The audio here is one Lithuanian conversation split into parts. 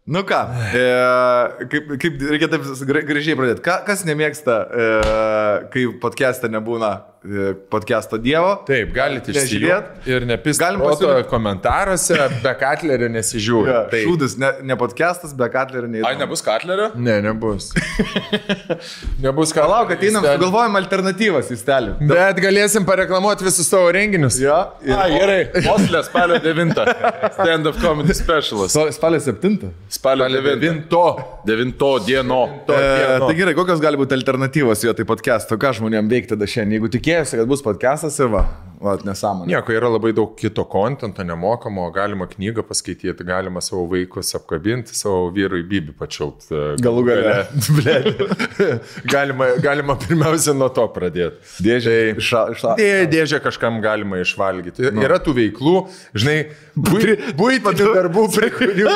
Nu ką, kaip reikia taip gražiai pradėti. Kas nemėgsta, kai podcast'e nebūna podcast'o dievo? Taip, galite išsižiūrėti ir nepisti komentaruose, be Katlerio nesižiūrė. Ja, šūdus, ne podcast'as, be Katlerio neįdomu. Ai, nebus Katlerio? Ne, nebus. Nebus Katlerio. Palauk, ateinam, sugalvojam alternatyvas į stelį. Bet galėsim pareklamuoti visus savo renginius. Ja, gerai. Oslė spalio 9. Stand-up comedy specialas. Spalio 7. Spalio 9 dieno. Tai gerai, kokios gali būti alternatyvos jo tai podcast'o? Ką žmonėm veikti tada šiandien? Jeigu tikėjosi, kad bus podcast'as ir va nesąmonė. Nieko, yra labai daug kito kontento nemokamo, galima knygą paskaityti, galima savo vaikus apkabinti, savo vyrui Bibi pačiaut. Galų gale. Galima pirmiausia nuo to pradėti. Dėžę kažkam galima išvalgyti. Yra tų veiklų, žinai, buitinių darbų, prie kurių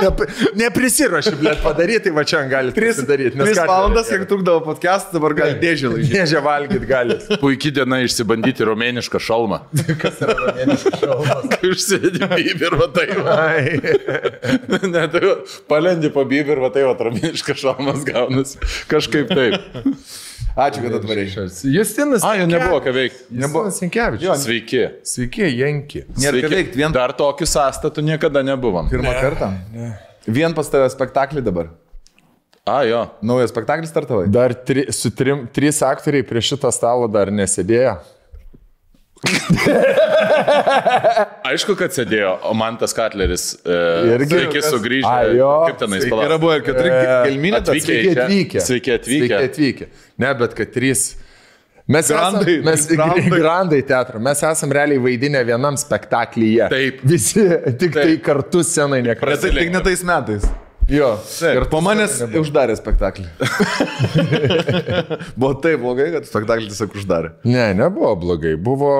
neprisiruoši, blėt, padaryti, va čia gali prisidaryti. 3 valandas, kiek trukdavo podcast, dabar gali dėžę lažyti. Dėžę valgyti gali. Puikiai diena išsibandyti romėnišką šalmą. Kas yra romėniškas šalmas? Kai užsėdi Bibi ir va tai va. Ne, tai palendi po Bibi ir va tai va romėniškas šalmas gaunas. Kažkaip taip. Ačiū, kad atvarėjai. Justinas. Jo nebuvo ką veikti. Justinas Sinkevičius. Sveiki. Sveiki, Janki. Nėra ką veikti. Dar tokių sąstatų niekada nebuvom. Pirmą kartą. Vien pas tave spektaklį dabar. Jo. Naujas spektaklis startavai. Dar 3 aktoriai prie šito stalo dar nesėdėjo. Aišku, kad sėdėjo, o man tas Katleris sveiki sugrįžę. Kaip tenais palauk. Yra buvo ir 4 gelminė. Sveiki atvykę. Ne, bet kad 3. Mes Grandai teatro. Mes esam realiai vaidinę vienam spektaklyje. Taip. Visi tik tai kartu scenai nekartu. Tik ne tais metais. Jo. Ir po manęs uždarė spektaklį. Buvo taip blogai, kad spektaklį tiesiog uždarė. Ne, nebuvo blogai. Buvo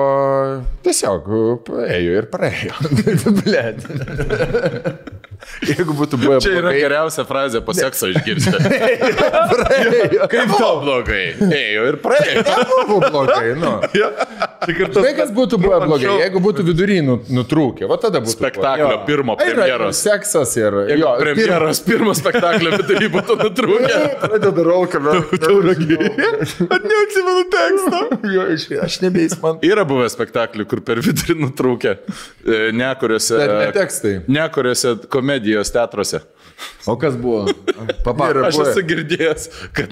tiesiog ėjo ir praėjo. Blet. Jeigu būtų buvę čia yra blogai. Geriausia frazė po sekso išgirsti. Praėjo. Kaip tau blogai? Ėjo ir praėjo. Nebuvo blogai, nu. Tai kas būtų buvę blogai, jeigu būtų vidury nutrūkę. Va tada būtų spektaklio pirmo premjeros. Seksas ir... Premjeros pirmo spektaklio vidury būtų nutrūkę. Pradeda rolką. At neatsimenu tekstą. Aš nebeis man. Yra buvę spektaklių, kur per vidurį nutrūkę. Nekuriuose komedijos teatruose. O kas buvo? Aš esu girdėjęs, kad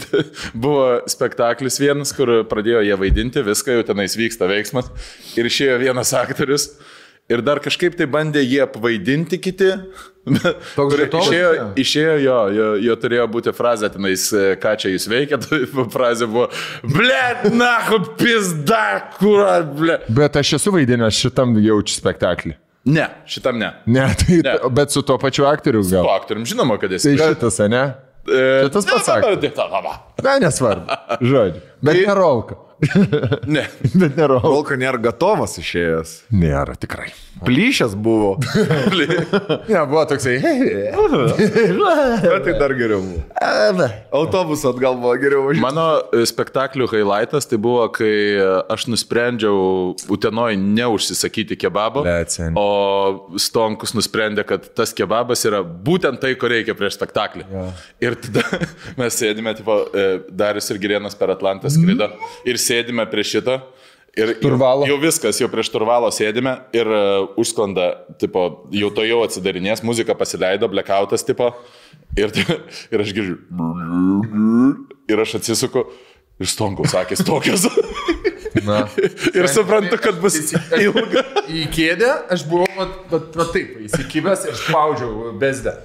buvo spektaklis vienas, kur pradėjo jie vaidinti, viską jau tenais vyksta veiksmas. Ir išėjo vienas aktorius. Ir dar kažkaip tai bandė jie apvaidinti kiti. Išėjo jo turėjo būti frazė tenais, ką čia jūs veikia. Frazė buvo, blet, nahu, pizda, kura, blet. Bet aš esu vaidinęs šitam jaučiu spektaklį. Ne, šitam ne. Bet su tuo pačiu aktoriu gal. Su aktorium, žinoma, kad esi. Tai šitas, ne? Šitas pasakė. Ne, nesvarbu. Žodžiu. Bet ne Rolka. Ne. Bet ne Rolka. Rolka nėra gatovas išėjęs. Nėra, tikrai. Plyšęs buvo. Ne, buvo toksai. Bet tai dar geriau buvo. Autobusu atgal buvo geriau važiuoti. Mano spektaklių highlightas tai buvo, kai aš nusprendžiau Utenoj neužsisakyti kebabo, o Stonkus nusprendė, kad tas kebabas yra būtent tai, ko reikia prieš spektaklį. Ja. Ir tada mes sėdime, tipo, Darius ir Girėnas per Atlantą skrido ir sėdime prie šito. Ir jau viskas, jau prieš Turvalo sėdime ir užsklanda, tipo, jau to jau atsidarinės, muzika pasileido, blackoutas, tipo, ir aš girdžiu, ir aš atsisuku, ir Stonkaus akis tokios. Ir suprantu, kad bus ilga. Į kėdę aš buvau, va taip, įsikibęs ir spaudžiau bezdę.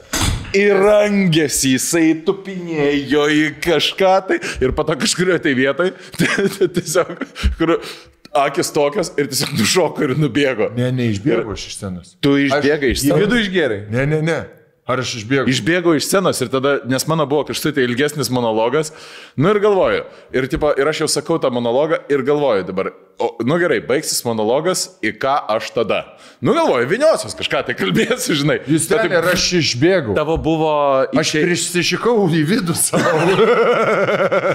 Ir rangėsi, jisai tupinėjo į kažką tai ir po to kažkurio tai vietoj, tiesiog, kur akis tokios ir tiesiog nušoko ir nubėgo. Ne, neišbėgo iš scenos. Tu išbėgai iš scenos? Į vidų išgėrai? Ne. Ar aš išbėgau? Išbėgau iš scenos ir tada, nes mano buvo kažtai tai ilgesnis monologas, nu ir galvoju, ir aš jau sakau tą monologą ir galvoju dabar, nu gerai, baigsis monologas, į ką aš tada? Nu galvoju, viniosios kažką tai kalbėsiu, žinai. Jūs ten ir aš išbėgau. Tavo buvo... Aš prisišikau į vidų savo.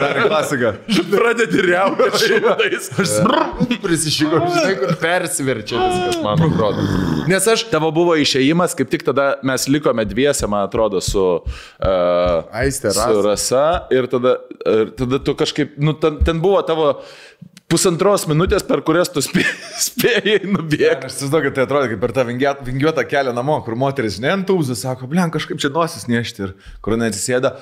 Dar klasika. Pradedi riauti šimtais. Aš prisišikau, žinai, kur persiverčia viskas, man atrodo. Nes aš... Tavo buvo išėjimas, kaip tik tada mes likome dviese, man atrodo, su Aiste, su Rasa. Ir tada tu kažkaip... Nu, ten buvo tavo... 1,5 minutės, per kurias tu spėjai nubėgti. Aš įsivaizduoju, kad tai atrodo kaip per tą vingiuotą kelią namo, kur moteris neantūzų, sako, blem, kažkaip čia nosis nešti ir kur neatsisėda.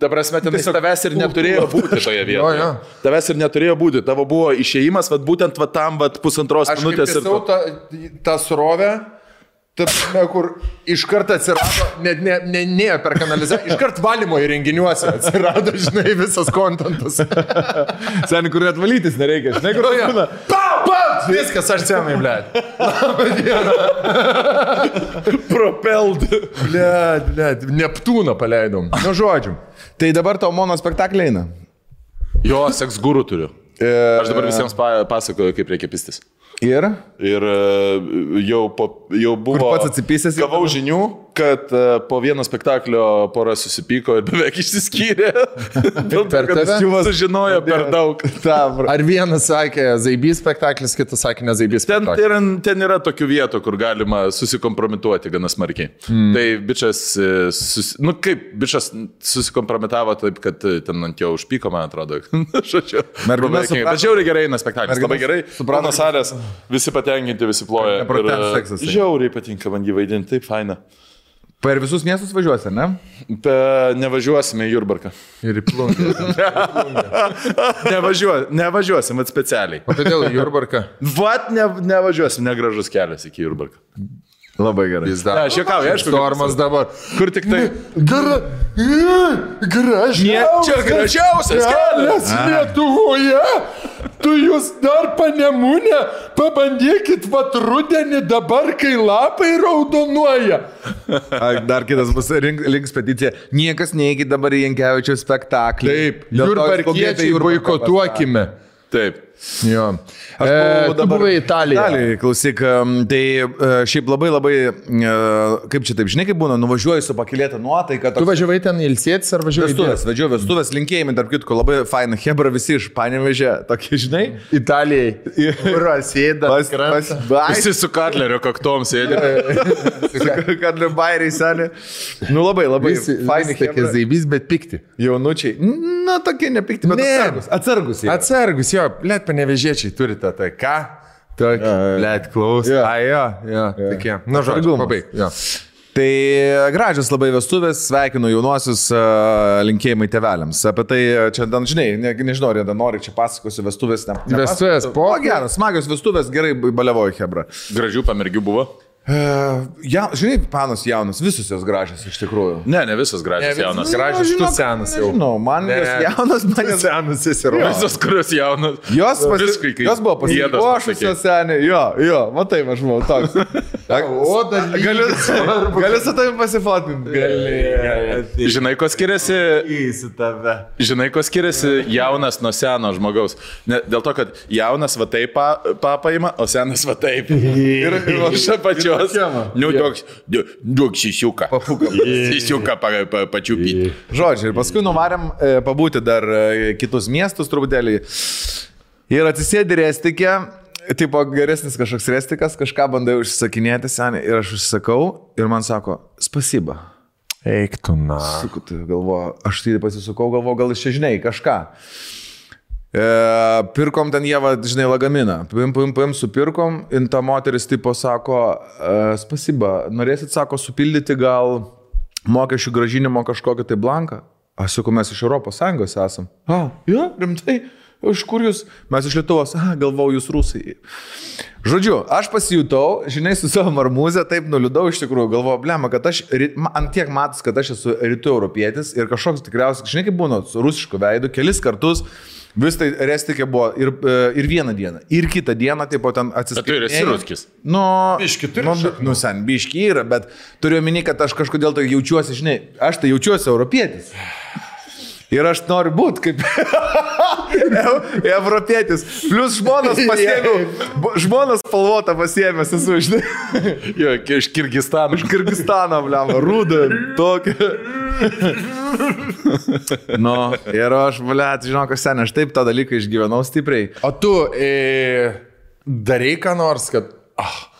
Ta prasme, ten tavęs ir neturėjo būti toje vietoje. Tavęs ir neturėjo būti. Tavo buvo išėjimas, būtent tam 1,5 minutės. Aš kaip tą srovę, kur iš karto atsirado, ne per kanalizaciją, iš karto valymo įrenginiuose atsirado, žinai, visas kontentas. Seniai, kur atvalytis nereikia, žinai, kur būna. Viskas, aš senai, blėt. Labą dieną. Propelled. Blėt, Neptūną paleidom. Nu, žodžiu. Tai dabar tavo monospektaklį eina. Jo, seks guru turiu. Aš dabar visiems pasakoju, kaip reikia pistis. Ir jau buvo... Kur pats atsipysęs? Gavau žinių, kad po vieno spektaklio pora susipyko ir beveik išsiskyrė. Dėl to, kad sužinojo per daug. Ar vienas sakė Zaibys spektaklis, kitas sakė ne Zaibys spektaklis? Ten yra tokių vietų, kur galima susikompromituoti gana smarkiai. Tai bičas, bičas susikompromitavo taip, kad ten ant jo užpyko, man atrodo. Žodžiu. Bet žiauriai gerai eina spektaklis, labai gerai. Suprano salės. Visi patenkinti, visi ploja. Žiauriai patinka man jį vaidinti, taip faina. Per visus miestus važiuosi, ne? Nevažiuosime į Jurbarką. Ir į Plungę. Nevažiuosim, specialiai. O kodėl į Jurbarką? Nevažiuosim, negražus kelias iki Jurbarką. Labai gerai. Aš juokauju, aišku. Stormas dabar. Kur tik tai... Čia gražiausias kelias Lietuvoje. Tu jūs dar Panemunę pabandykit rudenį dabar, kai lapai raudonuoja. Dar kitas bus links peticija. Niekas neįkit dabar į Jankevičiaus spektaklį. Taip, jurbarkiečiai boikotuokime. Taip. Jo. Tu buvai Italijoje. Klausyk, tai šiaip labai, kaip čia taip, žinai, kaip būna, nuvažiuoju su pakilėta nuotaika. Tu važiavai ten ilsėtis ar važiavai? Vestuvės, linkėjimai, tarp kitko, labai faina, hebra visi iš Panevėžio, tokie, žinai. Italijai. Sėda. Visi su Katlerio kaktom sėdė. Katlerio bairiai senė. Nu labai, faini. Tokie Zaibys, bet pikti. Jaunučiai. Na, tokie nepikti, bet atsargus. Atsargus, jo, blėt, Panevėžiečiai turite tai ką? Blėt, klaus. Jo. Tokie. Na, žodžiu, pabaig. Tai gražios labai vestuvės, sveikinu jaunuosius, linkėjimai tėveliams. Apie tai čia, žinai, nežinau, ar nori čia pasakosiu vestuvės. Vestuvės po? O geras, smagios vestuvės, gerai baliavoju, hebra. Gražių pamergių buvo? Žinai, panos jaunas, visus jos gražios iš tikrųjų. Ne visos gražios jaunas. Gražios, tu senas jau. Žinau, man jos jaunas, man jos senas įsirodo. Visos, kurios jaunas. Jos buvo pasipuošusios senė. Jo, matai, aš buvau toks. O, dar galiu su tavim pasifotinti. Gali. Žinai, ko skiriasi jaunas nuo seno žmogaus? Dėl to, kad jaunas va taip papaima, o senas va taip. Ir aš pačiu. Nu, duok šisiuką. Šisiuką pačiupyti. Žodžiu, ir paskui nuvarėm pabūti dar kitus miestus truputėlį. Ir atsisėdi restikė, tipo geresnis kažkoks restikas, kažką bandai užsisakinėti senį. Ir aš užsisakau ir man sako, spasiba. Eik tu na. Galvoju, aš tai pasisukau, galvoju, gal iš čia žinai kažką. Pirkom ten jie, žinai, lagaminą. Paim, supirkom, ir ta moteris tipo sako, spasiba, norėsit, sako, supildyti gal mokesčių gražinimo kažkokią tai blanką? Aš sakau, mes iš ES esam. Jo, rimtai, iš kur jūs? Mes iš Lietuvos, galvau, jūs rusai. Žodžiu, aš pasijutau, žinai, su savo marmūzę, taip nuliūdau iš tikrųjų, galvoju, blema, kad aš, ant tiek matas, kad aš esu rytų europietis ir kažkoks tikriausiai, žinai, kaip būna, su rusišku veidu, kelis kartus. Vis tai restikė buvo ir vieną dieną, ir kitą dieną, taip pat ten atsiskaitinėjau. Bet tu esi ruskis. Biški turi. Sen, biški yra, bet turiu omeny, kad aš kažkodėl tai jaučiuosi, žinai, aš tai jaučiuosi europietis. Ir aš noriu būti kaip europietis. Plius žmonas pasiėmiau, žmonas spalvotą pasiėmęs esu, žinai. Jo, iš Kirgistano. Iš Kirgistano, bliam, rūdą, tokia. Nu, ir aš, bliat, žinok, sen, aš taip tą dalyką išgyvenau stipriai. O tu darai ką nors, kad...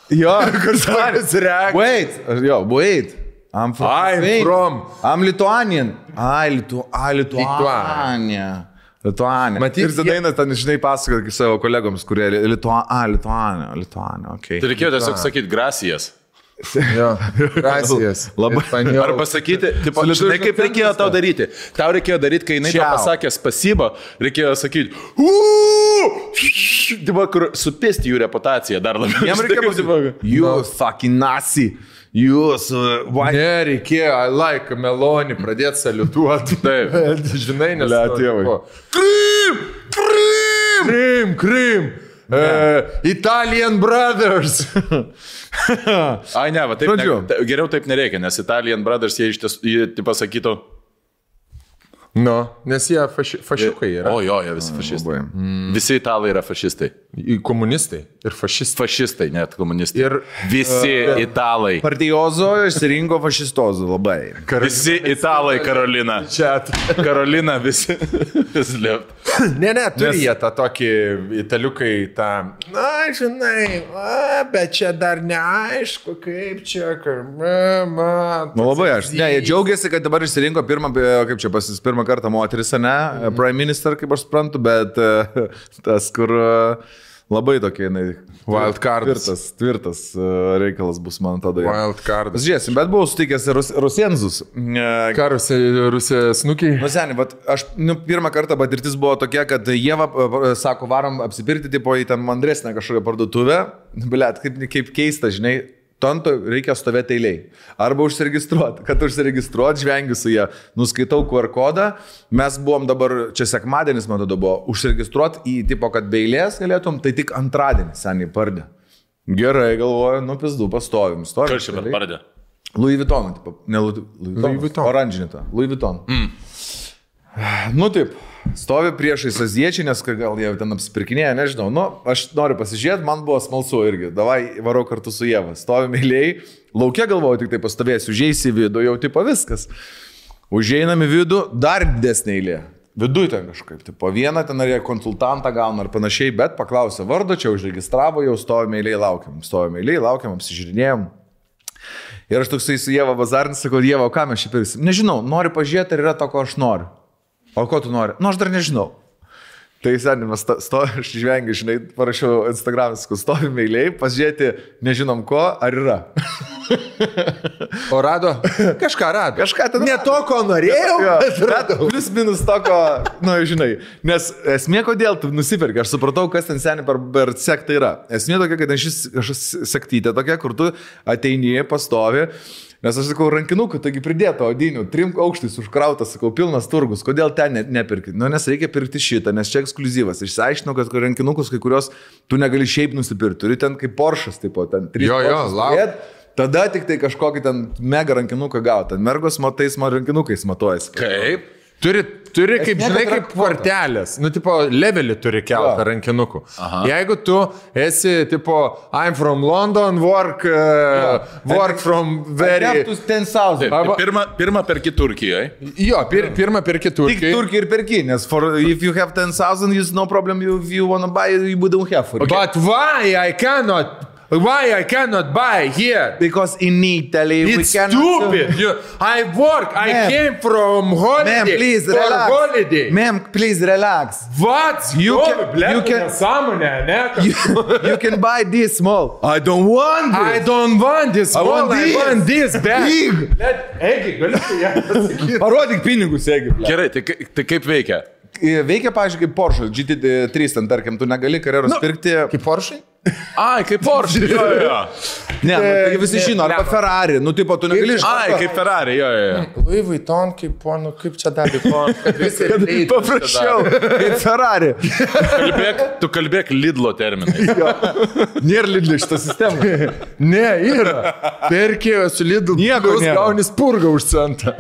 Jo, kažkas reakcija. Wait. I'm Lithuanian. Lituania. Matyt, ir tada eina ten, žinai, pasakot savo kolegoms, kurie Lituania, okei. Tai reikėjo tiesiog sakyti gracijas. Jo, gracijas. Labai. Ar pasakyti, tipo, žinai, kaip reikėjo tau daryti. Tau reikėjo daryti, kai jinai tau pasakė spasibo, reikėjo sakyti, tipo, kur supisti jų reputaciją dar labiau. Jam reikėjo pasakyti, you fucking Nazi. Jūs, nereikėjo, I like Meloni, pradėti saliutuoti. Taip. Žinai, nes... Tėvai. Krim. Italian Brothers. Ai, ne, va, taip, geriau taip nereikia, nes Italian Brothers jie iš tiesų, jie pasakytų. Nes jie fašiukai yra. O jo, jie visi fašistai. Visi italai yra fašistai. Komunistai ir fašistai. Fašistai, net komunistai. Ir visi italai. Partijozo išsirinko fašistozo labai. Visi italai, Karolina. Čia. Karolina visi. Ne, turi jie tą tokį italiukai tą, na, žinai, bet čia dar neaišku, kaip čia, nu labai aš. Ne, jie džiaugiasi, kad dabar išsirinko pirmą kartą moteris, ne, prime minister, kaip aš suprantu, bet tas, kur labai tokie, tvirtas reikalas bus, man tada. Wild card. Žiūrėsim, bet buvau sutikęs Rusienzus. Ką Rusija snukiai? Nu, seniai, aš pirmą kartą patirtis buvo tokia, kad jie, sako, varom apsipirkti, tipo į ten mandresnę kažkokią parduotuvę. Blet, kaip keista, žinai. Tonto reikia stovėti eiliai. Arba užsiregistruoti. Kad užsiregistruoti, žvengiu su jie. Nuskaitau QR kodą. Mes buvom dabar, čia sekmadienis man tada buvo, užsiregistruoti į tipo, kad be eilės galėtum, tai tik antradienį seniai pardė. Gerai, galvoju, pizdu, pastovim. Kas čia pardė? Louis Vuitton, tipo, ne Louis Vuitton. Oranžinį tą. Louis Vuitton. Nu taip, stovi priešais aziečiai, nes gal jie ten apsipirkinėja, nežinau. Nu, aš noriu pasižiūrėti, man buvo smalsu irgi. Davai, varau kartu su Ieva. Stovim eiliai, laukia galvoju, tik tai pastovėsiu, užeisi į vidų, jau tipo viskas. Užeinam į vidų, dar didesnė eilė. Viduj ten kažkaip, tipo vieną ten ar konsultantą gauna ar panašiai, bet paklausė vardo, čia užregistravo, jau stovim eiliai, laukiam, apsižiūrinėjom. Ir aš toksai su Ieva bazarnis, sakau, Ieva, o ką mes čia pirksim? Nežinau, noriu pažiūrėti, ar yra to, ko aš noriu. O ko tu nori? Nu, aš dar nežinau. Tai senimas, aš žvengiu, žinai, parašiau Instagram'e, stovim eiliai, pasižiūrėti, nežinom ko, ar yra. O rado? Kažką rado. Kažką ten. Ne to, ko norėjau, bet radau. Plius minus to, ko, nu, žinai. Nes esmė, kodėl tu nusipirki, aš supratau, kas ten seniai per sektą yra. Esmė tokia, kad aš sektytė tokia, kur tu ateini, pastovi. Nes aš sakau, rankinukų, taigi pridėto odinių, 3 aukštais užkrautas, sakau, pilnas turgus, kodėl ten nepirkti? Nu, nes reikia pirkti šitą, nes čia ekskliuzyvas. Išsiaiškinau, kad rankinukus, kai kurios tu negali šiaip nusipirkti, turi ten kaip Porsche'as, tipo, ten 3 Porsches. Tada tik tai kažkokį ten mega rankinuką gauti. Ten mergos matais rankinukais matuojasi. Kaip? Turi kaip, žinai, kaip kvartelės. Nu, tipo, levelį turi keltą rankinukų. Aha. Jeigu tu esi, tipo, I'm from London, work from very... 10,000. Pirmą perki Turkijoje. Jo, pirmą perki Turkijoje. Tik Turkijoje ir perki, nes if you have 10,000, it's no problem, you wanna buy, you don't have. Okay. But why I cannot buy here? Because in Italy it's stupid. I work. I came from holiday. Ma'am, please relax. Holiday. Ma'am, please relax. What? You can buy this small. I don't want this. I don't want this small. I want this big. Egi, galiu ją pasakyti. Parodyk pinigus, Egi. Gerai, tai kaip veikia? Veikia, pavyzdžiui, kaip Porsche GT3, ten, tarkim, tu negali karjeros pirkti. Kaip Porsche? Ai, kaip Porsche. Jo. Ne, tai visi žino, arba Ferrari, nu, tipo, tu negali iš... Ai, kaip Ferrari, jo. Louis Vuitton, kaip čia dar Vuitton. Paprasčiau, kaip Ferrari. Tu kalbėk Lidlo terminais. Nėra Lidlo šitą sistemą. Ne, yra. Perkėjo su Lidlu, nieko gauni spurgą už centą.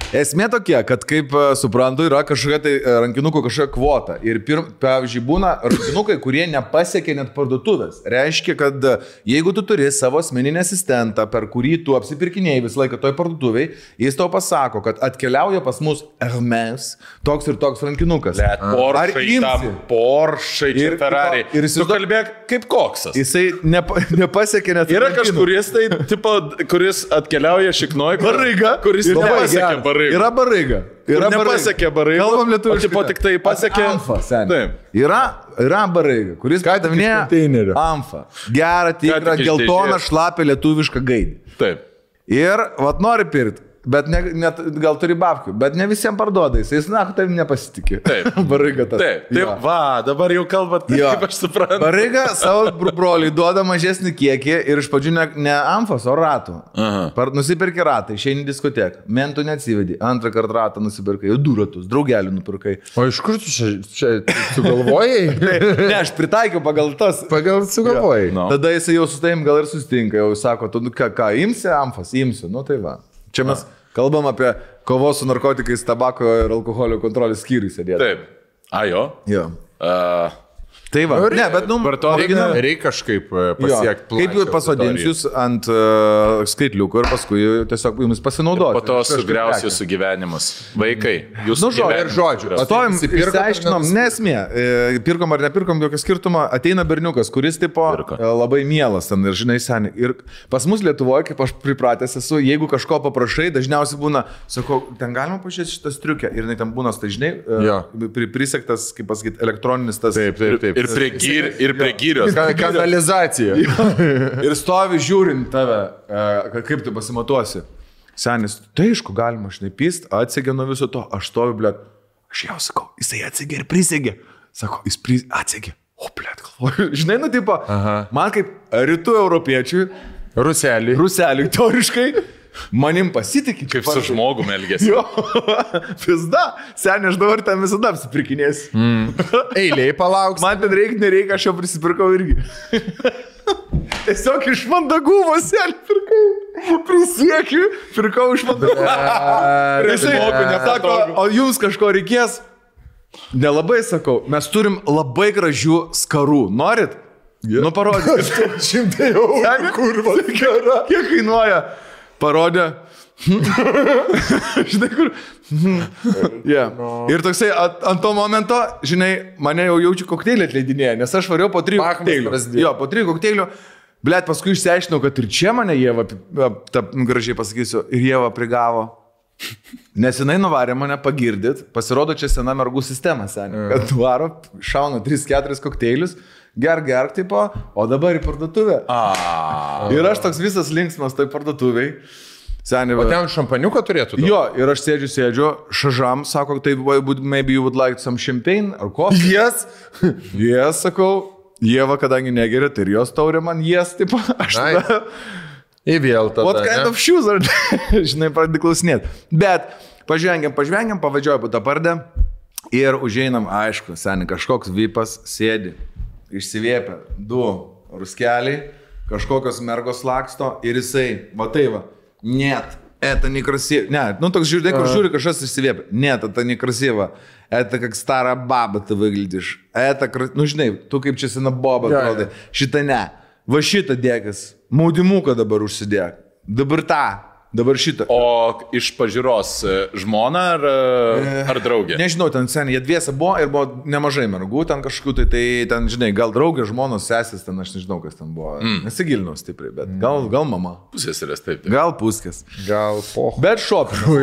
Esmė tokia, kad kaip suprantu, yra kažkokia tai rankinukų kažkokia kvota. Ir pavyzdžiui, būna rankinukai, kurie nepasiekia net parduotuvės. Reiškia, kad jeigu tu turi savo asmeninį asistentą, per kurį tu apsipirkinėjai visą laiką toj parduotuviai, jis tau pasako, kad atkeliauja pas mus Hermes toks ir toks rankinukas. Porsche, Ferrari. Ir tu kalbėk kaip koksas. Jisai nepasiekia net... Yra kažkuris tai, tipo, kuris atkeliauja šiknoj, kuris nepasiekia baraiga. Yra baraiga. Nepasiekė baraiga. Kalbam lietuviškai. O tipo tik tai pasiekė... Amfa, seniai. Yra baraiga, kuris padavinėja Amfa. Gerą, tikrą, geltoną, šlapę lietuvišką gaidį. Taip. Ir, vat nori pirkti. Bet net gal turi babkių, bet ne visiems parduoda, jis, na, tavim nepasitikė. Taip. Baraiga tas. Taip, va, dabar jau kalbat, kaip aš suprantu. Baraiga savo broliui duoda mažesnį kiekį ir iš pradžių ne Amfos, o ratų. Nusipirki ratą, išeini diskoteką, mentų neatsivedi, antrą kartą ratą nusipirkai, jau 2 ratus, draugelių nupirkai. O iš kur tu čia sugalvojai? Ne, aš pritaikiau pagal tas. Pagal sugalvojai. No. Tada jisai jau su tavim gal ir susitinka, jau sako, tu ką, imsi Amfos, imsiu, nu tai va. Čia mes kalbam apie kovos su narkotikais, tabako ir alkoholio kontrolės skyriui sėdėti. Taip. A, jo? Jo. Tai va, ne, bet reikia kažkaip pasiekti plačią. Kaip jūs pasodinsiu jūs ant skaitliuko ir paskui tiesiog jums pasinaudoti. Po to sugriausiu jūsų gyvenimus. Vaikai, jūs žodžiu. Stovim, išsiaiškinom, nesmė. Pirkom ar nepirkom, jokio skirtumo. Ateina berniukas, kuris tipo labai mielas ten ir žinai seniai. Ir pas mus Lietuvoje, kaip aš pripratęs esu, jeigu kažko paprašai, dažniausiai būna, sakau, ten galima pažiūrėti šitą striukę. Ir ten būna, tai žinai, prisektas, kaip pasakyti, elektroninis tas. Taip. Ir prie gyrios. Kanalizacija. Ir stovi žiūrint tave, kaip tu pasimatuosi. Senis, tai aišku, galima šnipyst, atsegė nuo viso to. Aš stoviu, blėt, aš jau sakau, jisai atsegė ir prisegė. Sako, jis atsegė. O, blėt, galvoju. Žinai, nu, tipo, man kaip rytų europiečiui, ruseliui, teoriškai, manim pasitikė. Kaip su žmogum elgėsi. Jo, pizda. Seniai, aš dabar ten visada apsipirkinėsiu. Eiliai palauks. Man ten nereikia, aš jau prisipirkau irgi. Tiesiog iš mandagumo seniai pirkau. Prisiekiu, pirkau iš mandagumo. Žmogų nesako, o jums kažko reikės? Nelabai sakau, mes turim labai gražių skarų. Norit? Nu, parodyk. 100 eurų. Kurva, kiek kainuoja? Parodė. Žinai, kur. Ir toksai ant to momento, žinai, mane jau jaučiu kokteilį atleidinėje, nes aš variau po 3 kokteilių. Jo, po 3 kokteilių. Blet, paskui išsiaiškinau, kad ir čia mane Ieva, gražiai pasakysiu, ir Ieva prigavo. Nes jinai nuvarė mane pagirdyt, pasirodo čia sena mergų sistema, seniai. Kad varo, šauna 3-4 kokteilius. Gerk, tipo, o dabar į parduotuvę. Ir aš toks visas linksmas toj parduotuviai. O ten šampaniuką turėtų? Jo, ir aš sėdžiu, šažam, sako, tai maybe you would like some champagne or coffee? Yes, sakau, Ieva, kadangi negeria, tai ir jos taurė man, tipo, aš tada... Įvėl tada. What kind of shoes are they? Žinai, pradedi klausinėti. Bet pažvengiam, pavadžioju po tą pardę ir užeinam, aišku, seniai, kažkoks vypas sėdi. Išsivėpia 2 ruskeliai, kažkokios mergos laksto ir jisai, va tai va, net, это некрасиво. Не, ну так žiūrėk, kur žiūri kažkas išsivėpia. Net, это некрасиво. Это как старая баба ты выглядишь. Это, ну žinai, tu kaip čia sena boba atrodai. Šitą ne. Va šitą dėkas. Maudimuką dabar užsidėk. Dabar tą. Dabar šitą. O iš pažiūros žmona ar draugė? Nežinau, ten seniai, jie dviese buvo ir buvo nemažai mergų, ten kažkokių, tai ten, žinai, gal draugė, žmonos, sesės, ten aš nežinau, kas ten buvo. Nesigilinau stipriai, bet gal mama. Pusės, taip. Gal puskės. Gal poho. Bet šopinau.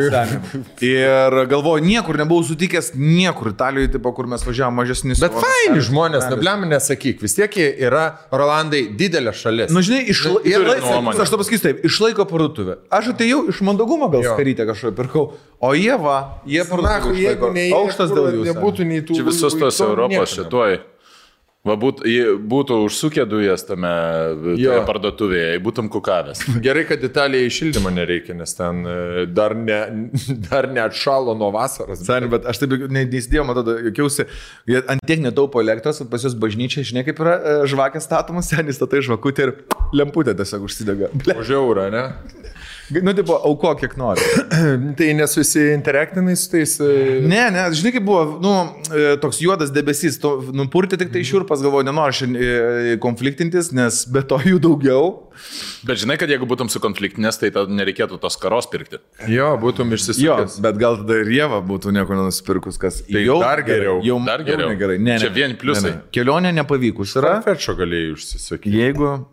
Ir galvoju, niekur nebuvau sutikęs, niekur Italijoje, tipo, kur mes važiavam mažesnis. Bet faini žmonės, nebliam nesakyk, vis tiek yra Rolandai didelė šalis. Na, žinai, aš to pasakysiu taip, išlaiko parduotuvę. Aš atėjau iš mandagumo gal skarytę kažką pirkau, o jie parduotuvę išlaiko. Aukštas dėl jūsų. Nebūtų nei tų. Čia visos tos Europos šituoj. Būtų užsukę dujas tame parduotuvėje, būtum kukavęs. Gerai, kad Italijai šildymo nereikia, nes ten dar neatšalo nuo vasaros. Sani, bet aš taip neįsidėjau, matau, jokiausi, ant tiek netaupo elektros, pas jūs bažnyčia, žinai, kaip yra žvakės statomas, senis statai žvakutė ir lemputė tiesiog užsidega. Už eurą, ne? Nu, tipo, auko kiek nori. Tai nesusiinteraktinai su tais... Ne, žinai, kaip buvo, toks juodas debesys, nupurti tik tai šiurpas, galvoju, nenoriu šiandien konfliktintis, nes be to jų daugiau. Bet žinai, kad jeigu būtum sukonfliktinės, tai nereikėtų tos karos pirkti. Jo, būtum išsisukęs. Bet gal tada ir Jėva būtų nieko nenusipirkus, kas tai jau dar geriau. Dar geriau. Negerai. Čia vien pliusai. Kelionė nepavykus yra. Fetšo galėjai užsisukti. Jeigu,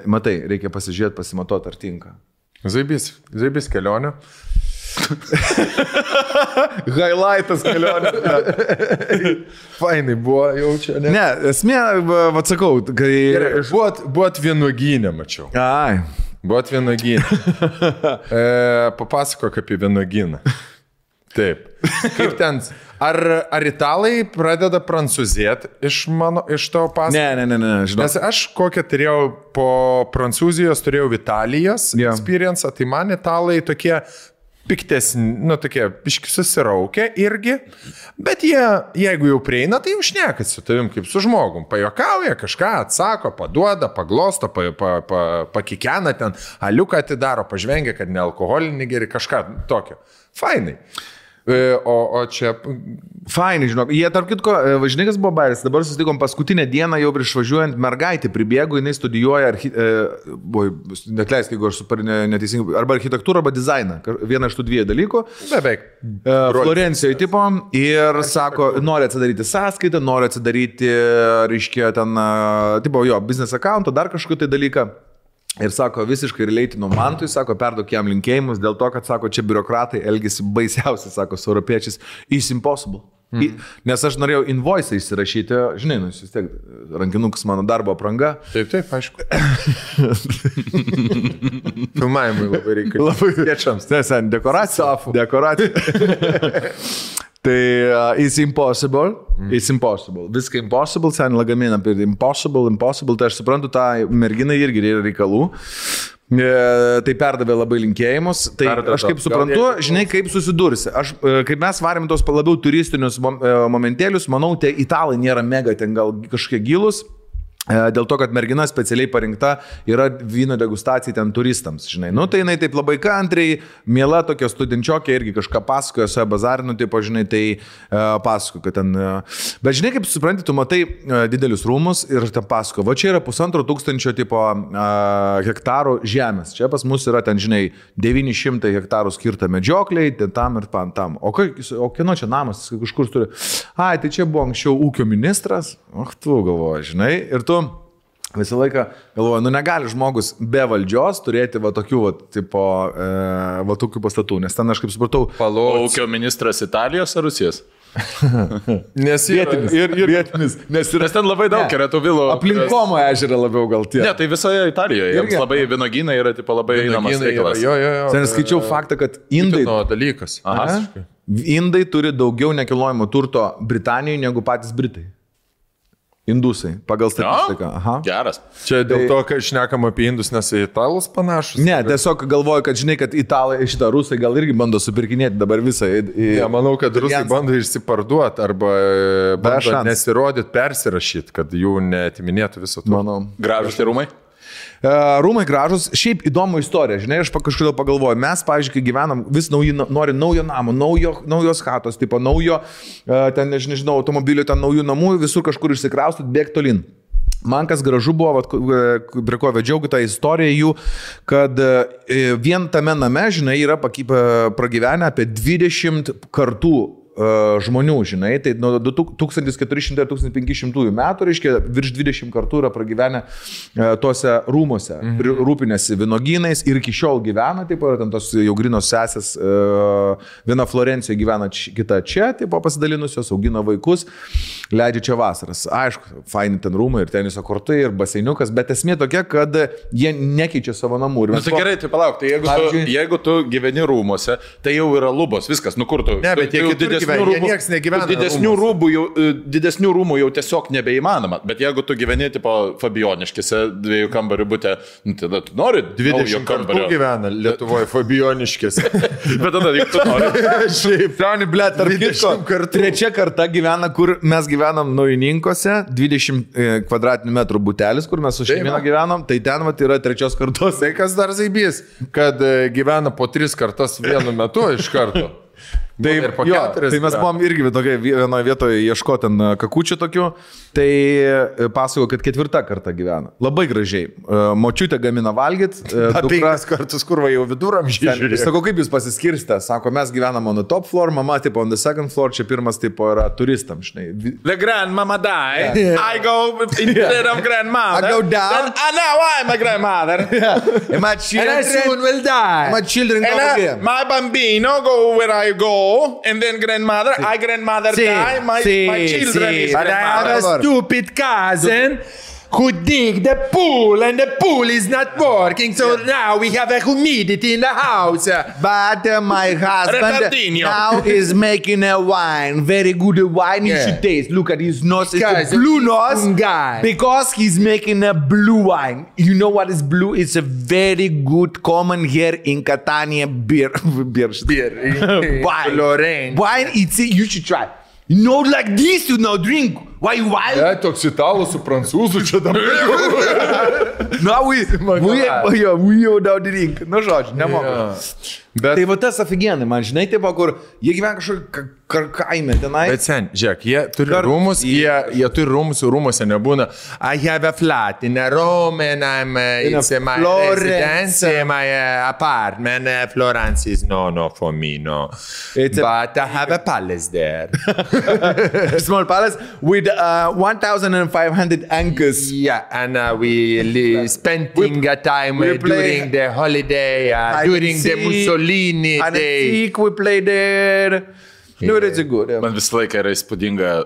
matai, reikia pasižiūrėti, pasimatuoti, ar tinka. Zaibys kelionė. Highlightas kelionė. Fainai buvo jau čia. Ne, esmė, atsakau, kai... Buvot vienuogynė, mačiau. Ai. Buvot vienuogynė. Papasakok apie vienuogyną. Taip. Kaip ten... Ar italai pradeda prancūzėti iš tavo pasakojimo? Ne, žinau. Nes aš kokią turėjau po Prancūzijos, turėjau Italijos experience, tai man italai tokie piktesni, tokie biški susiraukia irgi, bet jie, jeigu jau prieina, tai jau šneka su tavim kaip su žmogum, pajokauja, kažką atsako, paduoda, paglosto, pakikena ten, aliuką atidaro, pažvengia, kad ne alkoholinį geri, kažką tokio. Fainai. O čia... Fainai, žinok. Jie, tarp kitko, žinai, kas buvo bairis. Dabar susitikom paskutinę dieną, jau prieš važiuojant, mergaitė pribėgo, jinai studijuoja, netleisk, jeigu aš super neteisingai, arba architektūrą, arba dizainą. Vieną iš tų dviejų dalykų. Beveik. Florencijoje tipo ir sako, nori atsidaryti sąskaitą, nori atsidaryti, reiškia, ten, tipo, jo, business account, dar kažkokį tai dalyką. Ir sako, visiškai relatino Mantui, sako, perduok jam linkėjimus, dėl to, kad, sako, čia biurokratai elgesi baisiausiai, sako, su europiečiais, it's impossible. Nes aš norėjau invoice įsirašyti, žinai, vis tiek, rankinukas mano darbo apranga. Taip, aišku. Filmavimui labai reikia. Labai kviečiams. Nesen, dekoracija. Tai it's impossible. Viską impossible, sen lagaminą apie impossible, tai aš suprantu, tą merginą irgi yra reikalų. Tai perdavė labai linkėjimus. Tai aš kaip suprantu, žinai, kaip susidursi. Kaip mes varėm tos labiau turistinius momentėlius, manau, tie italai nėra mega ten gal kažkokie gilus. Dėl to, kad mergina specialiai parinkta yra vyno degustacija ten turistams, žinai. Nu, tai jinai taip labai kantriai, miela tokia studenčiokė irgi kažką pasakoja, su bazarinu, tipo, žinai, tai pasakoja, kad ten... Bet žinai, kaip supranti, tu matai didelius rūmus ir ten pasakoja, va čia yra 1500 tipo hektarų žemės. Čia pas mus yra ten, žinai, 900 hektarų skirta medžiokliai, ten tam ir tam. O kieno čia namas, kažkur turi... Ai, tai čia buvo anksčiau ūkio ministras. Tu galvoji, žinai, ir tu visą laiką galvoju, nu negali žmogus be valdžios turėti va tokių, va tokių pastatų, nes ten aš kaip supratau... Ūkio ministras Italijos ar Rusijos? Nes vietinis. Nes ten labai daug yra tų vilų. Aplinkomo ežerą labiau gal tie. Ne, tai visoje Italijoje. Jiems labai vynuogynai yra tipo, labai einamas reikalas. Sen skaičiau faktą, kad indai... dalykas. Indai turi daugiau nekilnojamo turto Britanijoje negu patys Britai. Indusai, pagal statistiką. Aha. Geras. Čia dėl to, kad šnekam apie indus, nes italus panašus. Ne, tiesiog galvoju, kad žinai, kad italai, šitą rusai gal irgi bando supirkinėti dabar visą. Ja, manau, kad rusai bando išsiparduoti arba bando nesirodyti, persirašyti, kad jų neatiminėtų viso to. Manau. Gražus tie rūmai? Rūmai gražus, šiaip įdomų istoriją, žinai, aš kažkodėl pagalvoju, mes, pavyzdžiui, kai gyvenam, vis nori naujo namo, naujos chatos, tipo naujo, ten, nežinau, automobilio, ten naujų namų, visur kažkur išsikraustot, bėg tolin. Man kas gražu buvo, prie ko vedžiau tą istoriją jų, kad vien tame name, žinai, yra pragyvenę apie 20 kartų žmonių, žinai, tai nuo 1400-1500 metų, reiškia, virš 20 kartų yra pragyvenę tose rūmose, rūpinėsi vynogynais ir iki šiol gyvena, taip, ten tos jau grinos sesės, viena Florencijoje gyvena, kita čia, taip, pasidalinusios, augina vaikus, leidžia čia vasaras. Aišku, faini ten rūmai ir teniso kortai ir baseiniukas, bet esmė tokia, kad jie nekeičia savo namų. Na, tai gerai, tai palauk, tai jeigu tu gyveni rūmose, tai jau yra lubos, viskas, nu kur tu? Ne, bet jie nieks negyvena. Didesnių rūmų jau tiesiog nebeįmanoma. Bet jeigu tu gyveni, tipo, Fabioniškėse 2 kambarių bute, tada tu nori 20 kambario. Gyvena Lietuvoje Fabioniškėse. Bet tada, jeigu tu nori. Šiaip, Liauni, ble, tarp kitko, trečia karta gyvena, kur mes gyvenam Naujininkose, 20 kvadratinių metrų butelis, kur mes su šeimina gyvenam, tai ten vat yra trečios kartos. Tai kas dar zaibys, kad gyvena po 3 kartas vienu metu iš karto. Tai mes buvom irgi vienoje vietoje ieškoti ten kakučių tokių, tai pasakoju, kad 4 kartą gyvena. Labai gražiai. Močiutė gamina valgyt. 5 kartus kurva jau viduramžiai žiūrėjo. Sako, kaip jūs pasiskirstė? Sako, mes gyvenam on the top floor, mama tipo on the second floor, čia pirmas tipo yra turistam, žinai. The grandmama die, I go instead of grandmother. I go down. Now I'm a grandmother. And my children soon will die. My children go again. My bambino go where I go. And then grandmother, I grandmother die, my children is grandmother. But I have a stupid cousin who dig the pool and the pool is not working, so now we have a humidity in the house. But my husband now is making a wine, very good wine. You should taste. Look at his nose, it's a blue nose because he's making a blue wine. You know what is blue? It's a very good common here in Catania beer. Wine. Wine, you should try. You know, like this you now drink. Why? Toks italų su prancūzų čia dabar. No, we jau now drink. Nu, žodžiu, nemoku. Bet... Tai va tas aфиgenai, man žinai, taip, kur jie gyvena kažkokį kaime tenai. Bet sen, žiūrėk, jie turi rūmus, jie turi rūmus, rūmuose nebūna. I have a flat in a room and it's my residence, my apartment. Florence is no for me, no. But I have a palace there. A small palace with 1,500 anchors. Yeah, and we spending a time during the holiday, during the Mussolini day. We play there. No, it's good. Man visą laiką yra įspūdinga,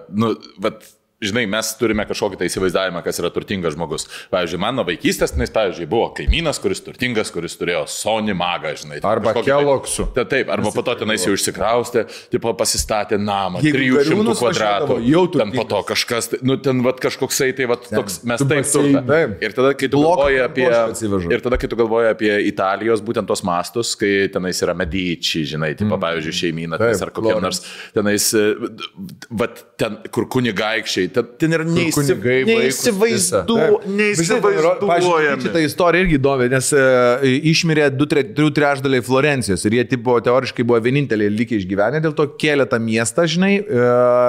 bet žinai, mes turime kažkokį tai įsivaizdavimą, kas yra turtingas žmogus. Pavyzdžiui, mano vaikystės, pavyzdžiui, buvo kaimynas, kuris turtingas, kuris turėjo Sony magą, žinai. Arba Kellogsų. Taip, arba po to tenais jau išsikraustė, tipo pasistatė namą, 300 kvadratų. Ten po to kažkas, ten vat kažkoksai, tai vat toks, mes taip turime. Ir tada, kai tu galvoji apie Italijos būtent tos mastus, kai tenais yra Medici, žinai, tipo, pavyzdžiui, šeimyna, ar kokie nors tenais, vat ten, kur kunigaikščiai, ten yra neįsivaizduojami. Šitą istoriją irgi įdomi, nes išmirė 2/3 Florencijos ir jie tipo teoriškai buvo vieninteliai likę išgyvenę, dėl to kėlė tą miestą, žinai,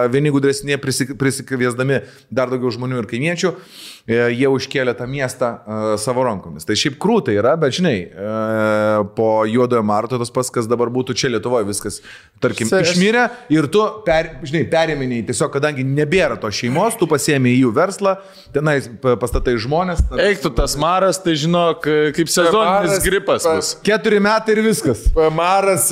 vieni gudresnė prisikviesdami dar daugiau žmonių ir kaimiečių, jie užkėlė tą miestą savo rankomis. Tai šiaip krūtai yra, bet žinai, po Juodojo Marto tas pats, kas dabar būtų čia Lietuvoje, viskas, tarkim, išmirė ir tu, perėminiai, tiesiog, kadangi nebėra to šeimos, tu pasiėmė į jų verslą, tenai pastatai žmonės. Eik tu tas maras, tai žinok, kaip sezoninis gripas bus. 4 metai ir viskas. Maras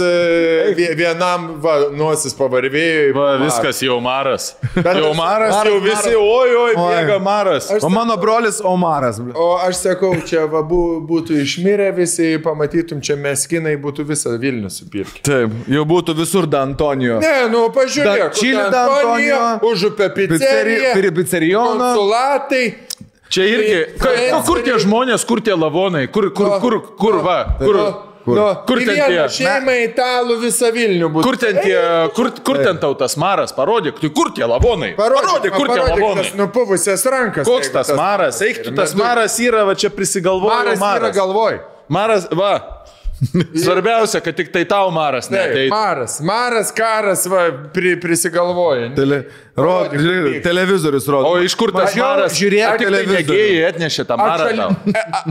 vienam nosis pavarvėjo. Viskas jau maras. Jau maras, jau visi, oi, bėga maras. O mano brolis Omaras. O aš sakau, čia būtų išmirę visi, pamatytum, čia meskinai būtų visą Vilnių supirkę. Taip, jau būtų visur D'Antonijo. Ne, pažiūrėk. Čilį D'Antonijo, Užupė pizzeria, konsulatai. Čia irgi, kur tie žmonės, kur tie lavonai, kur ten tie šeimai italų visą Vilnių būtų. Kur ten tau tas maras, parodyk, kur tie lavonai, parodyk, kur tie lavonai. Nupuvusias rankas. Koks tas maras, eik tu, tas maras yra, va čia prisigalvojo maras. Maras yra galvoj. Maras, va. Svarbiausia, kad tik tai tau maras neateitų. Maras, karas, va, prisigalvoja. Televizorius rodo. O iš kur tas maras? Žiūrėk, tik tai mėgėjai atnešė tą marą tau.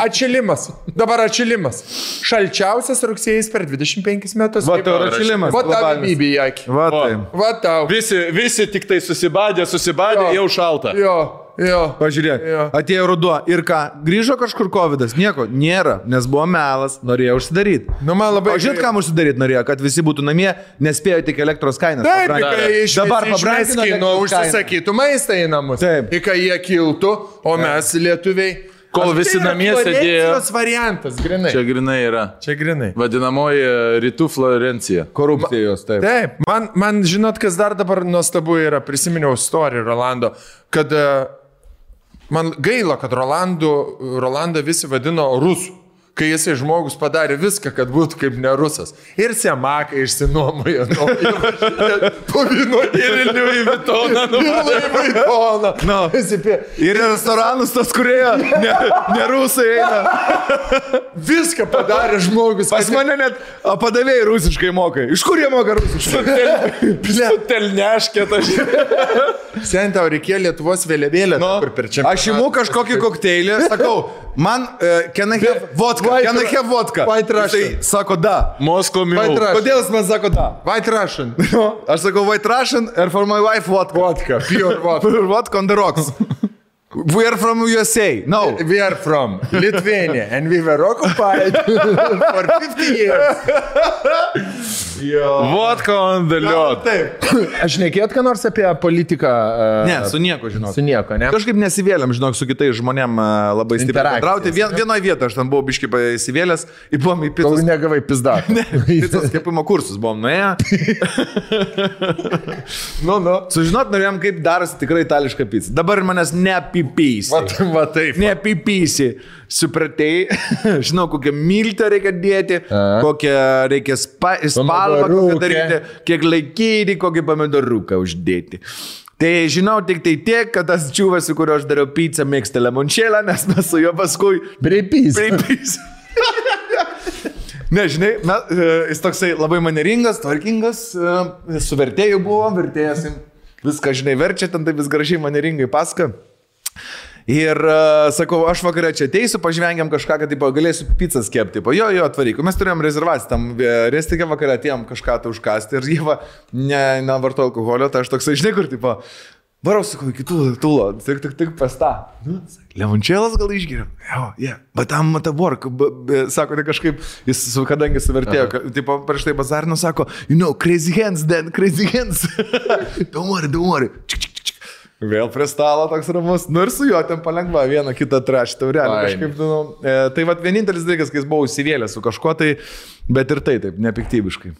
Atšilimas. Dabar atšilimas. Šalčiausias rugsėjais per 25 metus. Va tau atšilimas. Va tau bybį į akį. Va tau. Visi tik tai susibadė, jau šalta. Jo. Pažiūrėk, atėjo ruduo ir ką, grįžo kažkur covidas, nieko nėra, nes buvo melas, norėjo užsidaryti. O žinot, kam užsidaryti norėjo, kad visi būtų namie, nespėjo tik elektros kainas. Dabar pabrangino, užsisakytų maistą į namus. Taip. Ir kai jie kiltų, o mes lietuviai. Kol visi namie sėdėjo. Tas variantas, grinai. Čia grinai yra. Čia grinai. Vadinamoji rytų Florencija. Korupcijos, taip. Taip, man žinot, kas dar dabar nuostabu yra, prisiminiau istoriją Rolando, kad man gaila, kad Rolandą visi vadino rusų. Kai jisai žmogus padarė viską, kad būtų kaip ne rusas. Ir Semaką išsinuomojo. Po vynuotį ir Louis Vuittoną. No. Ir restoranus tos, kurie ne rusai eina. Viską padarė žmogus. Pas mane net padavėjai rusiškai mokai. Iš kur jie moka rusiškai? Telneškė tas. Sen tau reikėjo Lietuvos vėliavėlę. Aš imu kažkokį kokteilį, sakau, man can I have vodka? Can I have vodka? White Russian. Tai sako da. Moscow Mule. Kodėl jis man sako da? White Russian. Aš sakau White Russian and for my wife vodka. Vodka. Pure vodka. Pure vodka on the rocks. We are from USA. No. We are from Lithuania and we were occupied for 50 years. Vodka on the liot. Taip. Aš nekėt, ką nors apie politiką. Ne, su nieko, žinok. Su nieko, ne? Kažkaip nesivėlėm, žinok, su kitais žmonėm labai stipriai bendrauti. Vienoje vietoje aš ten buvau biškai įsivėlęs ir buvom į Kol picos. negavai pizdą. Ne, picos kepimo kursus buvom nuėję. Sužinot norėjom, kaip darosi tikrai itališka pizza. Dabar manęs neapipysi. Va taip. Neapipysi. Supratei, žinau, kokią miltą reikia dėti, kokią reikia spalvą kokią daryti, kiek laikyti, kokį pomidoruką uždėti. Tai žinau tik tai tiek, kad tas čiūvas, su kuriuo aš dariau pizzą, mėgsta limončėlą, nes mes su juo paskui Breipys. Ne, žinai, jis toksai labai maneringas, tvarkingas, su vertėju buvo, vertėjas viską, žinai, verčia, ten tai vis gražiai maneringai pasaka. Ir sakau, aš vakarą čia ateisiu, pažvengiam kažką, kad galėsiu pizzas kepti. Jo, atvaryk. Mes turėjom rezervaciją, tam restikė vakarą atėjom kažką tai užkasti ir jie nevarto alkoholio, tai aš toksai, žinai, kur, varau, sakau, iki tūlo, tik pasta. Limončėlas gal išgeriam? Jo, bet tam work, sako, tai kažkaip, jis kadangi suvertėjo, prieš tai bazarino, sako, crazy hands, Dan, crazy hands. Don't worry. Vėl prie stalo toks ramus, ir su juo ten palengva vieną kitą trašį taurelį. Kažkaip, tai vat vienintelis dalykas, kai jis buvo įsivėlęs su kažkuo, tai, bet ir taip, nepiktybiškai.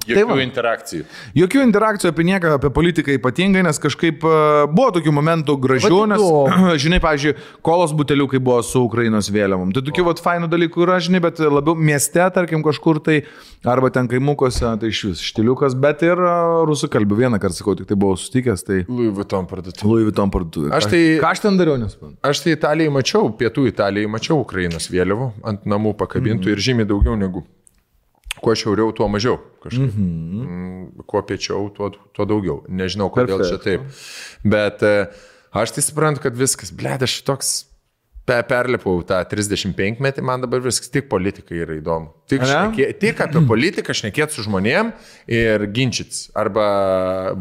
Jokių interakcijų. Jokių interakcijų apie nieką, apie politiką ypatingai, nes kažkaip buvo tokių momentų gražių, nes, žinai, pavyzdžiui, kolos buteliukai buvo su Ukrainos vėliavom. Tai tokių fainų dalykų yra, žinai, bet labiau mieste, tarkim, kažkur tai, arba ten kaimukose, tai iš vis štiliukas, bet ir rusų kalbų. Vieną kartą sakau, tik tai buvau sutikęs, tai... Louis Vuitton parduotuvė. Ką aš ten dariau, nesuprantu? Aš tai Italijai mačiau, pietų Italijai mačiau Ukrainos vėliavų ant namų pakabintų ir žymiai daugiau negu... Kuo šiauriau, tuo mažiau. Kuo piečiau, tuo daugiau. Nežinau, kodėl čia taip. Bet aš tai suprantu, kad viskas, aš toks perlipau tą 35 metį, man dabar viskas, tik politika yra įdomu. Tik apie politiką šnekėti su žmonėm ir ginčytis. Arba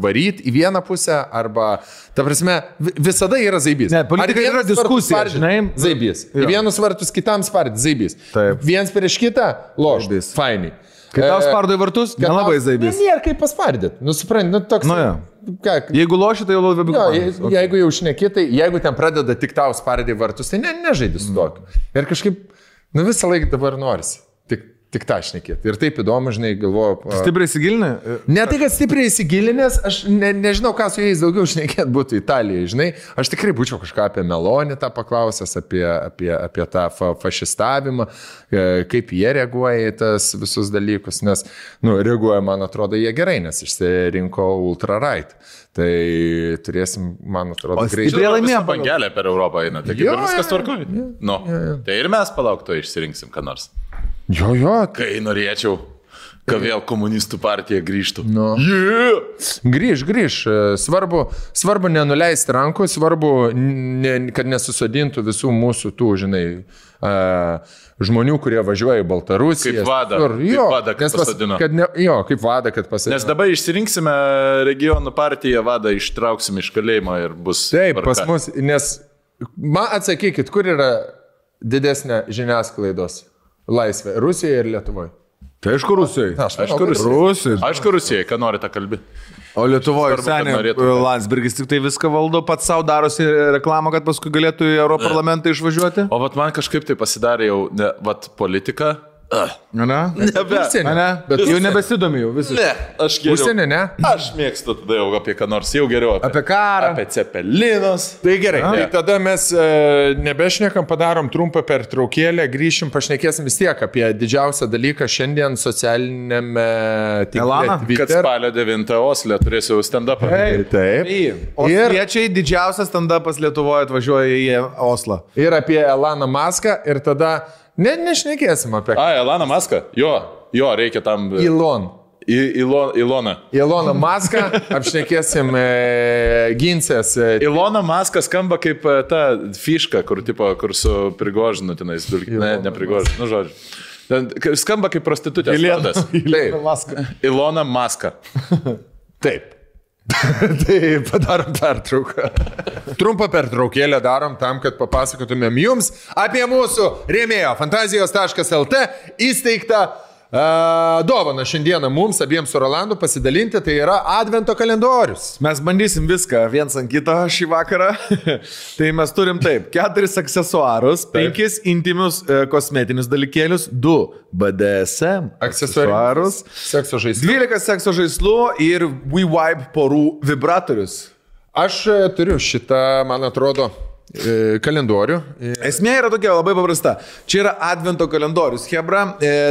varyti į vieną pusę, arba, ta prasme, visada yra zaibys. Ne, politika yra diskusija, žinai. Zaibys. Į vienus vartus kitam spardyti, zaibys. Viens prieš kitą, lošdys. Fainai. Kai tau spardo į vartus, nelabai zaibys. Nėra kaip paspardyti. Supranti, toks... Jeigu loši, tai jau labiau. Jeigu jau šnekėtai, jeigu ten pradeda tik tau spardyti vartus, tai nežaidži su tokiu. Ir kažkaip, visą laiką dabar norisi. Tik tą šnekėti. Ir taip įdomu, žinai, galvoju. Stipriai įsigilinę? Ne tai, kad stipriai įsigilinęs, aš nežinau, ką su jais daugiau šnekėti būtų Italijai, žinai. Aš tikrai būčiau kažką apie Melonį tą paklausęs, apie tą fašistavimą, kaip jie reaguoja į tas visus dalykus, nes, reaguoja, man atrodo, jie gerai, nes išsirinko ultra-right. Tai turėsim, man atrodo, greičiau. Stipriai laimėjo bangelę per Europą eina, tai kaip viskas tvarkoja. Tai ir mes palaukto išsirinksim, ką nors. Jo. Kai norėčiau, kad vėl komunistų partija grįžtų. Grįž. Svarbu nenuleisti rankų, svarbu, kad nesusodintų visų mūsų tų, žinai, žmonių, kurie važiuoja į Baltarusiją. Kaip vada, kad pasadino. Nes dabar išsirinksime regionų partiją, vadą ištrauksim iš kalėjimo ir bus... Taip, pas mus, nes man atsakykit, kur yra didesnė žiniasklaidos laisvė? Rusijoje ir Lietuvoje? Tai aišku Rusijoje. Aišku Rusijoje, ką nori tą kalbėti. O Lietuvoje Svarbu, kad norėtų. Landsbergis tik tai viską valdo, pats savo darosi reklamą, kad paskui galėtų į Europarlamentą išvažiuoti. O vat man kažkaip tai pasidarė jau, vat politika. Bet jau nebesidomi jau visiškai. Ne, aš geriau. Užsienį, ne? Aš mėgstu tada jau apie ką nors, jau geriau. Apie karą. Apie cepelinus. Tai gerai, tai tada mes nebešnekam, padarom trumpą pertraukėlę, grįšim, pašnekėsim vis tiek apie didžiausią dalyką šiandien socialinėme tinkle. Kad spalio 9 Osle turėsiu stand-upą. Taip. Osiečiai didžiausias stand-upas Lietuvoje atvažiuoja į Oslą. Ir apie Eloną Muską ir tada nešnekėsim apie ką. Eloną Muską? Jo, reikia tam. Iloną. Eloną Muską apšnekėsim ginsės. Ilona Muska skamba kaip ta fiška, kur su Prigožinu tenais. Ne Prigožinu, nu žodžiu. Skamba kaip prostitutės. Ilona Muska. Taip. Tai padarom pertrauką. Trumpą pertraukėlę darom tam, kad papasakotumėm jums apie mūsų rėmėjo fantazijos.lt įsteigtą dovaną šiandieną mums abiems su Rolandu pasidalinti, tai yra advento kalendorius. Mes bandysim viską viens ant kito šį vakarą. Tai mes turim taip, 4 aksesuarus, 5 intimius kosmetinius dalykėlius, 2 BDSM aksesuarus, sekso žaislų, 12 sekso žaislų ir WeVibe porų vibratorius. Aš turiu šitą, man atrodo, kalendorių. Esmė yra tokia labai paprasta. Čia yra advento kalendorius, hebra.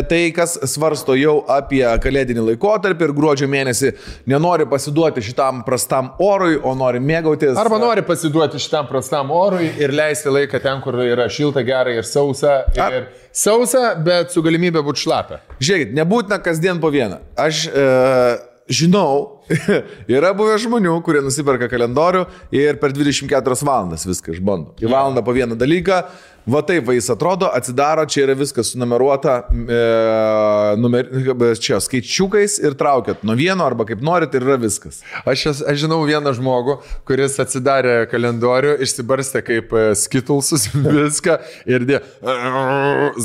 Tai, kas svarsto jau apie kalėdinį laikotarpį ir gruodžio mėnesį nenori pasiduoti šitam prastam orui, o nori mėgautis. Arba nori pasiduoti šitam prastam orui ir leisti laiką ten, kur yra šilta, gera ir sausa. Ir sausa, bet su galimybė būti šlapia. Žiūrėkit, nebūtina kasdien po vieną. Aš žinau, yra buvę žmonių, kurie nusiperka kalendorių ir per 24 valandas viską išbando. Į valandą po vieną dalyką, va taip va jis atrodo, atsidaro, čia yra viskas sunumeruota, čia skaičiukais ir traukiat nuo vieno arba kaip norit ir yra viskas. Aš žinau vieną žmogų, kuris atsidarė kalendorių, išsibarstė kaip skitulsus viską ir dė,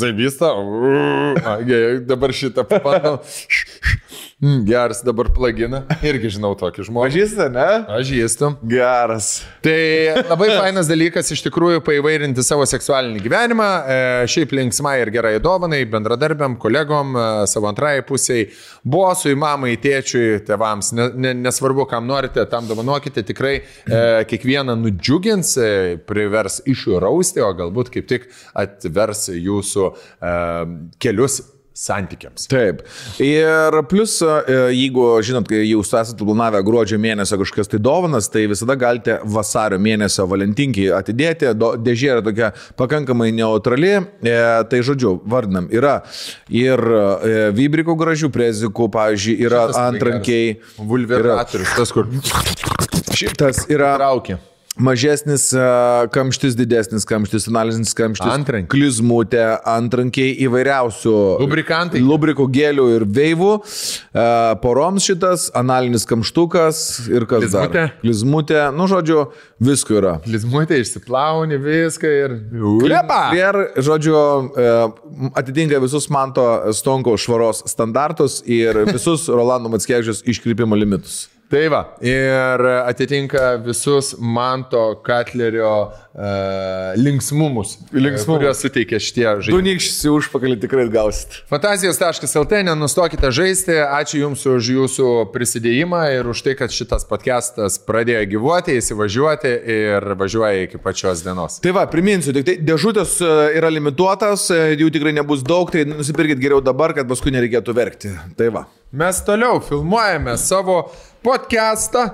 zaibystą, dabar šitą papandau. Geras dabar plagina. Irgi žinau tokį žmogų. Pažįsta, ne? Pažįstu. Geras. Tai labai fainas dalykas iš tikrųjų paįvairinti savo seksualinį gyvenimą. Šiaip linksmai ir gerai dovanai, bendradarbiam, kolegom, savo antrai pusiai, bosui, mamai, tėčiui, tėvams. Nesvarbu, kam norite, tam dovanokite. Tikrai kiekvieną nudžiugins, privers išrausti, o galbūt kaip tik atvers jūsų kelius santykiams. Taip. Ir plus, jeigu, žinot, kai jūs esate planavę gruodžio mėnesio kažkokias tai dovanas, tai visada galite vasario mėnesio valentinkiai atidėti. Dėžė yra tokia pakankamai neutrali. Tai žodžiu, vardinam, yra ir vibrikų gražių prezikų, pavyzdžiui, yra antrankiai. Vulveratorius, tas kur. Šitas yra. Traukia. Mažesnis kamštis, didesnis kamštis, analizinis kamštis, klizmutė, antrankiai įvairiausių lubrikų, gelių ir veivų, poroms šitas, analinis kamštukas ir kas dar. Klizmutė, nu žodžiu, visko yra. Klizmutė išsiplauni viską ir... Ir, žodžiu, atitinka visus Manto Stonkaus švaros standartus ir visus Rolando Mackevičiaus iškrypimo limitus. Tai va, ir atitinka visus Manto Katlerio linksmumus, kuriuos suteikia šitie žaidimai. Du nykščiai užpakalį tikrai gausit. Fantazijos.lt, nenustokite žaisti. Ačiū Jums už Jūsų prisidėjimą ir už tai, kad šitas podcastas pradėjo gyvuoti, įsivažiuoti ir važiuoja iki pačios dienos. Tai va, priminsiu, tik tai dėžutės yra limituotas, jų tikrai nebus daug, tai nusipirkit geriau dabar, kad paskui nereikėtų verkti. Tai va. Mes toliau filmuojame savo podcastą.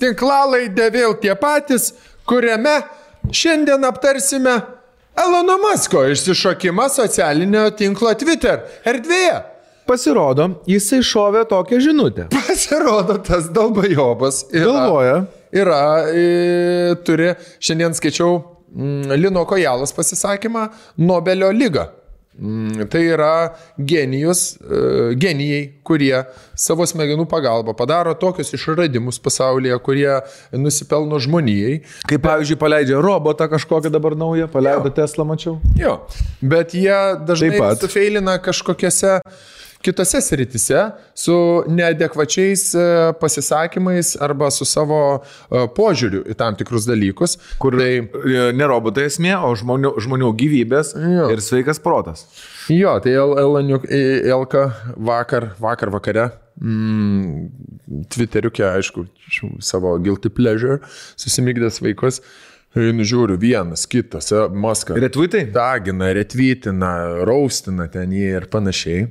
Tinklalaidę vėl tie patys, kuriame šiandien aptarsime Elono Musko išsišokimą socialinio tinklo Twitter erdvėje. Pasirodo, jisai šovė tokią žinutę. Pasirodo, tas dalbajobas turi, šiandien skaičiau Lino Kojalos pasisakymą, Nobelio lyga. Tai yra genijai, kurie savo smegenų pagalba padaro tokius išradimus pasaulyje, kurie nusipelno žmonijai. Kaip pavyzdžiui, paleidžia robotą kažkokią dabar naują, paleido Tesla, mačiau. Jo, bet jie dažnai sufeilina kažkokiose kitose sritise su neadekvačiais pasisakymais arba su savo požiūriu į tam tikrus dalykus. Kur tai ne robotai esmė, o žmonių gyvybės ir sveikas protas. Jo, tai Elka vakare Twitteriuke, aišku, savo guilty pleasure, susimygdęs vaikus, nužiūriu vienas, kitas, Maska. Retweetai? Dagina, retweetina, raustina ten jį ir panašiai.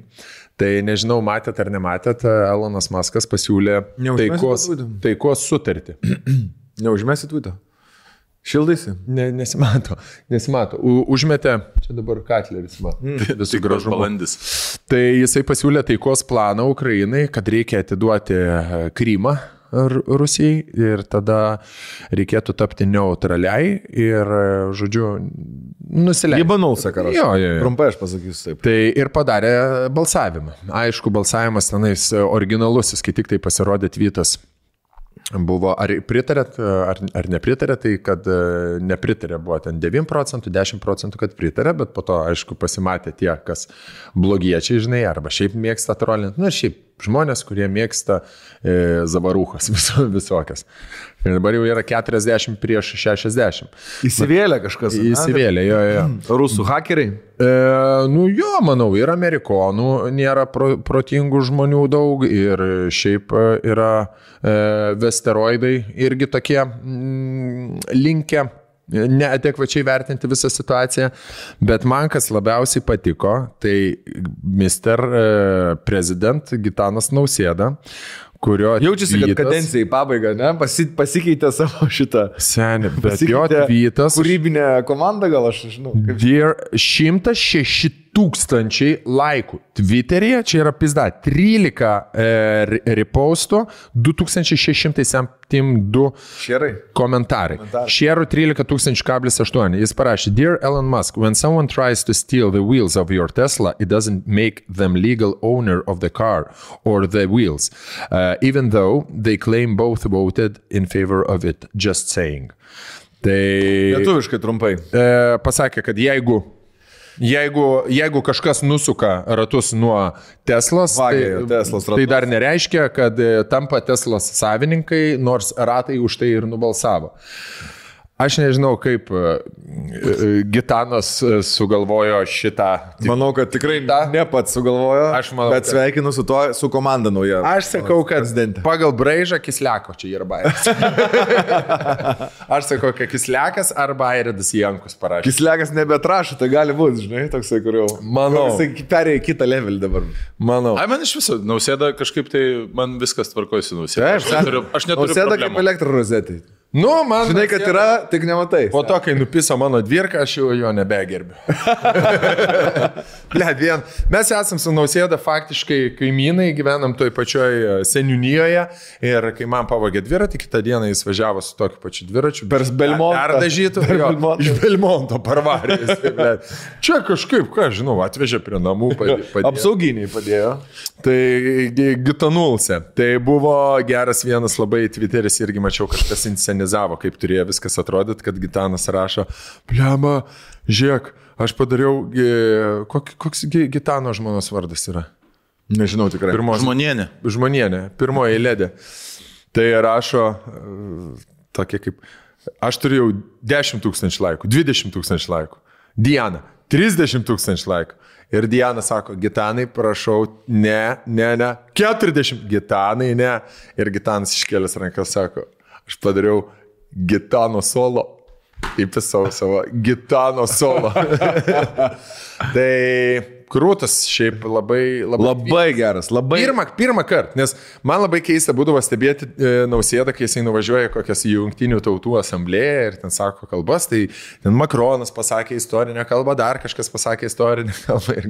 Tai nežinau, matėt ar nematėt, Elonas Maskas pasiūlė taikos sutartį. Neužmesi tweetą? Šildaisi? Nesimato. Užmetė, čia dabar Katleris, visų gražumo. Balandis. Tai jisai pasiūlė taikos planą Ukrainai, kad reikia atiduoti Krymą Rusijai ir tada reikėtų tapti neutraliai ir, žodžiu, nusileisti. Libanul, sakaras. Jo. Trumpai aš pasakysiu taip. Tai ir padarė balsavimą. Aišku, balsavimas tenais originalusis, kai tik tai pasirodė tweetas. Buvo, ar pritarėt, ar nepritarėt, tai kad nepritarė buvo ten 9%, 10%, kad pritarė, bet po to, aišku, pasimatė tie, kas blogiečiai, žinai, arba šiaip mėgsta trolinti, ir šiaip žmonės, kurie mėgsta zavarūchas visokias. Ir dabar jau yra 40 prieš 60. Įsivėlė kažkas. Įsivėlė, jo. Rusų hakeriai? Jo, manau, ir amerikonų nėra protingų žmonių daug ir šiaip yra vesteroidai irgi tokie linkę neadekvačiai vertinti visą situaciją, bet man kas labiausiai patiko, tai Mr. President Gitanas Nausėda, kurio jaučiasi, kad kadencija į pabaigą, ne? Pasikeitė savo šitą. Seniai, bet jo tweetas. Kūrybinė komanda, gal aš žinau. Dear 106 000 laikų Twitter'yje, čia yra pizda, 13 repostų, 2672 komentarai. Šerų 13,8. Jis parašė, Dear Elon Musk, when someone tries to steal the wheels of your Tesla, it doesn't make them legal owner of the car or the wheels, even though they claim both voted in favor of it, just saying. Tai lietuviškai trumpai. Pasakė, kad jeigu kažkas nusuka ratus nuo Teslos, tai dar nereiškia, kad tampa Teslos savininkai, nors ratai už tai ir nubalsavo. Aš nežinau, kaip Gitanas sugalvojo šitą. Manau, kad tikrai ne pats sugalvojo, bet sveikinu su to, su komanda nauja. Aš sakau, kad pagal braižą Kisliako čia yra bairis. Aš sakau, kad Kisliakas arba Airidas Jankus parašė. Kisliakas nebetrašo, tai gali būti, žinai, toksai, kur jau. Manau. Jisai perėjo kitą levelį dabar. Manau. Man iš viso, Nausėda kažkaip tai, man viskas tvarkosi Nausėda. Aš neturiu Nausėda problemų. kaip elektrorozetė. Man žinai, kad yra, tik nematai. Po to, kai nupiso mano dvirką, aš jo nebegerbiu. Mes esam su Nausėda faktiškai kaimynai, gyvenam toj pačioj seniūnijoje ir kai man pavogė dviratį, kitą dieną jis važiavo su tokiu pačiu dviračiu. Per Belmontą. Perdažytų. Iš Belmonto parvarės. Čia kažkaip, ką žinau, atvežė prie namų. Apsauginiai padėjo. Tai Gitanulse. Tai buvo geras vienas labai Twitteris, irgi mačiau, kažkas inscenizavo, kaip turėjo viskas atrodyti, kad Gitanas rašo, bliama, žiūrėk, aš padariau, koks Gitano žmonos vardas yra? Nežinau tikrai. Žmonienė. Pirmoji eilėdė. Tai rašo tokie kaip, aš turėjau 10 000 laikų, 20 000 laikų. Diana, 30 000 laikų. Ir Diana sako, Gitanai, prašau, ne, 40, Gitanai, ne. Ir Gitanas iškėlęs rankas sako, aš padariau Gitano solo, įpisau savo Gitano solo. Tai krūtas šiaip labai geras. Pirmą kartą, nes man labai keista būdavo stebėti Nausėdą, kai jisai nuvažiuoja kokias Jungtinių tautų asamblėją ir ten sako kalbas, tai ten Makronas pasakė istorinę kalbą, dar kažkas pasakė istorinę kalbą ir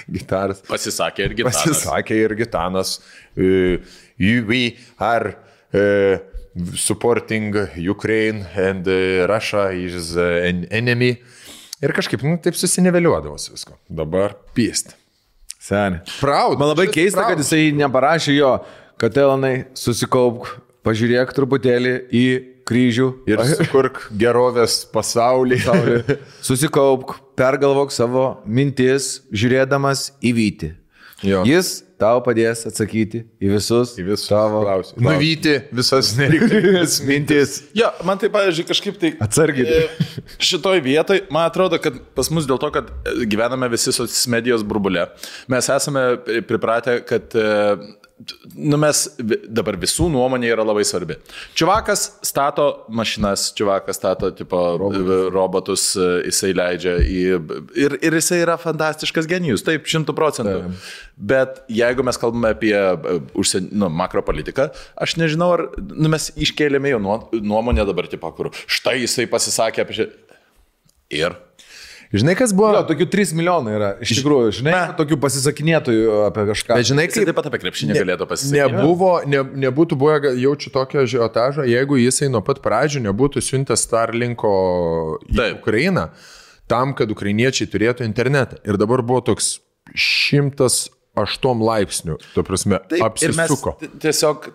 gitaras. Pasisakė ir Gitanas. We are supporting Ukraine and Russia is an enemy. Ir kažkaip, taip susiniveliuodavosi visko. Dabar pyst. Seniai. Proud. Man labai keista, kad jisai neparašė jo, kad Elonai susikaupk, pažiūrėk truputėlį į kryžių ir sukurk gerovės pasaulį. Susikaupk, pergalvok savo mintis, žiūrėdamas į vytį. Jo. Jis tau padės atsakyti į visus tavo klausimus. Nuvyti visas nereikalingas mintis. Jo, man tai, pavyzdžiui, kažkaip tai... Atsargiai. Šitoj vietoj, man atrodo, kad pas mus dėl to, kad gyvename visi socialinės medijos burbule, mes esame pripratę, kad mes dabar visų nuomonė yra labai svarbi. Čiuvakas stato mašinas, čiuvakas stato tipo, robotus, jisai leidžia ir jisai yra fantastiškas genijus, taip, 100%. Bet jeigu mes kalbame apie makropolitiką, aš nežinau, ar mes iškėlėme jo nuomonę dabar, tipo, kur štai jisai pasisakė apie šį. Ir... Žinai, kas buvo? Jo, tokių 3 milijonai yra, iš tikrųjų, žinai, tokių pasisakinėtojų apie kažką. Bet žinai, kaip... Taip pat apie krepšinį galėtų pasisakyti. Nebūtų buvę, jaučiu tokio žiotažo, jeigu jisai nuo pat pradžių nebūtų siuntęs Starlinko į Ukrainą, tam, kad ukrainiečiai turėtų internetą. Ir dabar buvo toks 108 laipsnių, to prasme, taip, apsisuko. Ir mes tiesiog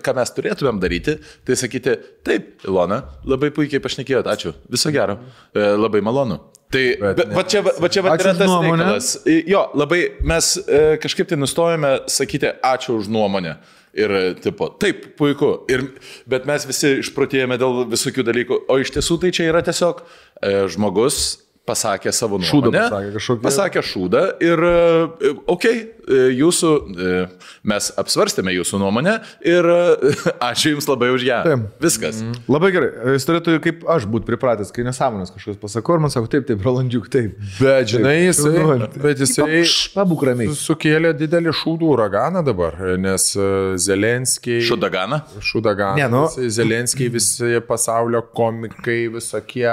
ką mes turėtumėm daryti, tai sakyti, taip, Ilona, labai puikiai pašnekėjot, ačiū, viso gero, labai malonu. Tai va čia yra tas reikalas. Jo, labai mes kažkaip tai nustojame sakyti ačiū už nuomonę. Ir tipo, taip, puiku. Bet mes visi išprotėjame dėl visokių dalykų. O iš tiesų tai čia yra tiesiog žmogus pasakė savo nuomonę. Pasakė šūdą ir jūsų, mes apsvarstėme jūsų nuomonę ir ačiū jums labai už ją. Taip. Viskas. Labai gerai. Jis turėtų kaip aš būti pripratęs, kai nesąmonės kažkas pasako ir man sako, taip, Rolandžiuk, taip. Bet žinai, jisai pabūk ramiai. Sukėlė didelį šūdų uraganą dabar, nes Zelenskiai... Šūdaganą? Šūdaganą. Ne, nu. Zelenskiai visi pasaulio komikai, visokie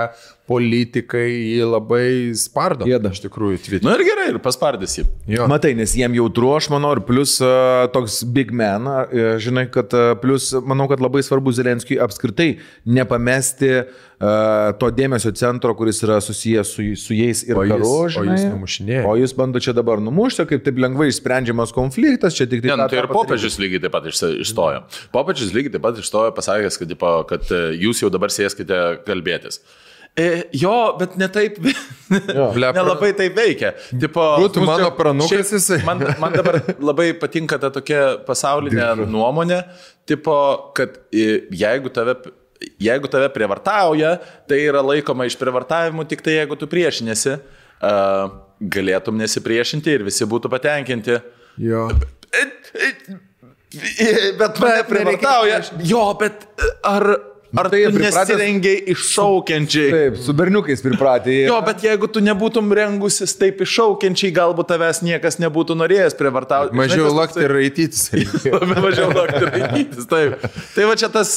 politikai jį labai spardo. Jėda, iš tikrųjų, Twitter. Na ir gerai, ir paspardys jį. Jo. Matai, nes jiem jautru, aš manau, ir plus toks big man, žinai, kad plus, manau, kad labai svarbu Zelenskiui apskritai nepamesti to dėmesio centro, kuris yra susijęs su jais ir karu, žinai. O jis numušinėja. O jis bando čia dabar numušti, kaip taip lengvai išsprendžiamas konfliktas, čia tik tai... Tai ir popiežius lygiai taip pat išstojo. Popiežius lygiai taip pat išstojo, pasakęs, kad jūs jau dabar sėskite kalbėtis. Jo, bet ne taip, nelabai taip veikia. Būtų mano pranukas jisai. Man dabar labai patinka ta tokia pasaulinė nuomonė, tipo, kad jeigu tave prievartauja, tai yra laikoma iš prievartavimų tik tai jeigu tu priešinėsi, galėtum nesipriešinti ir visi būtų patenkinti. Jo. Bet mane prievartauja. Jo, bet ar tai tu nesirengiai iššaukiančiai? Taip, su berniukais pripratė. Jo, bet jeigu tu nebūtum rengusis taip iššaukiančiai, galbūt tavęs niekas nebūtų norėjęs prievartauti. Mažiau lakti ir raitytis. Mažiau lakti ir raitytis, taip. Tai va čia tas,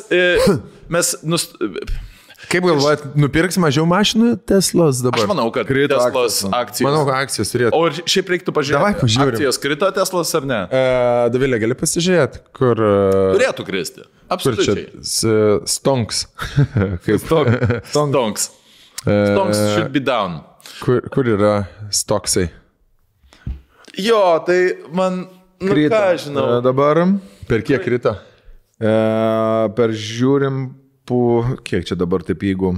Kaip galvojat, nupirks mažiau mašinų Teslos dabar? Aš manau, kad Teslos akcijos. Manau, kad akcijos turėtų. O ir šiaip reiktų pažiūrėti, akcijos krito Teslos ar ne? Davilė, gali pasižiūrėti, kur... Turėtų kristi. Absoliučiai. Stonks. Stonks. Stonks should be down. Kur yra stoksai? Jo, tai man... Krito. Ką žinau. Dabar... Per kiek krito? Per žiūrim... Kiek čia dabar taip jeigu?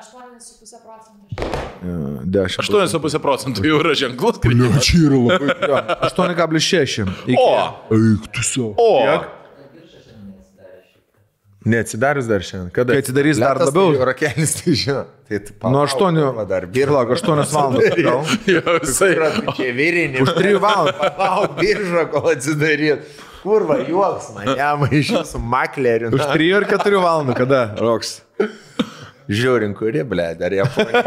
8,5%. 8,5% jau yra ženklus kritimas. Čia yra labai. 8,6. O! Eik tu savo. O! Neatsidarius dar šiandien. Kada? Kai atsidarys dar labiau. Rakelis, tai žinau. Nuo 8. Birlak, 8 valandas. Jo, visai. Čia virinį. Už 3 valandas. Palauk, biržą, kol atsidaryt. Kurva, juoks mane, maišiu su makleriu. Už 3 ar 4 valandų, kada roks? Žiūrim, kuri, ble, dar Japonija.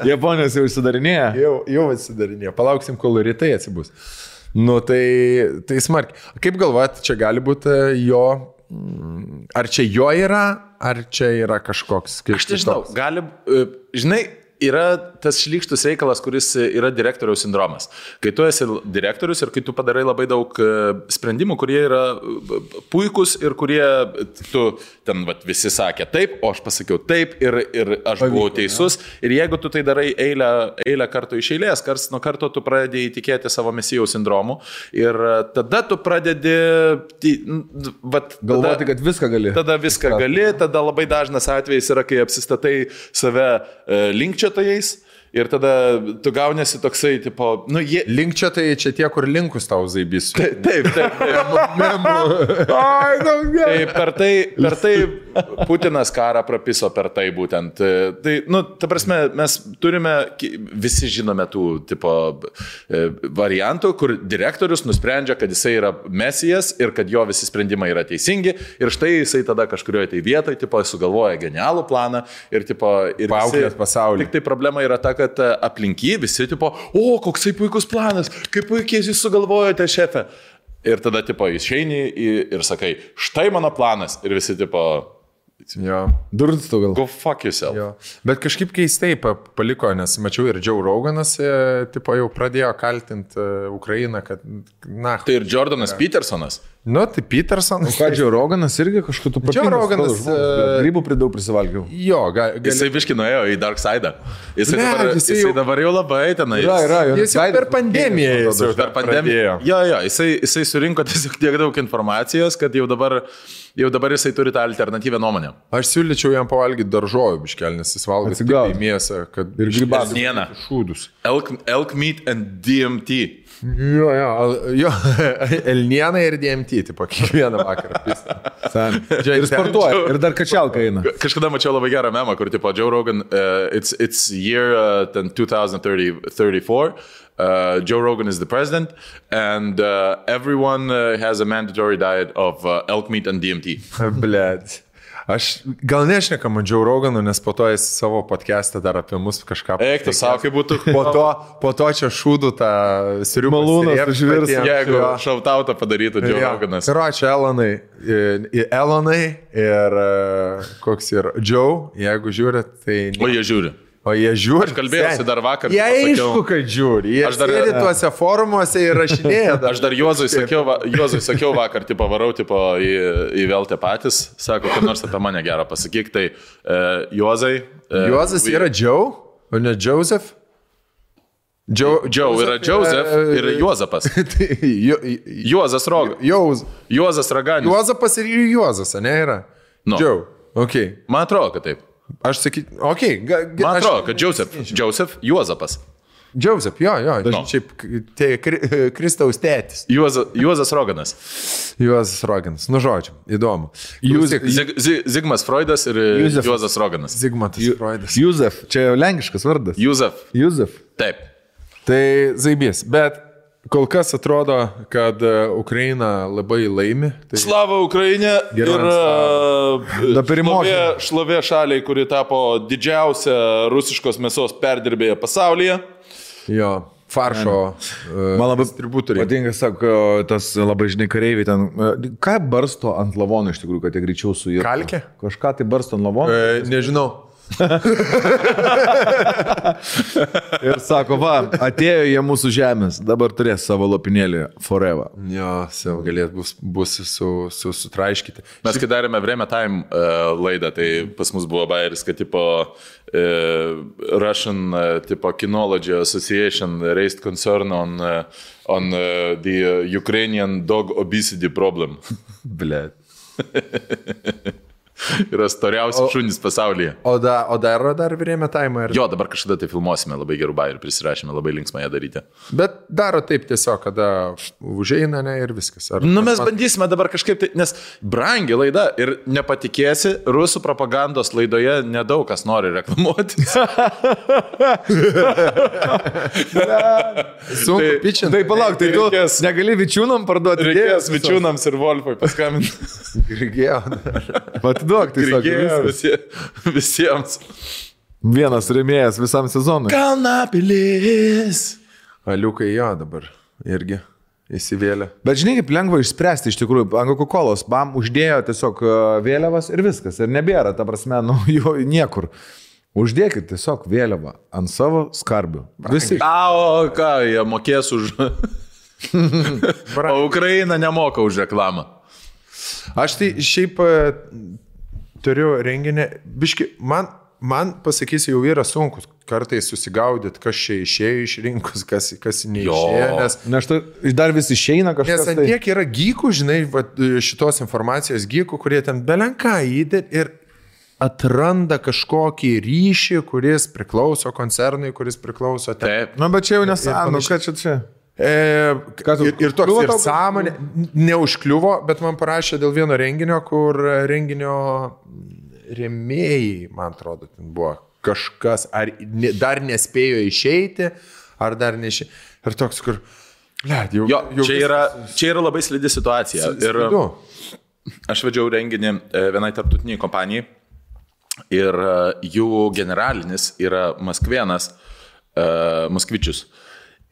Japonijos jau įsidarinėja? Jau atsidarinėja. Palauksim, kol rytai atsibus. Nu, tai smarkiai. Kaip galvojat, čia gali būti jo... Ar čia jo yra, ar čia yra kažkoks... Aš nežinau, gali... Žinai, yra tas šlykštus reikalas, kuris yra direktoriaus sindromas. Kai tu esi direktorius ir kai tu padarai labai daug sprendimų, kurie yra puikus ir kurie tu ten visi sakė taip, o aš pasakiau taip ir aš buvau teisus. Ir jeigu tu tai darai eilę kartų iš eilės, karts nuo karto tu pradedi įtikėti savo mesijaus sindromu ir tada tu pradedi galvoti, kad viską gali. Tada viską gali, tada labai dažnas atvejis yra, kai apsistatai save linkčiotojais Ir tada tu gaunėsi toksai, tipo, nu, jie... Link čia tai čia tie, kur linkus tau zaibys. Taip. Per tai Putinas karą prapiso per tai būtent. Tai, nu, ta prasme, mes turime, visi žinome tų, tipo, variantų, kur direktorius nusprendžia, kad jisai yra mesijas ir kad jo visi sprendimai yra teisingi. Ir štai jisai tada kažkurioje tai vietoje, tipo, sugalvoja genialų planą ir, tipo, ir paauklės pasaulį. Tik tai problema yra ta, kad aplinky visi, tipo, o, koksai puikus planas, kaip puikiai jūs sugalvojote, šefe. Ir tada, tipo, išeini ir sakai, štai mano planas. Ir visi, tipo, Durns tu gal. Go fuck yourself. Jo. Bet kažkaip keistai paliko, nes mačiau ir Joe Roganas, tipo, jau pradėjo kaltinti Ukrainą, kad, na. Tai ir Jordanas Petersonas. Nu, tai Petersonas. Ką, Joe Roganas irgi kažkokiu tu Joe Roganas. Grybų pridaug prisivalgiau. Jo, Jisai biški nuėjo į Dark Side. Jisai dabar jau labai tenai. Jis jau per pandemiją. Per pandemiją. Jo, jisai surinko tiesiog tiek daug informacijos, kad jau dabar jisai turi tą alternatyvę nuomonę. Aš siūlyčiau jam pavalgyti daržovių biškelį, nes jis valgo tik į mėsą, kad ir grybas. Šūdus. Elk meat and DMT. Jo, elniena ir DMT, tipo, kiekvieną vakarą. Ir sportuoja, ir dar kačialka eina. Kažkada mačiau labai gerą memą, kur, tipo, Joe Rogan, it's year 2034. Joe Rogan is the president, and everyone has a mandatory diet of elk meat and DMT. Blet. Aš gal nešnekam Joe Roganu, nes po to jis savo podcast'ą dar apie mus kažką... Eik, tu savo, kaip būtų... Po to čia šūdų tą sirių malūnas užvirs. Jeigu šautautą padarytų Joe Roganas. Ir ačiū Elonai ir koks ir Joe, jeigu žiūrit, tai... O jie žiūri. Aš kalbėjausi dar vakar. Jie aišku, kad žiūri. Jie sėdi tuose forumuose ir rašinėja. Aš dar Juozui sakiau vakar, tipo, varau tipo, į Veltę patys. Sako, kad nors apie mane gerą pasakyk. Tai Juozai... Juozas yra Joe, o ne Joseph? Joe yra Joseph ir Juozapas. Juozas Roganas. Juozas Raganis. Juozapas ir Juozas, ne yra? Joe. Okay. Man atrodo, kad taip. Aš sakyt, okei. Man atrodo, kad Joseph Juozapas. Joseph, jo. Šiaip tai Kristaus tėtis. Juozas Roganas. Juozas Roganas. Nu, žodžiu, įdomu. Zigmas Freudas ir Juozas Roganas. Zigmantas Freudas. Juzef, čia jau lenkiškas vardas. Juzef. Taip. Tai zaibės, bet kol kas atrodo, kad Ukraina labai laimi. Tai... Slava Ukraina ir šlovė šaliai, kuri tapo didžiausia rusiškos mėsos perdirbėja pasaulyje. Jo, faršo man labai distributoriai. Patinka, sako, tas labai žinai kareiviai ten. Ką barsto ant lavonų iš tikrųjų, kad jie greičiau suirtų? Kalkė? Kažką tai barsto ant lavonų? Nežinau. Ir sako, va, atėjo jie mūsų žemės, dabar turės savo lopinėlį forever. Jo, savo galėt bus sutraiškyti. Mes kai darėme Vreme Time laidą, tai pas mus buvo bairis, kad tipo Russian tipo Kinology Association raised concern on the Ukrainian dog obesity problem. Blet. Yra storiausi šunys pasaulyje. O dar Vreme Time? Jo, dabar kažkada tai filmuosime, labai gerų bairių prisirašėme, labai linksmą ją daryti. Bet daro taip tiesiog, kada užeina, ne, ir viskas. Mes bandysime dabar kažkaip tai, nes brangi laida ir nepatikėsi, rusų propagandos laidoje nedaug kas nori reklamuoti. Sunku pičinti. Tai palauk, tai tu negali vičiūnam parduoti. Reikės vičiūnams ir Wolfui paskambinti. Reikėjo. Duok, tai visiems. Vienas rėmėjas visam sezonui. Kalnapilis. Aliukai jo dabar irgi įsivėlė. Bet žinai, kaip lengva išspręsti iš tikrųjų. Ant Coca-Colos bam uždėjo tiesiog vėliavas ir viskas. Ir nebėra, ta prasme, jo niekur. Uždėkit tiesiog vėliavą ant savo skarbių. Visi. O ką, jie mokės už... O Ukraina nemoka už reklamą. Aš tai šiaip turiu renginį, biški, man pasakysiu, jau yra sunku kartais susigaudyti, kas čia išėjo iš rinkos, kas neišėjo. Nes dar vis išeina kažkas. Nes ant tiek yra gykų, žinai, šitos informacijos gykų, kurie ten belenką įdėt ir atranda kažkokį ryšį, kuris priklauso koncernui, kuris priklauso... Taip. Na, bet čia jau nesąmonė, ką čia? Ir toks ir sąmonė, neužkliuvo, bet man parašė dėl vieno renginio, kur renginio rėmėjai, man atrodo, ten buvo kažkas, ar dar nespėjo išeiti, ar dar neišeiti. Ir toks, kur... Jau čia yra labai slidi situacija. Ir aš vedžiau renginį vienai tarptautiniai kompanijai ir jų generalinis yra Maskvienas, Moskvičius.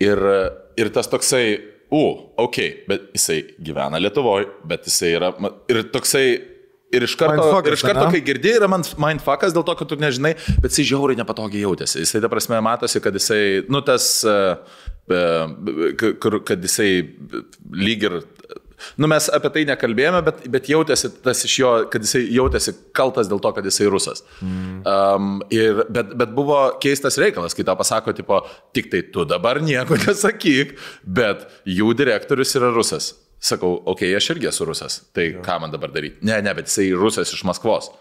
Ir tas toksai, bet jisai gyvena Lietuvoje, bet jisai yra, ir toksai, ir iš karto kai girdi, yra mindfuckas dėl to, kad tu nežinai, bet jisai žiauriai nepatogiai jautėsi. Jisai, ta prasme, matosi, kad jisai, kad jisai lyg ir, mes apie tai nekalbėjome, bet jautėsi tas iš jo, kad jisai jautėsi kaltas dėl to, kad jisai rusas. Bet buvo keistas reikalas, kai tau pasako, tipo, tik tai tu dabar nieko nesakyk, bet jų direktorius yra rusas. Sakau, aš irgi esu rusas, tai ką man dabar daryti? Ne, bet jisai rusas iš Maskvos.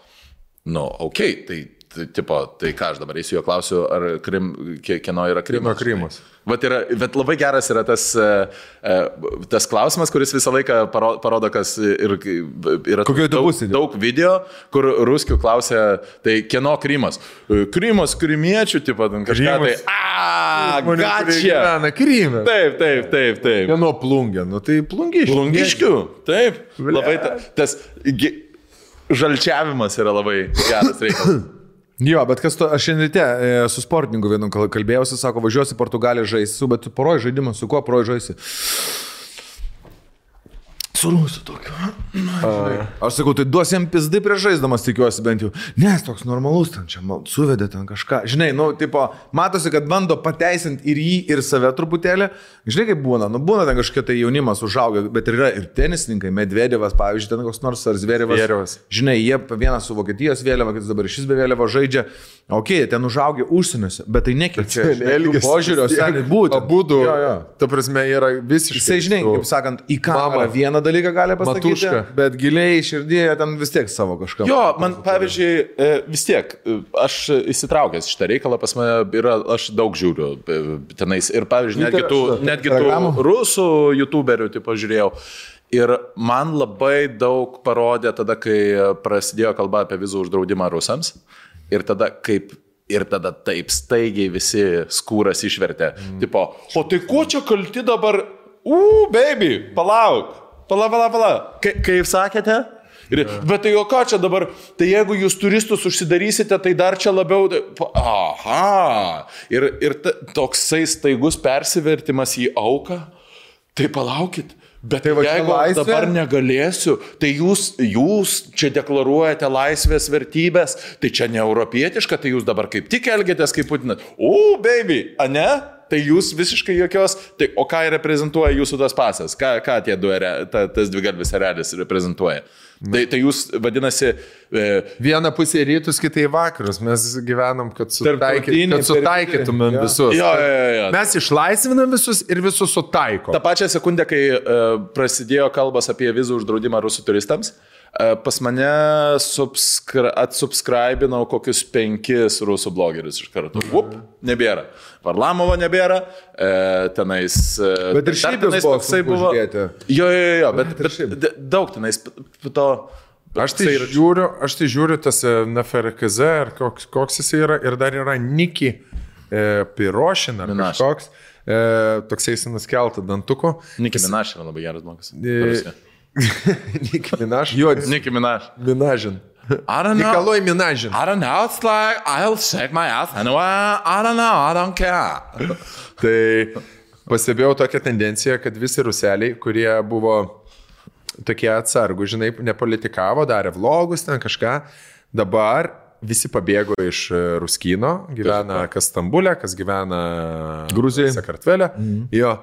Tai ką aš dabar eisiu jo klausiu, ar kieno yra Krymas? Krymas. Bet labai geras yra tas klausimas, kuris visą laiką parodo, kas yra daug video, kur ruskių klausia, tai kieno Krymas? Krymas, krymiečių, tipo, kažką tai, gačia. Krymas. Taip. Kieno plungė? Tai plungiškių. Plungiškių, taip. Labai tas žalčiavimas yra labai geras reikalas. Jo, bet aš šiandien ryte su sportininku vienu kalbėjausi, sako, važiuosi Portugaliją žaisi, bet tu poroj žaidimą, su kuo poroj žaisi? Su rusu tokiu. Aš sakau, tai duos jam pizdai prieš žaisdamas, tikiuosi bent jau. Nes toks normalus, ten čia suvedė ten kažką. Žinai, matosi, kad bando pateisinti ir jį, ir save truputėlį. Žinai, kaip būna, būna ten kažkokia tai jaunimas užaugę, bet yra ir tenisininkai, Medvedevas, pavyzdžiui, ten koks nors ar Zverevas. Žinai, jie vienas su Vokietijos vėliava, kitas dabar šis be vėliava žaidžia. Ten užaugę užsieniuose, bet tai nekeičia. Požiūrio, seniai būtų. Abudu, ta prasme, yra visiškai. Jisai, žinai, kaip sakant, į kamerą vieną dalyką gali pasakyti, Matuška. Bet giliai širdėje ten vis tiek savo kažką. Jo, man pavyzdžiui, vis tiek, aš įsitraukęs šitą reikalą, pas mane yra, aš daug žiūriu tenais ir pavyzdžiui, netgi tų rusų youtuberių, tipo, žiūrėjau. Ir man labai daug parodė tada, kai prasidėjo kalba apie vizų uždraudimą rusams. Ir tada taip staigiai visi skūras išvertė. Tipo, o tai kuo čia kalti dabar? Baby, palauk. Pala. Kaip sakėte? Bet tai o ką čia dabar? Tai jeigu jūs turistus užsidarysite, tai dar čia labiau... Aha. Ir toksai staigus persivertimas į auką. Tai palaukit. Bet tai jeigu dabar negalėsiu, tai jūs čia deklaruojate laisvės vertybės, tai čia ne europietiška, tai jūs dabar kaip tik elgiatės kaip Putinas. Baby, ane? Tai jūs visiškai jokios, tai, o ką reprezentuoja jūsų tas pasas? Ką tie tas dvigalvis erelis reprezentuoja? Tai jūs, vadinasi... Viena pusė rytus, kitai vakarus. Mes gyvenam, kad sutaikytumėm visus. Jo. Mes išlaisvinam visus ir visus sutaikom. Ta pačią sekundę, kai prasidėjo kalbas apie vizų uždraudimą rusų turistams, pas mane atsubscribinau kokius 5 rusų blogerius iš karto. Nebėra. Varlamovo nebėra. Tenais... Bet ir šiaip toksai buvo. Jo, bet daug tenais to... Aš tai žiūriu tas NFRKZ, ar koks jis yra, ir dar yra Niki Pirošin, ar kažkoks, toksai jis nuskeltą dantuko. Niki Minaš yra labai geras blogas. Niki Minaš? Jo, Niki Minaš. Minažin. Nikolai Minažin. I don't know, it's like, I'll shake my ass anyway, I don't know, I don't care. Tai pastebėjau tokią tendenciją, kad visi ruseliai, kurie buvo tokie atsargų, žinai, nepolitikavo, darė vlogus, ten kažką. Dabar visi pabėgo iš Ruskino, gyvena kas Stambulė, kas gyvena Gruzijoje, Sakartvele. Jo.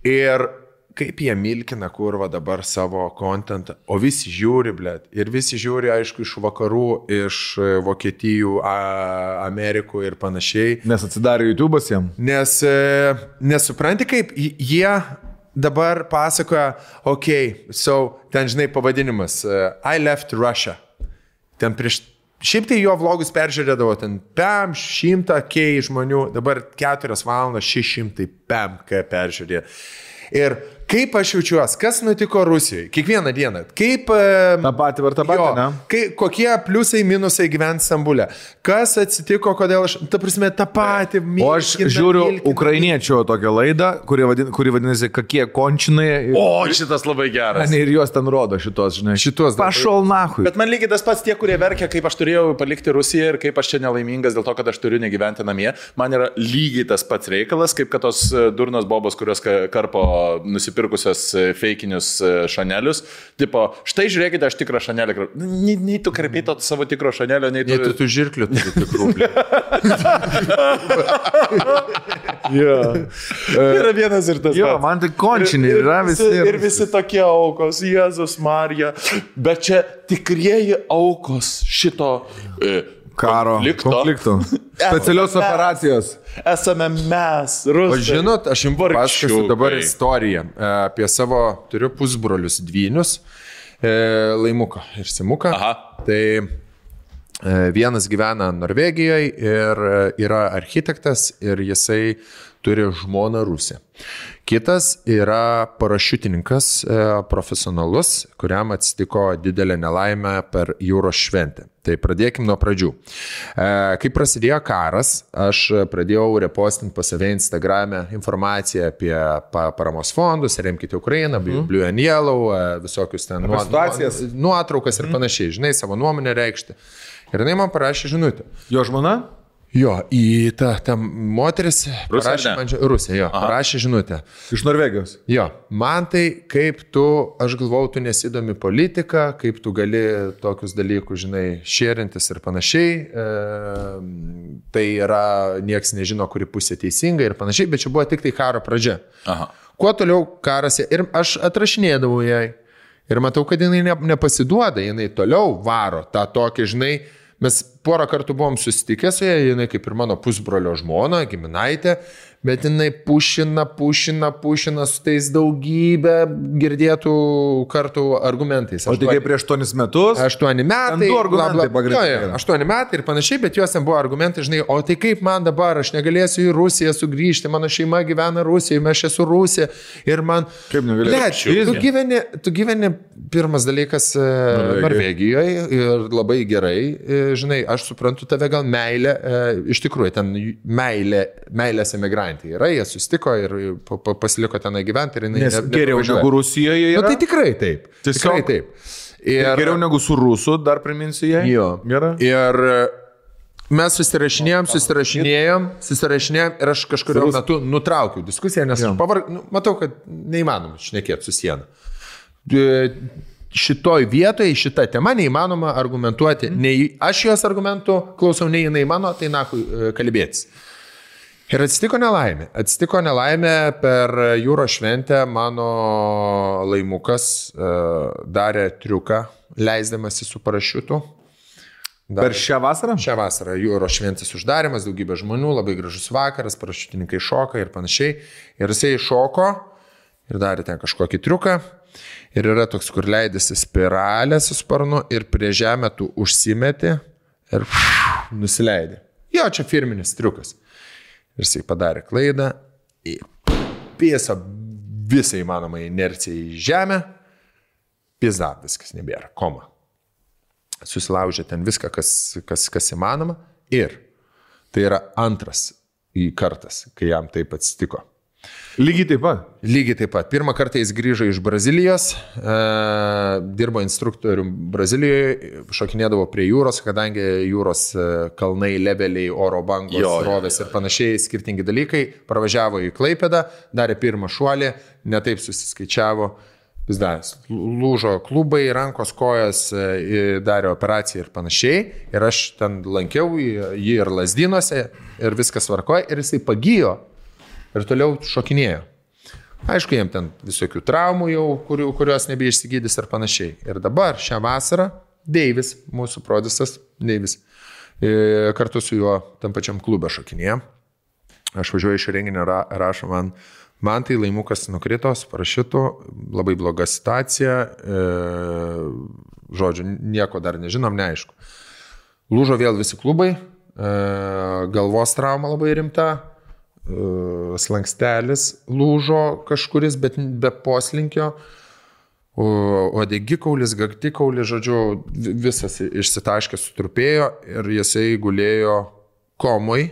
Ir kaip jie milkina kurva dabar savo kontentą, o visi žiūri, blėt. Ir visi žiūri, aišku, iš vakarų, iš Vokietijų, Amerikų ir panašiai. Nes atsidarė YouTube'as jam. Nes nesupranti, kaip jie dabar pasakoja, ten žinai pavadinimas, I left Russia. Ten prieš Šiaip tai jo vlogus peržiūrėdavo ten 100k žmonių, dabar 4 valandas 600 peržiūrėjo. Ir kaip aš jaučiuosi, kas nutiko Rusijoje, kiekvieną dieną, kaip... Ta pati, ne? Kokie pliusai, minusai gyventi Stambule, kas atsitiko, kodėl aš, ta prasme, tą patį... O aš žiūriu ukrainiečio tokią laidą, kuri vadinasi, kokie končinai. O, šitas labai geras. Ir juos ten rodo šitos, žinai. Šitos. Pašol nahui. Bet man lygiai tas pats tie, kurie verkia, kaip aš turėjau palikti Rusiją ir kaip aš čia nelaimingas dėl to, kad aš turiu negyventi namie. Man yra lygiai tas pats reikalas, kaip kad tos durnos bobos, kurios karpo nusipirkusios feikinius šanelius. Tipo, štai žiūrėkite, aš tikrą šanelį. Nei tu karpyto savo tikro šanelio, nei tu žirklių turi tikrų. Yra vienas ir tas. Jo, man tai končiniai yra visi. Ir visi tokie aukos, Jėzus Marija. Bet čia tikrieji aukos šito konflikto. Specialios operacijos. Esame mes, rusai. O žinot, aš jums papasakosiu dabar istoriją apie savo, turiu pusbrolius dvynius, Laimuką ir Simuką. Aha. Tai vienas gyvena Norvegijoje ir yra architektas ir jisai turi žmoną Rusę. Kitas yra parašiutininkas profesionalus, kuriam atsitiko didelė nelaimė per jūros šventę. Tai pradėkim nuo pradžių. Kai prasidėjo karas, aš pradėjau repostinti pas save Instagram'e informaciją apie paramos fondus, remkite Ukrainą, Blue and Yellow, visokius ten nuotraukas ir panašiai, žinai, savo nuomonę reikšti. Ir jinai man parašė žinutę. Jo žmona? Jo, į tą moteris parašė man Rusija, jo, parašė žinutę. Iš Norvegijos? Jo, man tai kaip tu, aš galvau, tu nesidomi politiką, kaip tu gali tokius dalykus, žinai, šėrintis ir panašiai. Tai yra, nieks nežino, kuri pusė teisinga ir panašiai, bet čia buvo tik tai karo pradžia. Aha. Kuo toliau karas, ir aš atrašinėdavau jai ir matau, kad jinai nepasiduoda, jinai toliau varo tą tokį, žinai, mes porą kartų buvom susitikę su ją, jinai kaip ir mano pusbrolio žmona, giminaitė, bet jinai pušina su tais daugybę girdėtų kartų argumentais. O tik prieš 8 metus? 8 metai. 2 argumentai pagrindiniai. 8 metai ir panašiai, bet jos ten buvo argumentai, žinai, o tai kaip man dabar, aš negalėsiu į Rusiją sugrįžti, mano šeima gyvena Rusijoje, aš esu Rusija ir man... Kaip negalėsiu? Tu gyveni pirmas dalykas Norvegijoje ir labai gerai, žinai, aš suprantu tave gal meilę, iš tikrųjų, ten meilės emigrantė. Yra, jie susitiko ir pasiliko tenai gyventi ir jinai geriau negu Rusijoje yra. Nu, tai tikrai taip. Tikrai taip. Ir geriau negu su Rusu, dar priminsiu jai. Jo. Gerai. Ir mes susirašinėjom ir aš kažkurio metu nutraukiau diskusiją, nes matau, kad neįmanoma šnekėti su siena. Šitoj vietoje, šitą temą neįmanoma argumentuoti. Nei aš jos argumentų klausau, nei jinai mano, tai nakui kalbėtis. Ir atsitiko nelaimė per jūros šventę, mano Laimukas darė triuką, leisdamasi su parašiutu. Per šią vasarą? Šią vasarą jūros šventės uždarimas, daugybė žmonių, labai gražus vakaras, parašiutininkai šoka ir panašiai. Ir jisai šoko ir darė ten kažkokį triuką. Ir yra toks, kur leidėsi spiralę su sparnu ir prie žemę tu užsimeti ir nusileidė. Jo, čia firminis triukas. Ir jisai padarė klaidą, pėso visą įmanomą inerciją į žemę, pizda, viskas nebėra, koma. Susilaužė ten viską, kas įmanoma ir tai yra antras kartas, kai jam taip atsitiko. Lygiai taip pat? Lygiai taip pat. Pirmą kartą jis grįžo iš Brazilijos, dirbo instruktorium Brazilijoje, šokinėdavo prie jūros, kadangi jūros kalnai, leveliai, oro bangos, rovės ir panašiai, skirtingi dalykai. Pravažiavo į Klaipėdą, darė pirmą šuolį, netaip susiskaičiavo, lūžo klubai, rankos, kojas, darė operaciją ir panašiai. Ir aš ten lankiau jį ir Lazdynuose ir viskas tvarkoja ir jisai pagijo. Ir toliau šokinėjo. Aišku, jiem ten visokių traumų jau, kurios nebeišsigydys ir panašiai. Ir dabar šią vasarą Deivis, mūsų prodisas Deivis, kartu su juo tam pačiam klube šokinėjo. Aš važiuoju iš renginio, rašo man tai Laimukas nukrito, su parašiutu, labai bloga situacija, žodžiu, nieko dar nežinom, neaišku. Lūžo vėl visi klubai, galvos trauma labai rimta, slankstelis lūžo kažkuris, bet be poslinkio, odegikaulis, gaktikaulis, žodžiu, visas išsitaškęs sutrupėjo ir jisai gulėjo komui.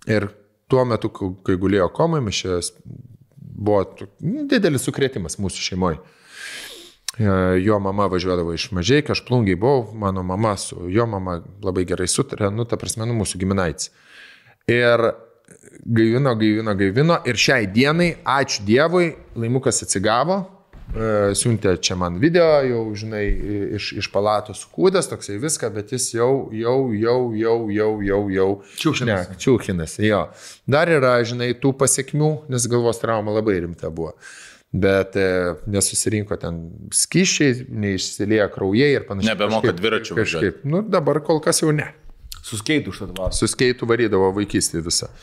Ir tuo metu, kai gulėjo komui, buvo didelis sukrėtimas mūsų šeimoje. Jo mama važiuodavo iš Mažeikio, aš Plungiai buvau, mano mama su jo mama labai gerai sutarė, ta prasme, mūsų giminaitis. Ir gaivino ir šiai dienai, ačiū Dievui, Laimukas atsigavo, siuntė čia man video, jau, žinai, iš palatos sukūdęs, toksai viską, bet jis jau čiūchinas, jo. Dar yra, žinai, tų pasiekmių, nes galvos trauma labai rimta buvo. Bet nesusirinko ten skyščiai, neišsilieja kraujai ir panašiai. Nebemoka dviračių važiuoti. Dabar kol kas jau ne. Su skeitu užtadavo. Su skeitu varydavo vaikystį visą.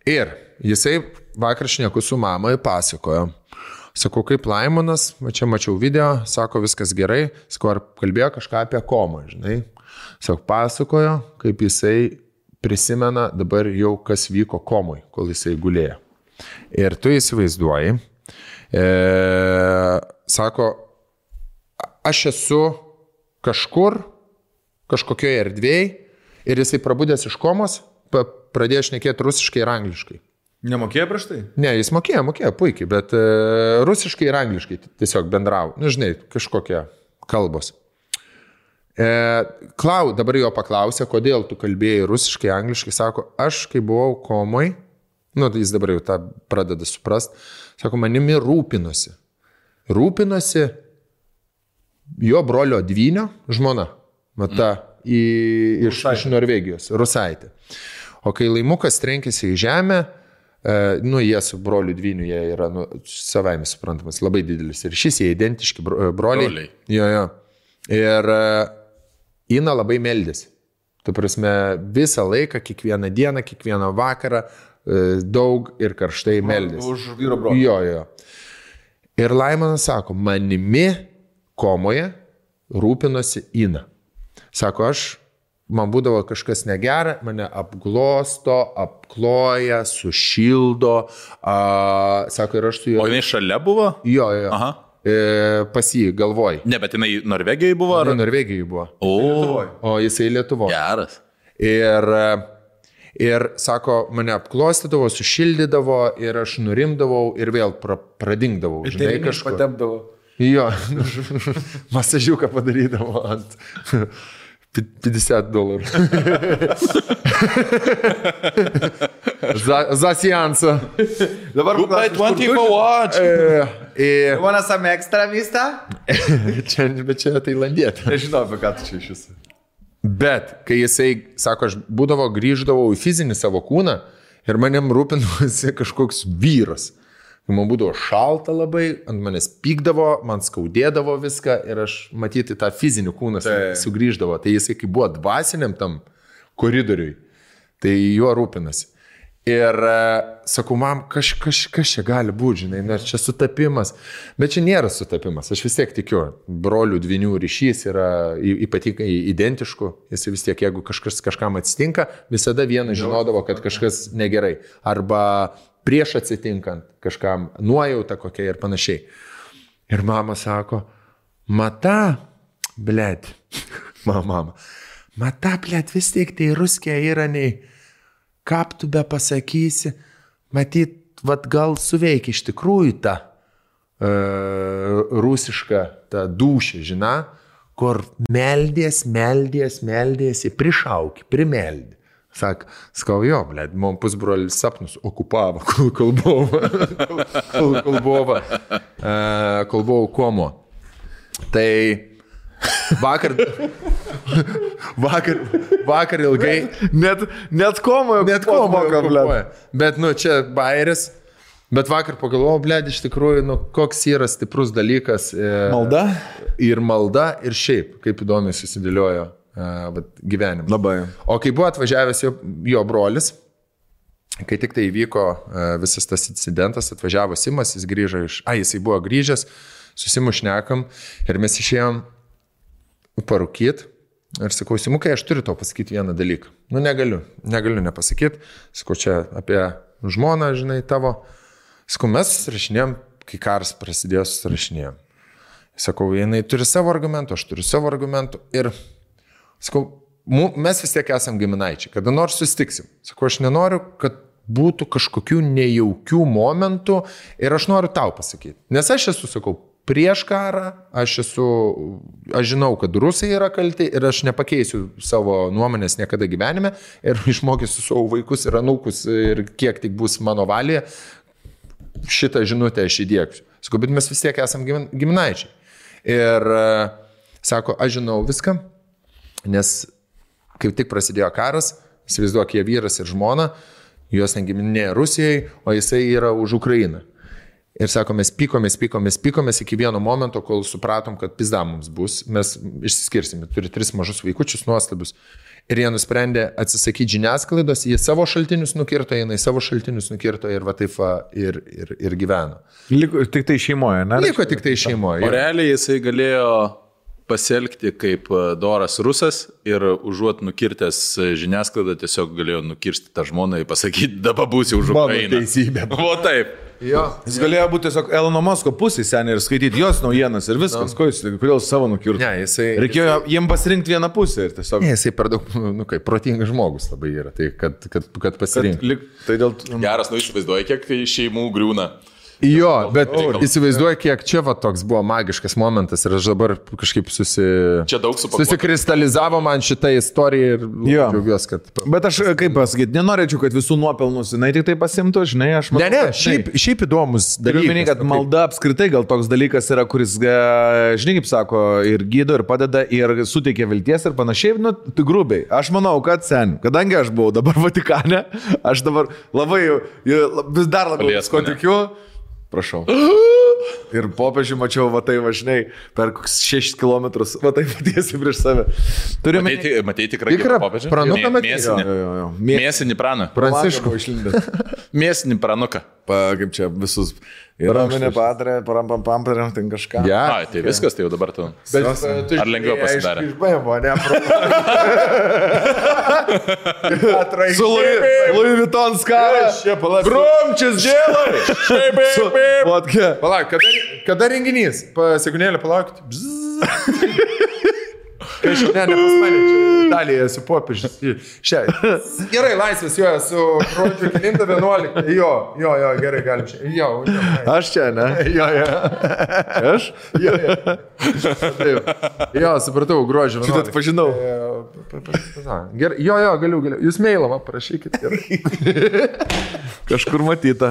Ir jisai vakar šneku su mamai pasakojo. Sakau, kaip Laimonas, čia mačiau video, sako, viskas gerai. Sakau, ar kalbėjo kažką apie komą, žinai. Sakau, pasakojo, kaip jisai prisimena dabar jau, kas vyko komui, kol jisai gulėjo. Ir tu įsivaizduoji, sako, aš esu kažkur, kažkokioje erdvėje ir jisai prabudęs iš komos, pradėjo šnekėti rusiškai ir angliškai. Nemokėjo prieš tai? Ne, jis mokėjo puikiai, bet rusiškai ir angliškai tiesiog bendravo. Žinai, kažkokie kalbos. Dabar jo paklausė, kodėl tu kalbėjai rusiškai, angliškai, sako, aš kai buvau komoj, jis dabar jau tą pradeda suprast, sako, manimi rūpinosi. Rūpinosi jo brolio dvynio žmona, iš Norvegijos, Rusaitė. O kai Laimukas trenkėsi į žemę, jie su broliu dvyniu, jie yra savaime suprantamas, labai didelis. Ir šis jie identiški broliai. Jo. Ir Ina labai meldėsi. Tu prasme, visą laiką, kiekvieną dieną, kiekvieną vakarą, daug ir karštai meldėsi. Už vyro brolį. Jo. Ir Laimonas sako, manimi komoje rūpinosi Ina. Sako, man būdavo kažkas negera, mane apglosto, apkloja, sušildo. Sako, ir aš su juo. O jinai šalia buvo? Jo. Aha. Pas jį galvoj. Ne, bet jinai Norvegijoje buvo? Ar? Norvegijoje buvo. O jisai Lietuvoje. Geras. Ir sako, mane apklostydavo, sušildydavo ir aš nurimdavau ir vėl pradingdavau. Žinai, kažko patepdavo. Jo, masažiuką padarydavo ant $50. Za seansą. Dabar bukai 20 for watch. Wanna some extra vista? Bet čia tailandietė. Nežinau, apie ką tu čia iš jūsų. Bet, kai jisai, sako, aš grįždavau į fizinį savo kūną ir manim rūpinosi kažkoks vyras. Man būdavo šalta labai, ant manęs pykdavo, man skaudėdavo viską ir aš matyti tą fizinį kūną sugrįždavo. Tai jisai, kai buvo dvasiniam tam koridoriui, tai juo rūpinasi. Ir sakau, mam, kas čia gali būti, žinai, nes čia sutapimas. Bet čia nėra sutapimas, aš vis tiek tikiu. Brolių dvynių ryšys yra ypatingai identiškų. Jis vis tiek, jeigu kažkam atsitinka, visada vienas žinodavo, kad kažkas negerai. Arba prieš atsitinkant kažkam nuojauta kokia ir panašiai. Ir mama sako, mata, blėt, mata, blėt, vis tiek tai ruskė yra nei, kaip tu be pasakysi, matyt, vat gal suveikia iš tikrųjų ta rusiška, ta dūšė, žina, kur meldės, prišauki, primeldė. Sakau, jo, blėt, man pusbrolis sapnus okupavo, kol buvau komo. Tai vakar ilgai... Net komoje okupuoja. Bet, čia bairis. Bet vakar pagalvojau, blėt, iš tikrųjų, koks yra stiprus dalykas. Malda? Ir malda, ir šiaip, kaip įdomiai susidėliojo gyvenimą. Labai. O kai buvo atvažiavęs jo brolis, kai tik tai įvyko visas tas incidentas, atvažiavo Simas, jis grįžo jisai buvo grįžęs, susimušnekam ir mes išėjom parūkyt Ir sakau, Simukai, aš turiu tau pasakyti vieną dalyką. Nu, negaliu nepasakyti. Sakau, čia apie žmoną, žinai, tavo. Sakau, mes susirašinėjom, kai karas prasidėjo, susirašinėjom. Sakau, jinai turi savo argumentų, aš turiu savo argumentų. Ir sakau, mes vis tiek esam giminaičiai, kada nors susitiksim. Sakau, aš nenoriu, kad būtų kažkokių nejaukių momentų ir aš noriu tau pasakyti. Nes aš esu, sakau, prieš karą, aš žinau, kad rusai yra kalti ir aš nepakeisiu savo nuomonės niekada gyvenime ir išmokysiu savo vaikus ir anūkus ir kiek tik bus mano valėje, šitą žinutę aš įdėksiu. Sakau, bet mes vis tiek esam giminaičiai. Ir sako, aš žinau viską, nes kaip tik prasidėjo karas, įsivaizduok, jie vyras ir žmona, juos negiminėja Rusijai, o jisai yra už Ukrainą. Ir sako, mes pykomės iki vieno momento, kol supratom, kad pizda mums bus, mes išsiskirsime, turi 3 mažus vaikučius nuostabius. Ir jie nusprendė atsisakyti žiniasklaidos, jie savo šaltinius nukirto, jinai savo šaltinius nukirto ir va taip ir gyveno. Liko tik tai šeimoje, ne? Liko tik tai šeimoje. O realiai jisai galėjo pasielgti kaip doras rusas ir užuot nukirtęs žiniasklaidą, tiesiog galėjo nukirsti tą žmoną ir pasakyti, dabar būsi už Ukrainą. Mano teisybė. O taip. Jo. Jis galėjo būti tiesiog Elono Musko pusėje seniai ir skaityti jos naujienas ir viskas. Kodėl savo nukirto? Ne, reikėjo jiem pasirinkti vieną pusę ir tiesiog... Ne, jisai per daug, protingas žmogus labai yra, tai kad pasirinkti. Tai dėl... Geras, įsivaizduoji, kiek šeimų griūna. Jo, bet įsivaizduoju, kiek čia va toks buvo magiškas momentas ir aš dabar kažkaip susikristalizavo man šitą istoriją ir džiaugiuosi, kad... Bet aš, kaip pasakyti, nenorėčiau, kad visų nuopelnus jinai tik tai pasimtų, žinai, aš manau... Ne, šiaip įdomus dalykas. Minėjai, kad malda apskritai gal toks dalykas yra, kuris, žinai, kaip sako, ir gydo, ir padeda, ir suteikia vilties ir panašiai, nu, tai grubiai. Aš manau, kad kadangi aš buvau dabar Vatikane, aš dabar vis dar labiau tikiu. Prašau. Ir popiežių mačiau, va tai važinai, per 6 kilometrus, va tai patiesi prieš save. Matei tikrai popiežių? Pranuką matei? Mėsinį praną. Pranciškų išlindęs. Mėsinį pranuką. Kaip čia visus... Raminė patarė, paramparėm, ten kažką. Ja. Tai viskas, tai jau dabar tu. Ar lengviau pasidarė? Išbaivo, ne? Su Louis Vuitton skara. Gromčias dėlai. Palauk, kada renginys? Sekunėlę palaukit. Ne, pas mane, čia Italijoje esu popiežius. Gerai, laisvės, jo, esu rodžiu 9-11. Jo, gerai, galim čia. Jo. Aš čia, ne? Jo. Aš? Jo, supratau, gruodžio 11. Šitą atpažinau. Gerai, jo, galiu. Jūs mailą parašykit. Kažkur matyta.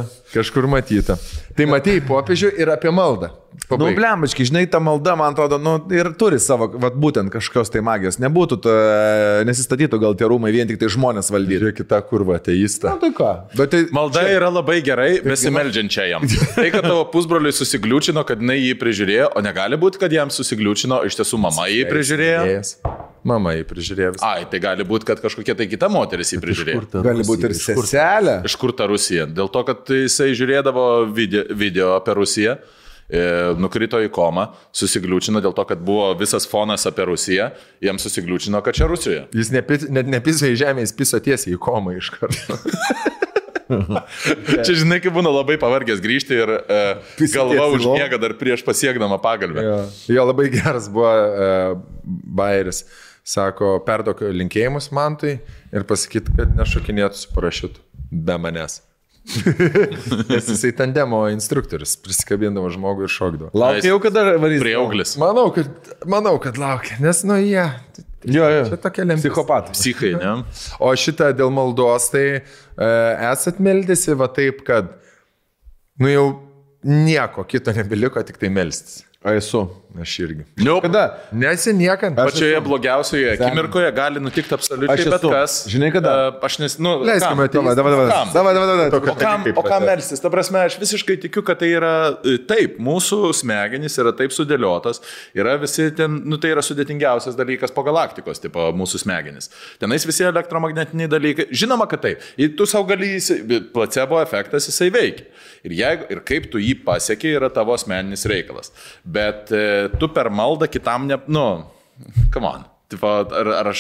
Tai matėjai popiežių ir apie maldą. Nu, blembački, žinai, ta malda, man atrodo, ir turi savo, būtent kažkokios tai magijos. Nebūtų, nesistatytų gal tie rūmai vien tik tai žmonės valdyti. Žiūrėk, kita kurva, ateista. Na, tai ką? Bet tai, malda yra labai gerai, besimeldžiančia jam. Tai, kad tavo pusbroliui susigliūčino, kad jinai jį prižiūrėjo, o negali būti, kad jam susigliūčino, iš tiesų mama jį prižiūrėjo. Mama jį prižiūrėjo visą. Ai, tai gali būti, kad kažkokia tai kita moteris jį prižiūrėjo. Gali būti ir seselė. Iš kur ta Rusija? Dėl to, kad jisai žiūrėdavo video apie Rusiją. Nukrito į komą, susigliūčino dėl to, kad buvo visas fonas apie Rusiją, jam susigliūčino, kad čia Rusijoje. Jis net nepiso į žemę, jis piso tiesiai į komą iš karto. Čia žinai, kaip būna labai pavargęs grįžti ir galva užmiega dar prieš pasiekdama pagalbę. Jo, labai geras buvo bajeris. Sako, perduok linkėjimus Mantui ir pasakyti, kad nešokinėtų su parašiutu be manęs. Nes jisai tandemo instruktorius, prisikabindavo žmogų ir šokdavo. Laukia jau kada varys. Prieauglis. Manau, kad laukia, nes jie. Jo. Čia tokia lemtis. Psichopatai. Psichai, ne? O šitą dėl maldos, tai esat meldėsi va taip, kad jau nieko kito nebeliko, tik tai melstis. Esu. Aš irgi. Kada? Nesiniekant. Pačioje blogiausioje akimirkoje gali nutikti absoliučiai bet kas. Žinai kada? Aš leiskime O kam melstis? Ta prasme, aš visiškai tikiu, kad tai yra taip, mūsų smegenys yra taip sudėliotas, yra visi ten, tai yra sudėtingiausias dalykas po galaktikos, tipo mūsų smegenys. Tenais visi elektromagnetiniai dalykai. Žinoma, kad taip. Tu savo gali, placebo efektas jisai veikia. Ir kaip tu jį pasieki, yra tavo asmeninis reikalas. Bet tu per maldą kitam come on. Tipo, ar aš...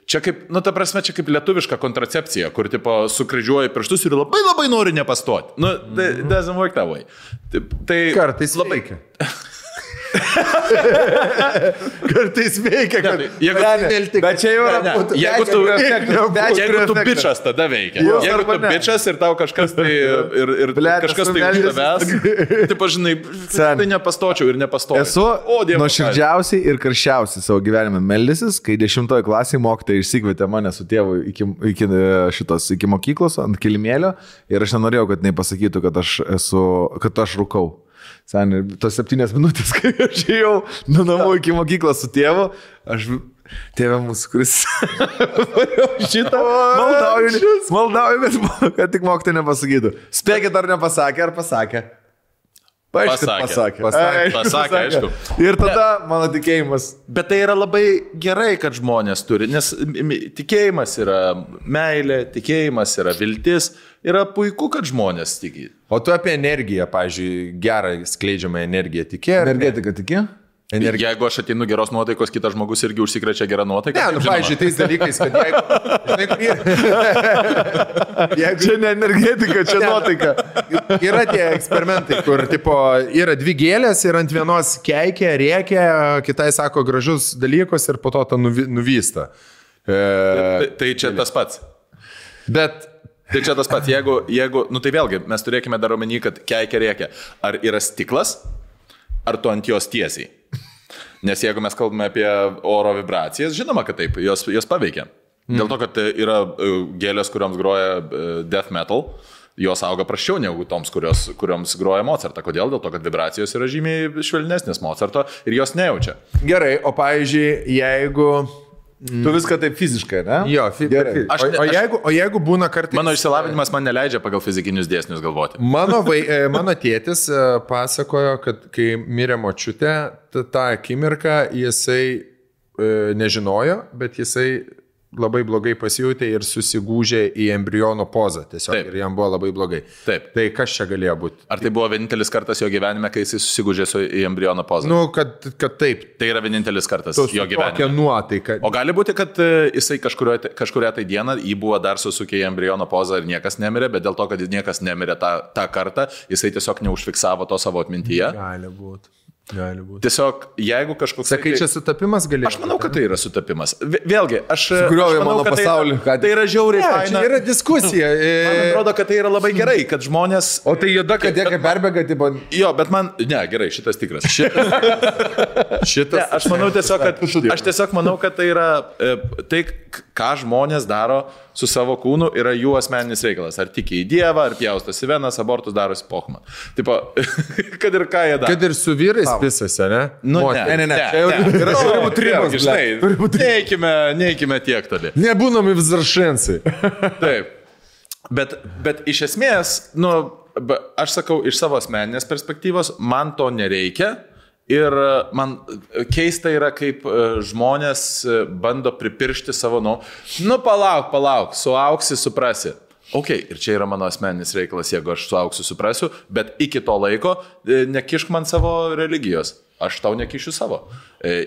Čia kaip, nu, ta prasme, čia kaip lietuviška kontracepcija, kur, tipo, sukryžiuoji pirštus ir labai labai nori nepastoti. Nu, doesn't work that way. Tai kartais labai veikia. Kartais veikia, kad... Bet čia jau yra... Jeigu tu bičas, tada veikia. Jeigu tu bičas ir tau kažkas tai... Ir kažkas tai už tavęs, tipo, žinai, tai nepastočiau ir nepastočiau. Esu nuoširdžiausiai ir karščiausiai savo gyvenime meldysis, kai 10 klasėje mokytojai išsikvietė mane su tėvu iki mokyklos ant kilimėlio ir aš nenorėjau, kad jinai pasakytų, kad aš rūkau. Seniai, tos 7 minutės, kai aš ėjau nuo namų iki mokyklos su tėvu, tėvė mūsų, kuris šitą maldauju, kad tik mokytojai nepasakytų. Spėkit, ar nepasakė, ar pasakė? Pasakė, aišku. Ir tada mano tikėjimas. Bet tai yra labai gerai, kad žmonės turi, nes tikėjimas yra meilė, tikėjimas yra viltis, yra puiku, kad žmonės tiki. O tu apie energiją, pavyzdžiui, gerą skleidžiamą energiją tikė? Energetika tikė? Jeigu aš ateinu geros nuotaikos, kitas žmogus irgi užsikrečia gerą nuotaiką. Ne, nu, pavyzdžiui, tais dalykais, kad jeigu... Čia ne energetika, čia nuotaika. Yra tie eksperimentai, kur, tipo, yra 2 gėlės ir ant vienos keikia, rėkia, kitai sako gražus dalykus ir po to tą nuvysta. Tai čia tas pats. Bet... Tai čia tas pats. Jeigu, nu tai vėlgi, mes turėkime dar omeny, kad keikia, rėkia. Ar yra stiklas, ar tu ant jos tiesiai? Nes jeigu mes kalbame apie oro vibracijas, žinoma, kad taip, jos paveikia. Dėl to, kad yra gėlės, kurioms groja death metal, jos auga prasčiau negu toms, kurioms groja Mozartą. Kodėl? Dėl to, kad vibracijos yra žymiai švelnesnės Mozarto ir jos nejaučia. Gerai, o pavyzdžiui, jeigu... Tu viską taip fiziškai, ne? Jo, gerai. O jeigu būna kartais... Mano išsilavinimas man neleidžia pagal fizikinius dėsnius galvoti. Mano tėtis pasakojo, kad kai mirė močiutė, tą akimirką jisai nežinojo, bet jisai labai blogai pasijutė ir susigūžė į embriono pozą. Tiesiog. Taip. Ir jam buvo labai blogai. Taip. Tai kas čia galėjo būti? Ar tai buvo vienintelis kartas jo gyvenime, kai jis susigūžė į embriono pozą? Nu, kad taip. Tai yra vienintelis kartas jo gyvenime. Tokia nuotaika. O gali būti, kad jisai kažkuria tai dieną jį buvo dar susukė į embriono pozą ir niekas nemirė, bet dėl to, kad niekas nemirė tą kartą, jisai tiesiog neužfiksavo to savo atmintyje. Gali būti. Tiesiog, jeigu kažkoks... Sakai, čia sutapimas galėjo. Aš manau, kad tai yra sutapimas. Vėlgi, aš manau, kad tai yra žiauriai faina. Čia yra diskusija. Man atrodo, kad tai yra labai gerai, kad žmonės... O tai juoda, kad jie kaip perbėga, tipo... Jo, bet man... Ne, gerai, šitas tikras. Šitas... Ne, aš manau kad tai yra... Tai, ką žmonės daro su savo kūnu, yra jų asmeninis reikalas. Ar tiki į Dievą, ar pjaustosi venas, abortus darosi pochma. Tipo, kad ir ką jie daro. Kad ir su vyrais visose, ne? Nu, ne. Yra ribos, žinai. Neikime tiek toli. Nebūnami vzaršensai. Taip. Bet iš esmės, nu, aš sakau, iš savo asmeninės perspektyvos, man to nereikia. Ir man keista yra, kaip žmonės bando pripiršti savo, nu palauk, suauksi, suprasi. Ok, ir čia yra mano asmeninis reikalas, jeigu aš suauksiu, suprasiu, bet iki to laiko nekišk man savo religijos. Aš tau nekišiu savo.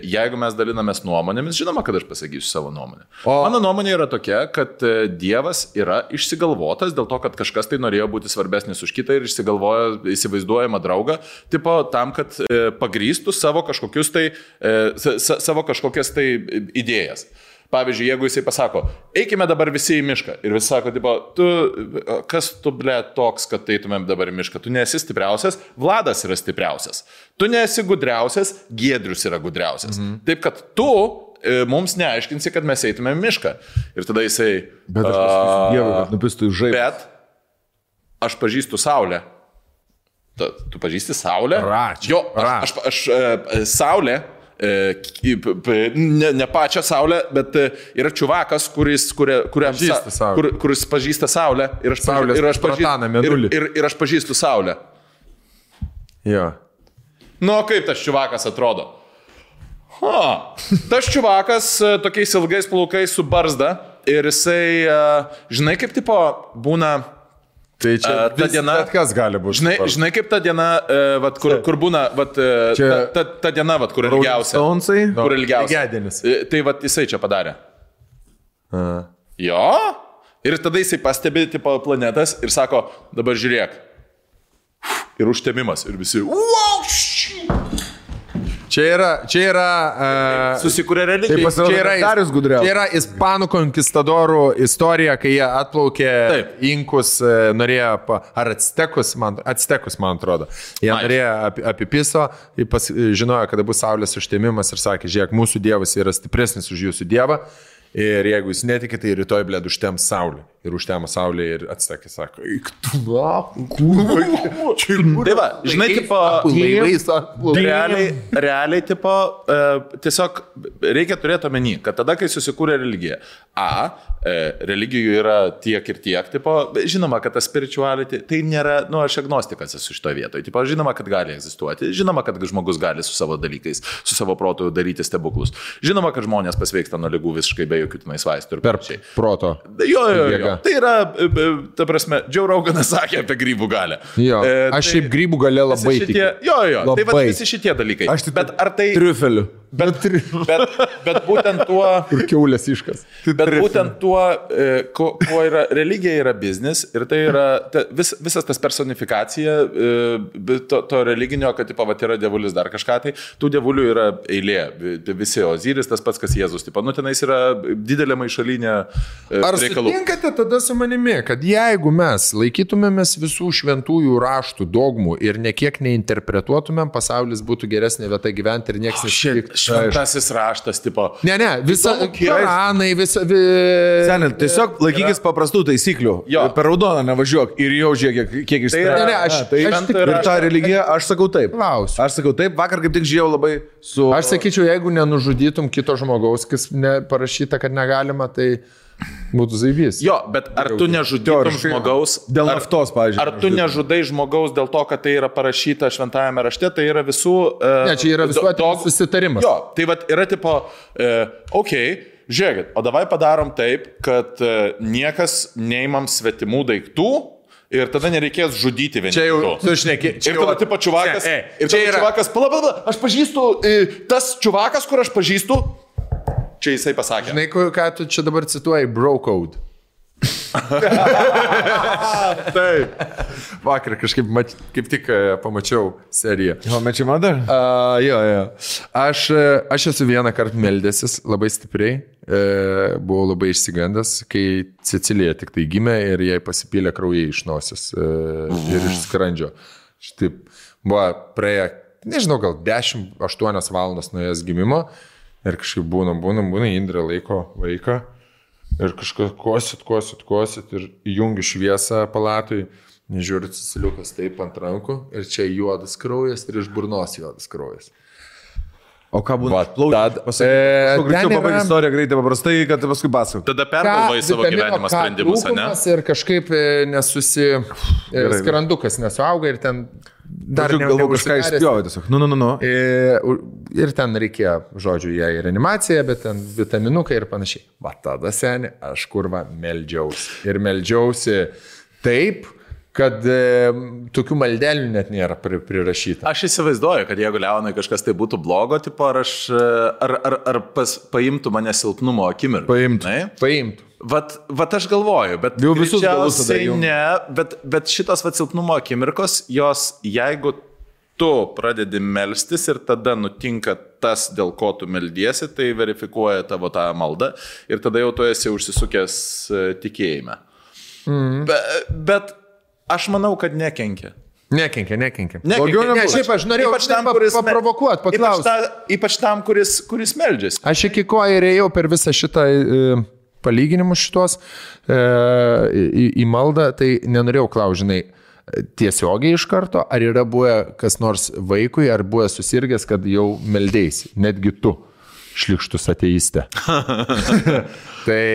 Jeigu mes dalinamės nuomonėmis, žinoma, kad aš pasakysiu savo nuomonę. Mano nuomonė yra tokia, kad Dievas yra išsigalvotas dėl to, kad kažkas tai norėjo būti svarbesnis už kitą ir išsigalvojo įsivaizduojamą draugą, tipo tam, kad pagrįstų savo kažkokias tai idėjas. Pavyzdžiui, jeigu jisai pasako, eikime dabar visi į mišką. Ir visi sako, tipo, kas tu, ble, toks, kad eitumėm dabar į mišką? Tu nesi stipriausias, Vladas yra stipriausias. Tu nesi gudriausias, Giedrius yra gudriausias. Taip, kad tu mums neaiškinsi, kad mes eitumėm į mišką. Ir tada jisai... Bet aš pasakysiu Dievui, kad nupistų į žaibą. Bet aš pažįstu Saulę. Tu pažįsti Saulę? Jo, aš Saulę... ne pačią Saulę, bet yra čiuvakas, kuris pažįsta Saulę ir aš pažįstu Saulę. Jo. Nu, kaip tas čiuvakas atrodo? Tas čiuvakas tokiais ilgais plaukais su barzda ir jisai, žinai, kaip tipo būna Tai čia ta diena, kas gali būti. Žinai kaip ta diena, vat, kur būna, vat, ta diena, vat, kur ilgiausia. Kur ilgiausia. Tai vat, jisai čia padarė. Jo. Ir tada jisai pastebi tipo planetas ir sako, dabar žiūrėk. Ir užtemimas. Ir visi. Čia yra susikūrė religija. Čia yra ispanų konkistadorų istorija, kai jie atplaukė inkus, norėjo, ar actekus, man atrodo. Jie norėjo apipiso, žinojo, kada bus saulės užtemimas ir sakė, žiūrėk, mūsų dievas yra stipresnis už jūsų dievą. Ir jeigu jūs netikite, tai rytoj, blėd, užtem saulė. Ir užtemo saulė ir atsakė, sako, tai va, žinai, tipo, realiai, tipo, tiesiog reikia turėti omeny, kad tada, kai susikūrė religija, religijų yra tiek ir tiek, tipo, žinoma, kad ta spirituality, tai nėra, aš agnostikas esu šitoje vietoje, tipo, žinoma, kad gali egzistuoti, žinoma, kad žmogus gali su savo dalykais, su savo protu daryti stebuklus, žinoma, kad žmonės pasveiksta nuo ligų visiškai be jokių tenais vaistų ir panašiai. Proto. Jo. Tai yra, ta prasme, Joe Roganas sakė apie grybų galę. Jo, aš šiaip grybų galę labai tikiu. Jo, tai va visi šitie dalykai. Bet ar tai... Triufeliu. Bet būtent tuo... Kur kiaulės iškas. Bet būtent tuo, kuo yra religija, yra biznis ir tai yra visas tas personifikacija to religinio, kad tipo, vat, yra dievulis dar kažką, tai tų dievulių yra eilė. Visi Oziris, tas pats, kas Jėzus. Tipo, tenais yra didelė maišalinė reikalų. Ar sutinkate tada su manimi, kad jeigu mes laikytumėmės visų šventųjų raštų, dogmų ir nekiek neinterpretuotumėm, pasaulis būtų geresnė vieta gyventi ir niekas nesitiktų. Šventasis raštas, tipo. Ne, visa Koranai, Senė, tiesiog laikykis paprastų taisyklių. Per raudoną nevažiuok ir jau žiūrėk, kiek išsprendė. Ir tą religiją aš sakau taip. Aš sakau taip, vakar kaip tik žiūrėjau labai su... Aš sakyčiau, jeigu nenužudytum kito žmogaus, kas parašyta, kad negalima, tai... Būtų zaibys. Jo, bet ar tu nežudytum žmogaus... Dėl naftos, pavyzdžiui. Ar tu nežudai žmogaus dėl to, kad tai yra parašyta šventajame rašte, tai yra visų... Ne, čia yra visuotinis susitarimas. Jo, tai vat yra tipo, žiūrėkit, o davai padarom taip, kad niekas neimam svetimų daiktų ir tada nereikės žudyti vieni. Čia jau, tu šneki. Ir tada tipo čuvakas... Ir tada čuvakas, pala, aš pažįstu, tas čuvakas, kur aš pažįstu, čia jisai pasakė. Žinai, ką tu čia dabar cituoji? Bro code. Taip. Vakar kažkaip kaip tik pamačiau seriją. Mečiai man dar? Jo. Aš esu vieną kartą meldęsis labai stipriai. Buvau labai išsigandęs, kai Cecilija tik tai gimė ir jai pasipylė kraujai iš nosies ir iš skrandžio. Štaip buvo praėję, nežinau, gal 10-8 valandas nuo jos gimimo. Ir kažkaip būna, Indrė laiko vaiką ir kažkas kosit ir įjungi šviesą palatui, nežiūri Ceciliukas taip ant rankų ir čia juodas kraujas ir iš burnos juodas kraujas. O ką būna? Greičiau pabaigti istoriją greitai paprastai, kad paskui pasakau. Tada pergalvai savo gyvenimo sprendimus, ne? Ir kažkaip skrandukas nesuauga ir ten... Dar galvoju kažką išspjovė tiesiog. Nu. Ir ten reikėjo, žodžiu, jai reanimacija, bet ten vitaminukai ir panašiai. Va tada, seni, aš kurva meldžiausi. Ir meldžiausi taip, kad tokių maldelių net nėra prirašyta. Aš įsivaizduoju, kad jeigu Leonai kažkas tai būtų blogo, tipo, ar paimtų mane silpnumo akimirką. Paimtų. Vat aš galvoju, bet greičiausiai ne, bet šitos silpnumo akimirkos, jos, jeigu tu pradedi melstis ir tada nutinka tas, dėl ko tu meldiesi, tai verifikuoja tavo tą maldą ir tada jau tu esi užsisukęs tikėjime. Bet aš manau, kad nekenkia. Nekenkia. Šiaip aš norėjau paprovokuoti, paklausti. Ypač tam, kuris meldžiasi. Aš iki ko ir ėjau per visą šitą palyginimus šitos į maldą, tai nenorėjau klaužinai tiesiogiai iš karto, ar yra buvę kas nors vaikui, ar buvę susirgęs, kad jau meldėsi, netgi tu, šlikštus ateistė. Tai...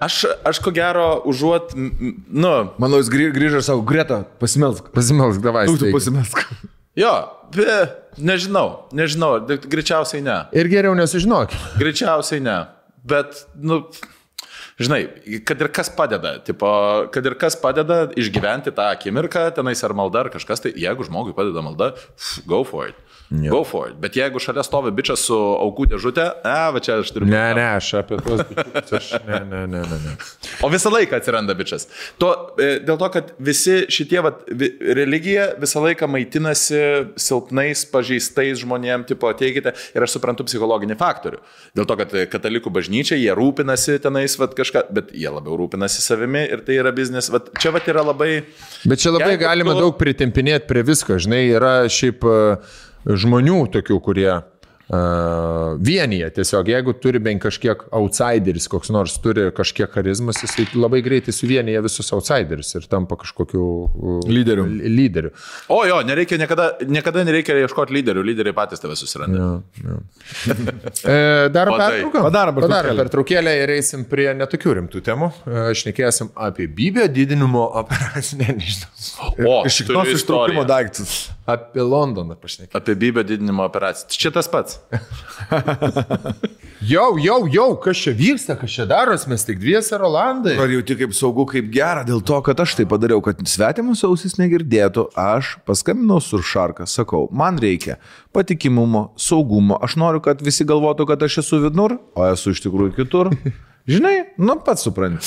Aš ko gero užuot, Manau, jis grįžo ir savo, Greta, pasimelsk. Pasimelsk, davai. Tu pasimelsk. Jo, nežinau, greičiausiai ne. Ir geriau nesužinok. Greičiausiai ne, bet, žinai, kad ir kas padeda išgyventi tą akimirką, tenais ar malda, ar kažkas, tai jeigu žmogui padeda malda, go for it. Go for it. Bet jeigu šalia stovi bičias su aukų dėžutė, va čia aš turiu... Ne, aš apie tuos bičius, ne. O visą laiką atsiranda bičias. Dėl to, kad visi šitie, religija visą laiką maitinasi silpnais, pažeistais žmonėm, tipo, ateikite, ir aš suprantu psichologinį faktorių. Dėl to, kad katalikų bažnyčia, jie rūpinasi tenais, kažką, bet jie labiau rūpinasi savimi ir tai yra biznis. Čia yra labai... Bet čia labai galima daug pritempinėti prie visko, žinai, yra šiaip... žmonių tokių, kurie vienyje tiesiog, jeigu turi bent kažkiek outsideris, koks nors turi kažkiek charizmas, jis labai greitai suvienyje visus outsiderius ir tampa kažkokiu lyderiu. O jo, niekada nereikia ieškoti lyderių, lyderiai patys tave susiranda. Darom pertrauką? Padarom pertraukėlę ir eisim prie netokių rimtų temų. Šnekėsim apie bybio didinimo operaciją, nežinau. O, šitos ištraukimo daiktus. Apie Londoną pašnekėsim. Apie bybio didinimo operaciją. Čia tas pats. Jau, kas čia vyksta, kas čia daros, mes tik dviese Rolandai. Ar jauti kaip saugu, kaip gera, dėl to, kad aš tai padariau, kad svetimus ausis negirdėtų, aš paskambinau Surfsharką, sakau, man reikia patikimumo, saugumo, aš noriu, kad visi galvotų, kad aš esu vidnur, o esu iš tikrųjų kitur. Žinai, pats supranti.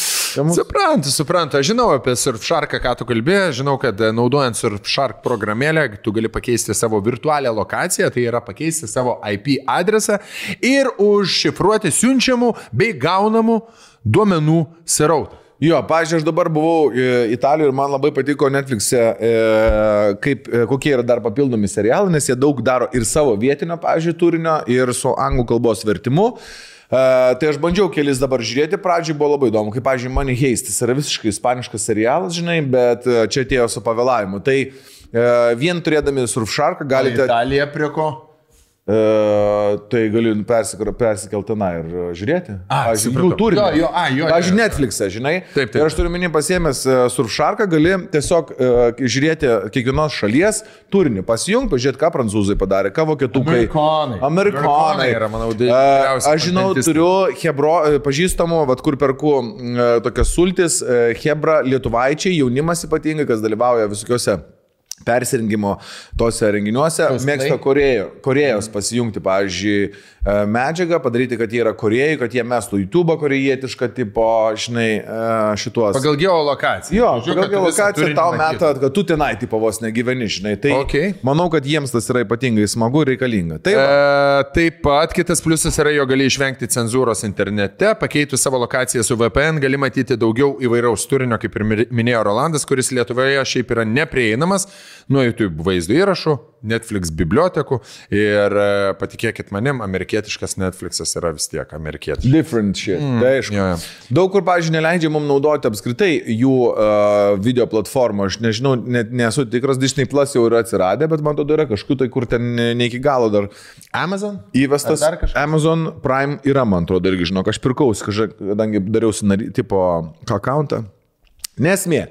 Suprantu. Aš žinau apie Surfsharką, ką tu kalbėjai, žinau, kad naudojant Surfshark programėlę, tu gali pakeisti savo virtualią lokaciją, tai yra pakeisti savo IP adresą ir užšifruoti siunčiamų bei gaunamų duomenų srautą. Jo, pavyzdžiui, aš dabar buvau Italijoje ir man labai patiko Netflix'e, kokie yra dar papildomi serialai, nes jie daug daro ir savo vietinio, pavyzdžiui, turinio, ir su anglų kalbos vertimu. Tai aš bandžiau kelis dabar žiūrėti, pradžiai buvo labai įdomu, kaip, pavyzdžiui, Money Heist, jis yra visiškai ispaniškas serialas, žinai, bet čia atėjo su pavėlavimu. Tai vien turėdami Surfsharką galite... Italija prie ko? Tai galiu persikelti tenai ir žiūrėti. Jų turinį. Pavyzdžiui, Netflix'e, žinai. Taip. Ir aš turiu minį pasiėmęs Surfsharką, gali tiesiog žiūrėti kiekvienos šalies turinį, pasijungti, pažiūrėti, ką prancūzai padarė, ką vokietukai. Amerikonai yra, manau, didžiausias. Aš žinau, turiu pažįstamų, kur perku tokias sultis, hebra lietuvaičiai, jaunimas ypatingai, kas dalyvauja visokiuose persirengimo tose renginiuose, mėgsta Korėjos pasijungti, pavyzdžiui, medžiagą, padaryti, kad jie yra Korėjai, kad jie mestų YouTube korėjietišką tipo, žinai, šituos. Pagal geolokaciją. Jo, pagal geolokaciją tau meta, kad tu tenai tipo vos negyveni, žinai. Tai manau, kad jiems tas yra ypatingai smagu ir reikalinga. Taip pat kitas pliusas yra, jo gali išvengti cenzūros internete, pakeitus savo lokaciją su VPN, gali matyti daugiau įvairaus turinio, kaip ir minėjo Rolandas, kuris Lietuvoje šiaip yra neprieinamas nuo YouTube vaizdo įrašų, Netflix bibliotekų ir patikėkit manim, amerikietiškas Netflixas yra vis tiek amerikietiškas. Different shit. Tai aišku. Daug kur, pavyzdžiui, neleidžia mums naudoti apskritai jų video platformą. Aš nežinau, nesu tikras, Disney Plus jau yra atsiradę, bet man atrodo yra kažkur tai, kur ten ne iki galo dar. Amazon? Įvestas. Amazon Prime yra, man atrodo, irgi žinok, aš pirkausi, kadangi dariausi tipo accountą. Nesmė.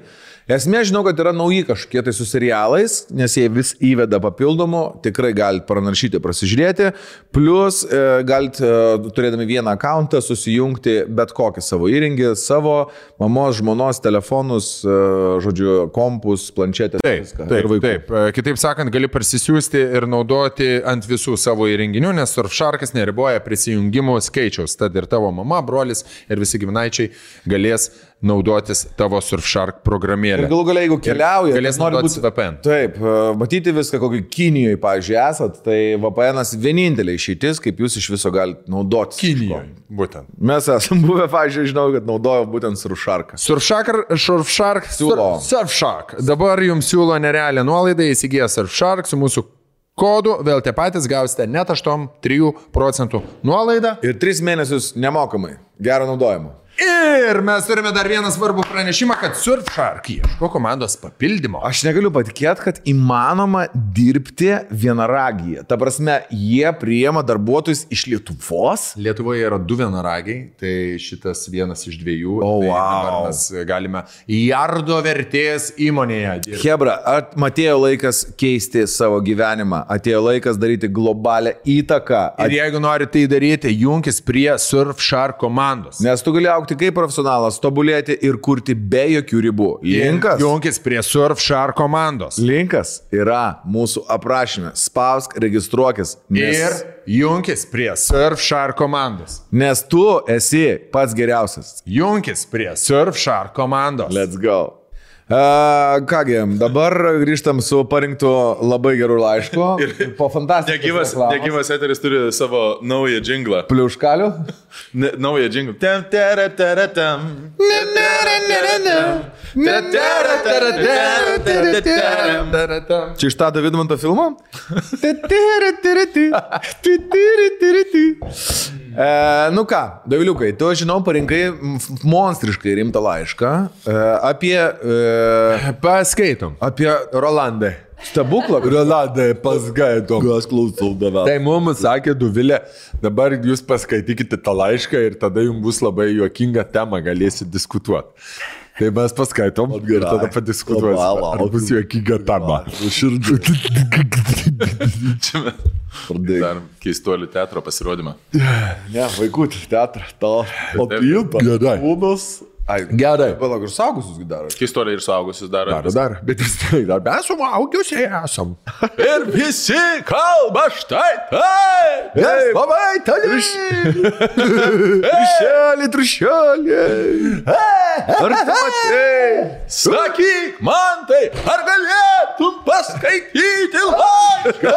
Esmė, žinau, kad yra nauji kažkokie tai su serialais, nes jie vis įveda papildomų, tikrai galite pranaršyti, prasižiūrėti, plus galite, turėdami vieną akauntą, susijungti bet kokį savo įrengį, savo mamos, žmonos, telefonus, žodžiu, kompus, planšetės. Taip. Kitaip sakant, gali parsisiųsti ir naudoti ant visų savo įrenginių, nes Surfsharkas neriboja prisijungimų skaičiaus, tad ir tavo mama, brolis ir visi giminaičiai galės naudotis tavo Surfshark programėlę. Ir galų galia, jeigu keliauja, galės naudotis VPN. Taip, matyti viską, kokį Kinijoje, pavyzdžiui, esat, tai VPN'as vienintelė išeitis, kaip jūs iš viso galite naudotis. Kinijoje, būtent. Mes esam buvę, pavyzdžiui, žinau, kad naudojo būtent Surfsharką. Surfshark. Dabar jums siūlo nerealią nuolaidą, įsigiję Surfshark su mūsų kodu, vėl tie patys gausite net 8-3% nuolaidą. Ir 3 mėnesius nemokamai. Gero naudojimo. Ir mes turime dar vieną svarbų pranešimą, kad Surfshark ieško komandos papildymo. Aš negaliu patikėti, kad įmanoma dirbti vienaragyje. Ta prasme, jie priima darbuotojus iš Lietuvos. Lietuvoje yra 2 vienaragiai, tai šitas vienas iš 2. Dabar mes galime jardo vertės įmonėje dirbti. Hebra, atėjo laikas keisti savo gyvenimą, atėjo laikas daryti globalią įtaką. Ir jeigu nori tai daryti, junkis prie Surfshark komandos. Nes tu gali augti kaip profesionalas, tobulėti ir kurti be jokių ribų. Linkas. Junkis prie Surfshark komandos. Linkas yra mūsų aprašyme. Spausk, registruokis. Ir junkis prie Surfshark komandos. Nes tu esi pats geriausias. Junkis prie Surfshark komandos. Let's go. Kągi, dabar grįžtam su parinktu labai gerų laišku. Ir po fantastikos. Negyvas eteris turi savo naują džinglą. Pliuškalių? Naują džinglą. Čia iš Tado Vidmanto filmo? Nu ką, Doviliukai, tu, žinau, parinkai monstriškai rimtą laišką apie... Paskaitom. Apie Rolandą. Stebuklą? Rolandai, paskaitom. Aš klausau davę. Tai mums sakė Dovilė, dabar jūs paskaitykite tą laišką ir tada jums bus labai juokinga tema, galėsit diskutuoti. Tai mes paskaitom ir tada padiskutuosim. Ar bus juokinga tema. Dar keistuolių teatro pasirodymą. Ne, vaikų teatrą. O pilpa. Gerai. Kūnas. Gerai. Palauk, ir suaugusius daro. Keistuoliai ir suaugusius daro. Dar. Bet vis tai dar mes suaugusiai esam. Ir visi kalba štai tai. Labai tali. Trišelį. Ar tu matei? Sakyk man tai, ar galėtum paskaityti laišką?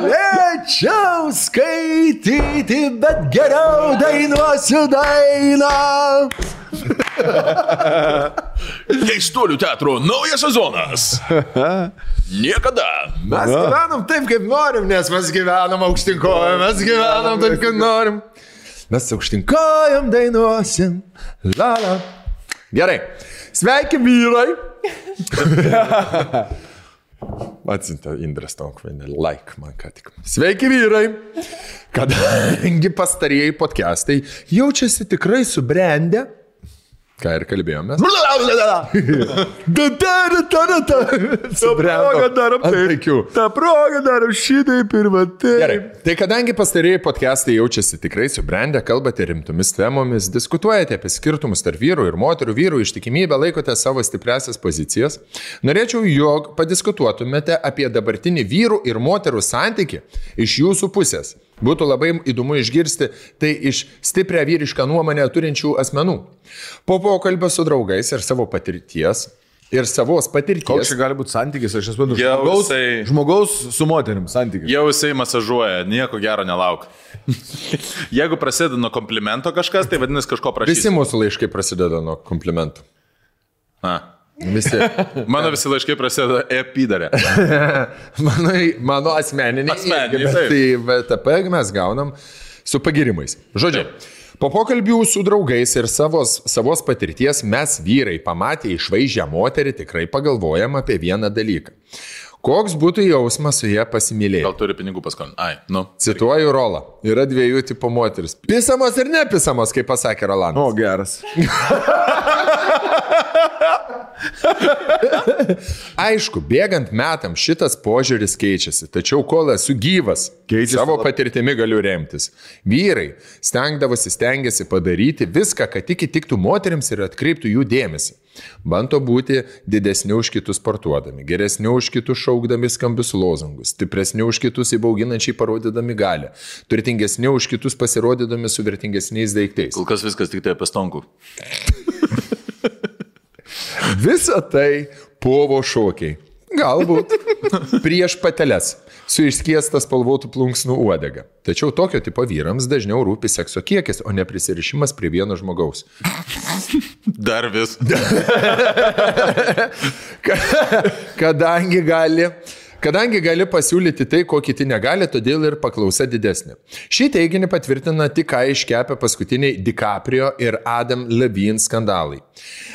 Galėčiau skaityti, bet geriau dainuosiu dainą. Keistuolių teatro naujas sezonas. Niekada. Mes gyvenam taip, kaip norim, nes mes gyvenam aukštinkojom, mes gyvenam taip, kaip norim. Mes aukštinkojom dainuosim. Lala. Gerai. Sveiki, vyrai. Atsinta Indrės Tonkvainė, like man ką tik. Sveiki, vyrai. Kadangi pastarieji podcastai jaučiasi tikrai subrendę, ką ir kalbėjomės. Ta proga darom šitaip ir matai. Gerai, tai kadangi pastarėjai podcastai jaučiasi tikrai subrendę, kalbate rimtomis temomis, diskutuojate apie skirtumus tarp vyrų ir moterų, vyrų ištikimybę, laikote savo stipriasias pozicijas, norėčiau, jog padiskutuotumėte apie dabartinį vyrų ir moterų santykį iš jūsų pusės. Būtų labai įdomu išgirsti tai iš stiprią vyrišką nuomonę turinčių asmenų. Po pokalbio su draugais ir savo patirties. Koks čia gali būti santykis, aš esu žmogaus su moterim santykis. Jau jisai masažuoja, nieko gero nelauk. Jeigu prasideda nuo komplimento kažkas, tai vadinasi kažko prašys. Visi mūsų laiškai prasideda nuo komplimentų. Visi. Mano visi laiškai prasideda epidarė. Mano asmeniniai. Tai VTP mes gaunam su pagirimais. Žodžiu, po pokalbių su draugais ir savos patirties mes vyrai pamatę išvaizdžią moterį tikrai pagalvojam apie vieną dalyką. Koks būtų jausmas su ją pasimylėti? Gal turi pinigų paskolinti? Cituoju Rolą. Yra dviejų tipų moteris. Pisamos ir nepisamos, kaip pasakė Rolandas. O, geras. Aišku, bėgant metam šitas požiūris keičiasi, tačiau kol esu gyvas, savo patirtimi galiu remtis. Vyrai stengiasi padaryti viską, kad tik įtiktų moterims ir atkreiptų jų dėmesį. Bando būti didesni už kitus sportuodami, geresni už kitus šaukdami skambius lozungus, stipresni už kitus įbauginančiai parodydami galią, turtingesni už kitus pasirodydami su vertingesniais daiktais. Kol kas viskas tik tai apie stonkų. Visa tai povo šokiai. Galbūt prieš pateles su išskiestas spalvotų plunksnų uodega. Tačiau tokio tipo vyrams dažniau rūpi sekso kiekis, o ne prisirišimas prie vieno žmogaus. Dar vis. Kadangi gali pasiūlyti tai, ko kiti negali, todėl ir paklausa didesnė. Šį teiginį patvirtina tik ką iškepę paskutiniai DiCaprio ir Adam Levine skandalai.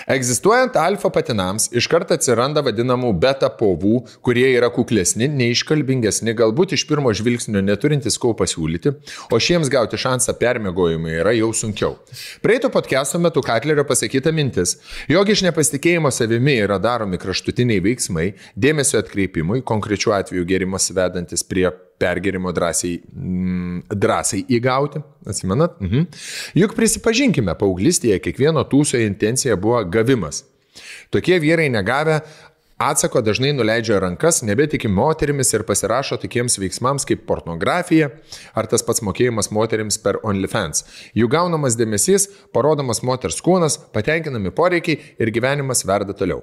Egzistuojant alfa patinams, iškart atsiranda vadinamų beta povų, kurie yra kuklesni, neiškalbingesni, galbūt iš pirmo žvilgsnio neturintys ko pasiūlyti, o šiems gauti šansą permiegojimui yra jau sunkiau. Praeito podcast'o metu Katlerio pasakyta mintis, jog iš nepasitikėjimo savimi yra daromi kraštutiniai veiksmai, dėmesio atkreipimui, konkrečių konkrečiu atveju gėrimas vedantis prie pergėrimo drąsiai įgauti. Atsimenat? Juk prisipažinkime, paauglystėje kiekvieno tūso intencija buvo gavimas. Tokie vyrai negavę atsako dažnai nuleidžia rankas, nebetiki moterimis ir pasirašo tokiems veiksmams kaip pornografija ar tas pats mokėjimas moterims per OnlyFans. Jų gaunamas dėmesys, parodomas moters kūnas, patenkinami poreikiai ir gyvenimas verda toliau.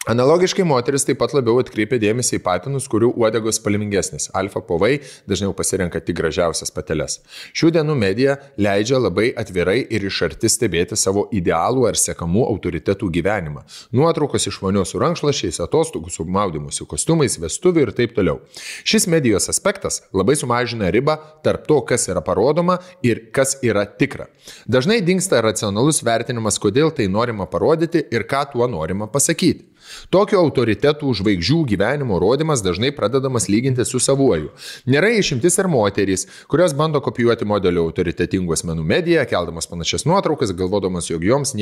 Analogiškai moteris taip pat labiau atkreipia dėmesį į patinus, kurių uodegos spalvingesnis. Alfa povai dažniau pasirenka tik gražiausias pateles. Šių dienų medija leidžia labai atvirai ir iš arti stebėti savo idealų ar sekamų autoritetų gyvenimą. Nuotraukos iš vonios su rankšluosčiais, atostogų su maudymusi kostiumais, vestuvių ir taip toliau. Šis medijos aspektas labai sumažina ribą tarp to, kas yra parodoma ir kas yra tikra. Dažnai dingsta racionalus vertinimas, kodėl tai norima parodyti ir ką tuo norima pasakyti. Tokio autoritetų žvaigždžių gyvenimo rodymas dažnai pradedamas lyginti su savuoju. Nėra išimtis ir moterys, kurios bando kopijuoti modelio autoritetingų asmenų mediją, keldamas panašias nuotraukas, galvodamas, jog jos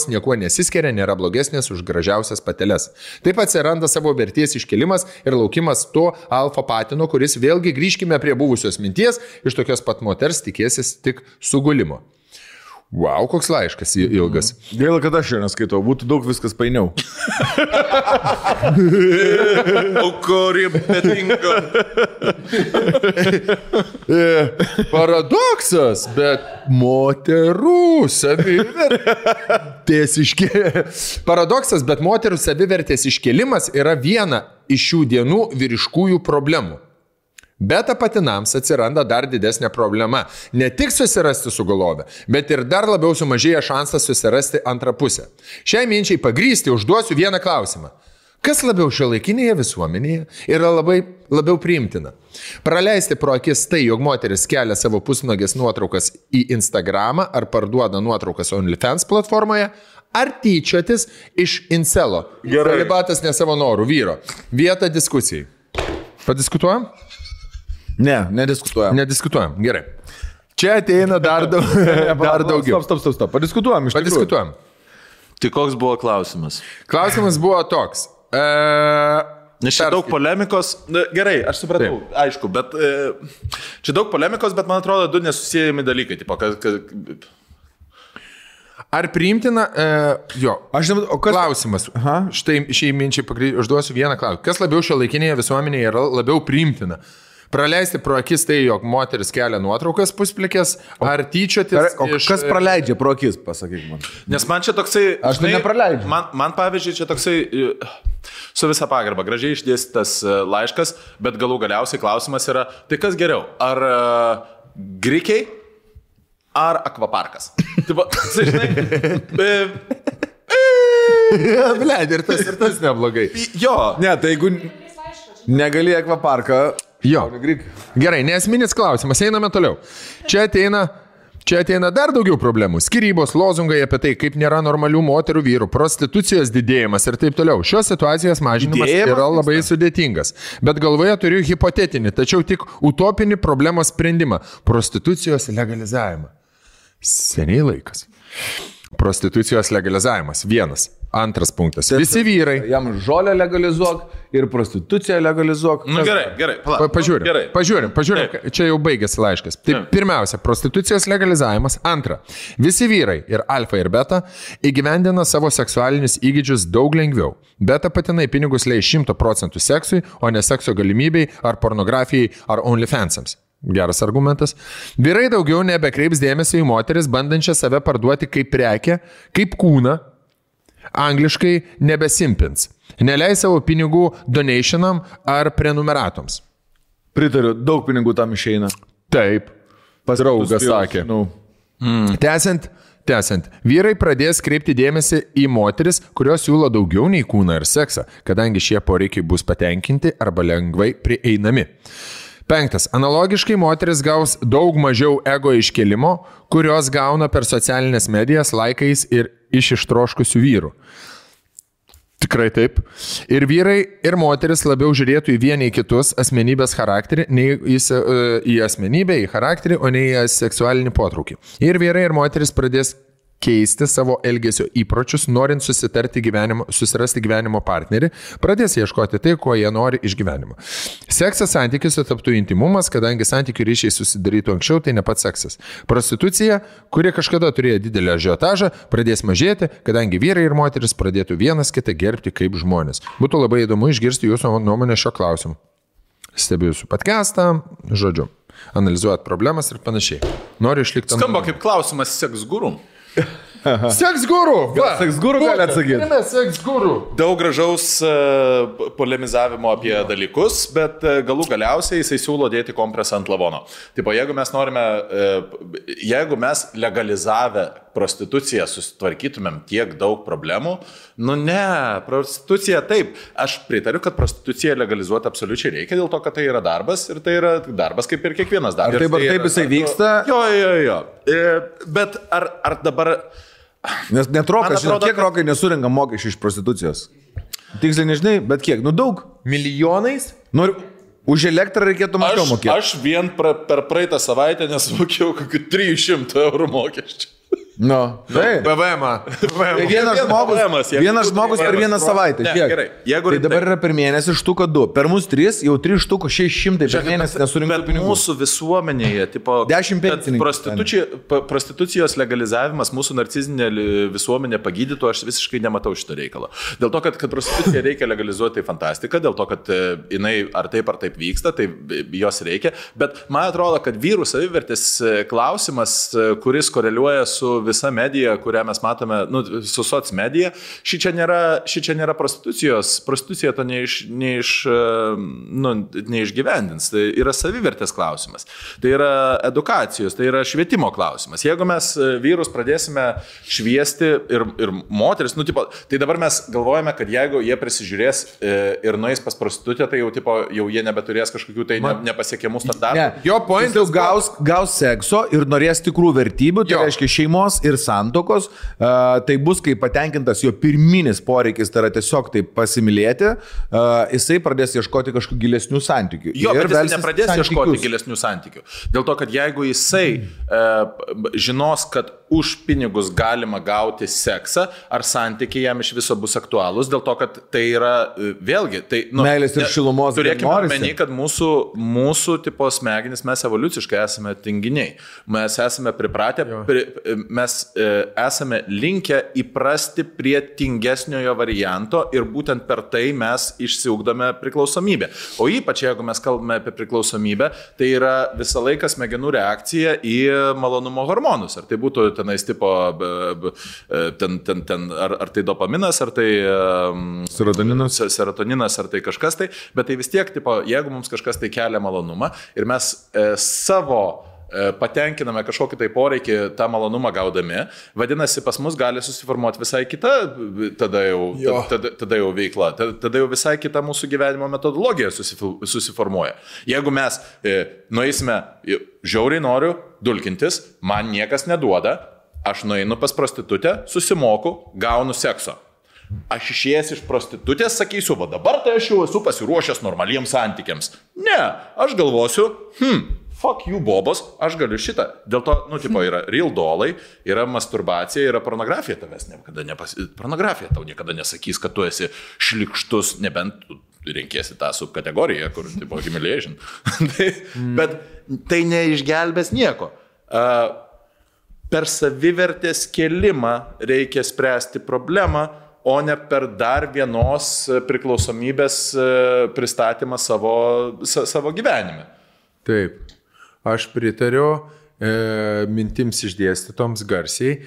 niekuo nesiskiria, nėra blogesnės už gražiausias pateles. Taip atsiranda savo vertės iškelimas ir laukimas to alfa patino, kuris vėlgi grįžkime prie buvusios minties, iš tokios pat moters tikėsis tik sugulimo. Wow, koks laiškas ilgas. Gaila, kad aš jo neskaitau, būtų daug viskas painiau. Aukorė betinga. Paradoksas, bet moterų savivertės Paradoksas, bet moterų savivertės iškėlimas yra viena iš šių dienų vyriškųjų problemų. Beta patinams atsiranda dar didesnė problema. Ne tik susirasti sugulovę, bet ir dar labiau sumažėja šansas susirasti antrą pusę. Šiai minčiai pagrysti užduosiu vieną klausimą. Kas labiau šiuolaikinėje visuomenėje yra labiau priimtina? Praleisti pro akis tai, jog moteris kelia savo pusnogės nuotraukas į Instagramą ar parduoda nuotraukas OnlyFans platformoje, ar tyčiotis iš incelo? Celibatas ne savo norų vyro. Vieta diskusijai. Padiskutuojam? Ne, nediskutuojam. Nediskutuojam, gerai. Čia ateina dar daugiau. Stop. Padiskutuojam iš tikrųjų. Padiskutuojam. Tai koks buvo klausimas? Klausimas buvo toks. Nes čia daug polemikos. Gerai, aš supratau, aišku, bet čia daug polemikos, bet man atrodo du nesusijami dalykai. Tipo, Ar priimtina, klausimas. Štai šiai minčiai užduosiu vieną klausimą. Kas labiau šiuolaikinėje visuomenėje yra labiau priimtina? Praleisti pro akis tai, jog moteris kelia nuotraukas pusplikės, ar tyčiotis kas praleidžia pro akis, pasakyk man. Nes man čia toksai... Aš tai nepraleidžiu. Man pavyzdžiui, čia toksai su visa pagarba, gražiai išdėstytas laiškas, bet galiausiai klausimas yra, tai kas geriau? Ar grikiai, ar akvaparkas? Tipo, žinai... Bled, ir tas neblogai. Jo. Ne, tai jeigu negali akvaparką... Jo. Gerai, nesminis klausimas, einame toliau. Čia ateina dar daugiau problemų. Skyrybos, lozungai apie tai, kaip nėra normalių moterų vyrų, prostitucijos didėjimas ir taip toliau. Šios situacijos mažinimas yra labai sudėtingas. Bet galvoje turiu hipotetinį, tačiau tik utopinį problemos sprendimą – prostitucijos legalizavimą. Seniai laikas. Prostitucijos legalizavimas. Vienas. Antras punktas. Visi vyrai. Jam žolę legalizuok ir prostituciją legalizuok. Nu, gerai. Pažiūrim. Čia jau baigėsi laiškas. Tai pirmiausia, prostitucijos legalizavimas. Antra. Visi vyrai ir alfa ir beta įgyvendina savo seksualinius įgūdžius daug lengviau. Beta patinai pinigus leis 100% seksui, o ne sekso galimybei ar pornografijai ar OnlyFansams. Geras argumentas. Vyrai daugiau nebekreips dėmesio į moteris, bandančią save parduoti kaip prekę, kaip kūną. Angliškai nebesimpins. Neleis savo pinigų donationam ar prenumeratoms. Pritariu, daug pinigų tam išeina. Taip. Draugas sakė. Tęsiant, vyrai pradės kreipti dėmesį į moteris, kurios siūlo daugiau nei kūną ir seksą, kadangi šie poreikiai bus patenkinti arba lengvai prieinami. 5. Analogiškai moteris gaus daug mažiau ego iškelimo, kurios gauna per socialinės medijas, laikais ir iš ištroškusių vyrų. Tikrai taip. Ir vyrai, ir moteris labiau žiūrėtų į vieni į kitus asmenybės charakterį, nei į asmenybę, į charakterį, o ne į seksualinį potraukį. Ir vyrai, ir moteris pradės keisti savo elgesio įpročius, norint susirasti gyvenimo partnerį, pradės ieškoti tai, ko jie nori iš gyvenimo. Seksas santykiuose taptų intimumas, kadangi santykių ryšiai susidarytų anksčiau, tai ne pats seksas. Prostitucija, kuri kažkada turėjo didelį ažiotažą, pradės mažėti, kadangi vyrai ir moteris pradėtų vienas kitą gerbti kaip žmonės. Būtų labai įdomu išgirsti jūsų nuomonę šio klausimu. Stebiu jūsų podcastą, žodžiu, analizuojat problemas ir panašiai. Noriu išlikti... Skamba kaip klausimas seks guru. Seks guru! Seks guru gali atsakyti. Seks guru. Daug gražaus polemizavimo apie dalykus, bet galų galiausiai jisai siūlo dėti kompresą ant lavono. Tipo, jeigu mes legalizavę prostituciją susitvarkytumėm tiek daug problemų, nu ne, prostitucija taip. Aš pritariu, kad prostituciją legalizuoti absoliučiai reikia, dėl to, kad tai yra darbas ir tai yra darbas kaip ir kiekvienas darbas. Ar taip jisai vyksta? Jo. Bet ar dabar... Nes net rokas, kiek rokai nesurinka mokesčių iš prostitucijos? Tiksliai nežinai, bet kiek? Nu daug. Milijonais? Noriu, už elektrą reikėtų mažiau mokėti. Aš vien per praeitą savaitę nesumokėjau kokių 300 eurų mokesčių. No, PVM-ą. Vienas žmogus per vieną savaitę. Ne, gerai. Tai dabar yra per mėnesį štuka 2. Per mus 3, jau 3 štukų 600 per mėnesį nesurinktų pinigų. Bet mūsų visuomenėje, tipo, 10 pensininkų. Prostitucijos legalizavimas mūsų narcizinė visuomenė pagydytų, aš visiškai nematau šito reikalo. Dėl to, kad prostituciją reikia legalizuoti, tai fantastika, dėl to, kad jinai ar taip vyksta, tai jos reikia. Bet man atrodo, kad vyrų savivertės klausimas, kuris koreliuoja su visa medija, kurią mes matome, su soc medija, ši čia nėra prostitucijos. Prostitucija to neišgyvendins. Tai yra savivertės klausimas. Tai yra edukacijos, tai yra švietimo klausimas. Jeigu mes vyrus pradėsime šviesti ir moteris, tai dabar mes galvojame, kad jeigu jie prisižiūrės ir nueis pas prostitutę, tai jau jie nebeturės kažkokių tai nepasiekiamų standartų. Ne. Jo pointas gaus sekso ir norės tikrų vertybių, tai reiškia šeimos ir santokos, tai bus, kai patenkintas jo pirminis poreikis, tai yra tiesiog taip pasimylėti, jisai pradės ieškoti kažkokių gilesnių santykių. Jo, bet jisai nepradės ieškoti gilesnių santykių. Dėl to, kad jeigu jisai žinos, kad už pinigus galima gauti seksą, ar santykiai jam iš viso bus aktualūs, dėl to, kad tai yra vėlgi, tai... Meilės ir šilumos. Turėkime omeny, kad mūsų tipo smegenys, mes evoliuciškai esame tinginiai. Mes esame pripratę, mes esame linkę įprasti prie tingesniojo varianto ir būtent per tai mes išsiugdome priklausomybę. O ypač, jeigu mes kalbame apie priklausomybę, tai yra visą laiką smegenų reakcija į malonumo hormonus. Ar tai būtų tenais tipo, ar tai dopaminas, ar tai serotoninas, ar tai kažkas tai, bet tai vis tiek, tipo, jeigu mums kažkas tai kelia malonumą ir mes savo patenkiname kažkokį tai poreikį tą malonumą gaudami, vadinasi, pas mus gali susiformuoti visai kita tada jau veikla, tada jau visai kita mūsų gyvenimo metodologija susiformuoja. Jeigu mes nueisime, žiauriai noriu dulkintis, man niekas neduoda, aš nueinu pas prostitutę, susimoku, gaunu sekso. Aš išėjęs iš prostitutės sakysiu, va dabar tai aš jau esu pasiruošęs normaliems santykiams. Ne, aš galvosiu, fuck you, bobos, aš galiu šitą. Dėl to, yra real dolai, yra masturbacija, yra pornografija tavęs pornografija tau niekada nesakys, kad tu esi šlikštus, nebent tu renkėsi tą subkategoriją, kur, tipo, humiliation. Bet tai neišgelbės nieko. Per savivertės kėlimą reikia spręsti problemą, o ne per dar vienos priklausomybės pristatymą savo gyvenime. Taip. Aš pritariu mintims išdėstytoms garsiai.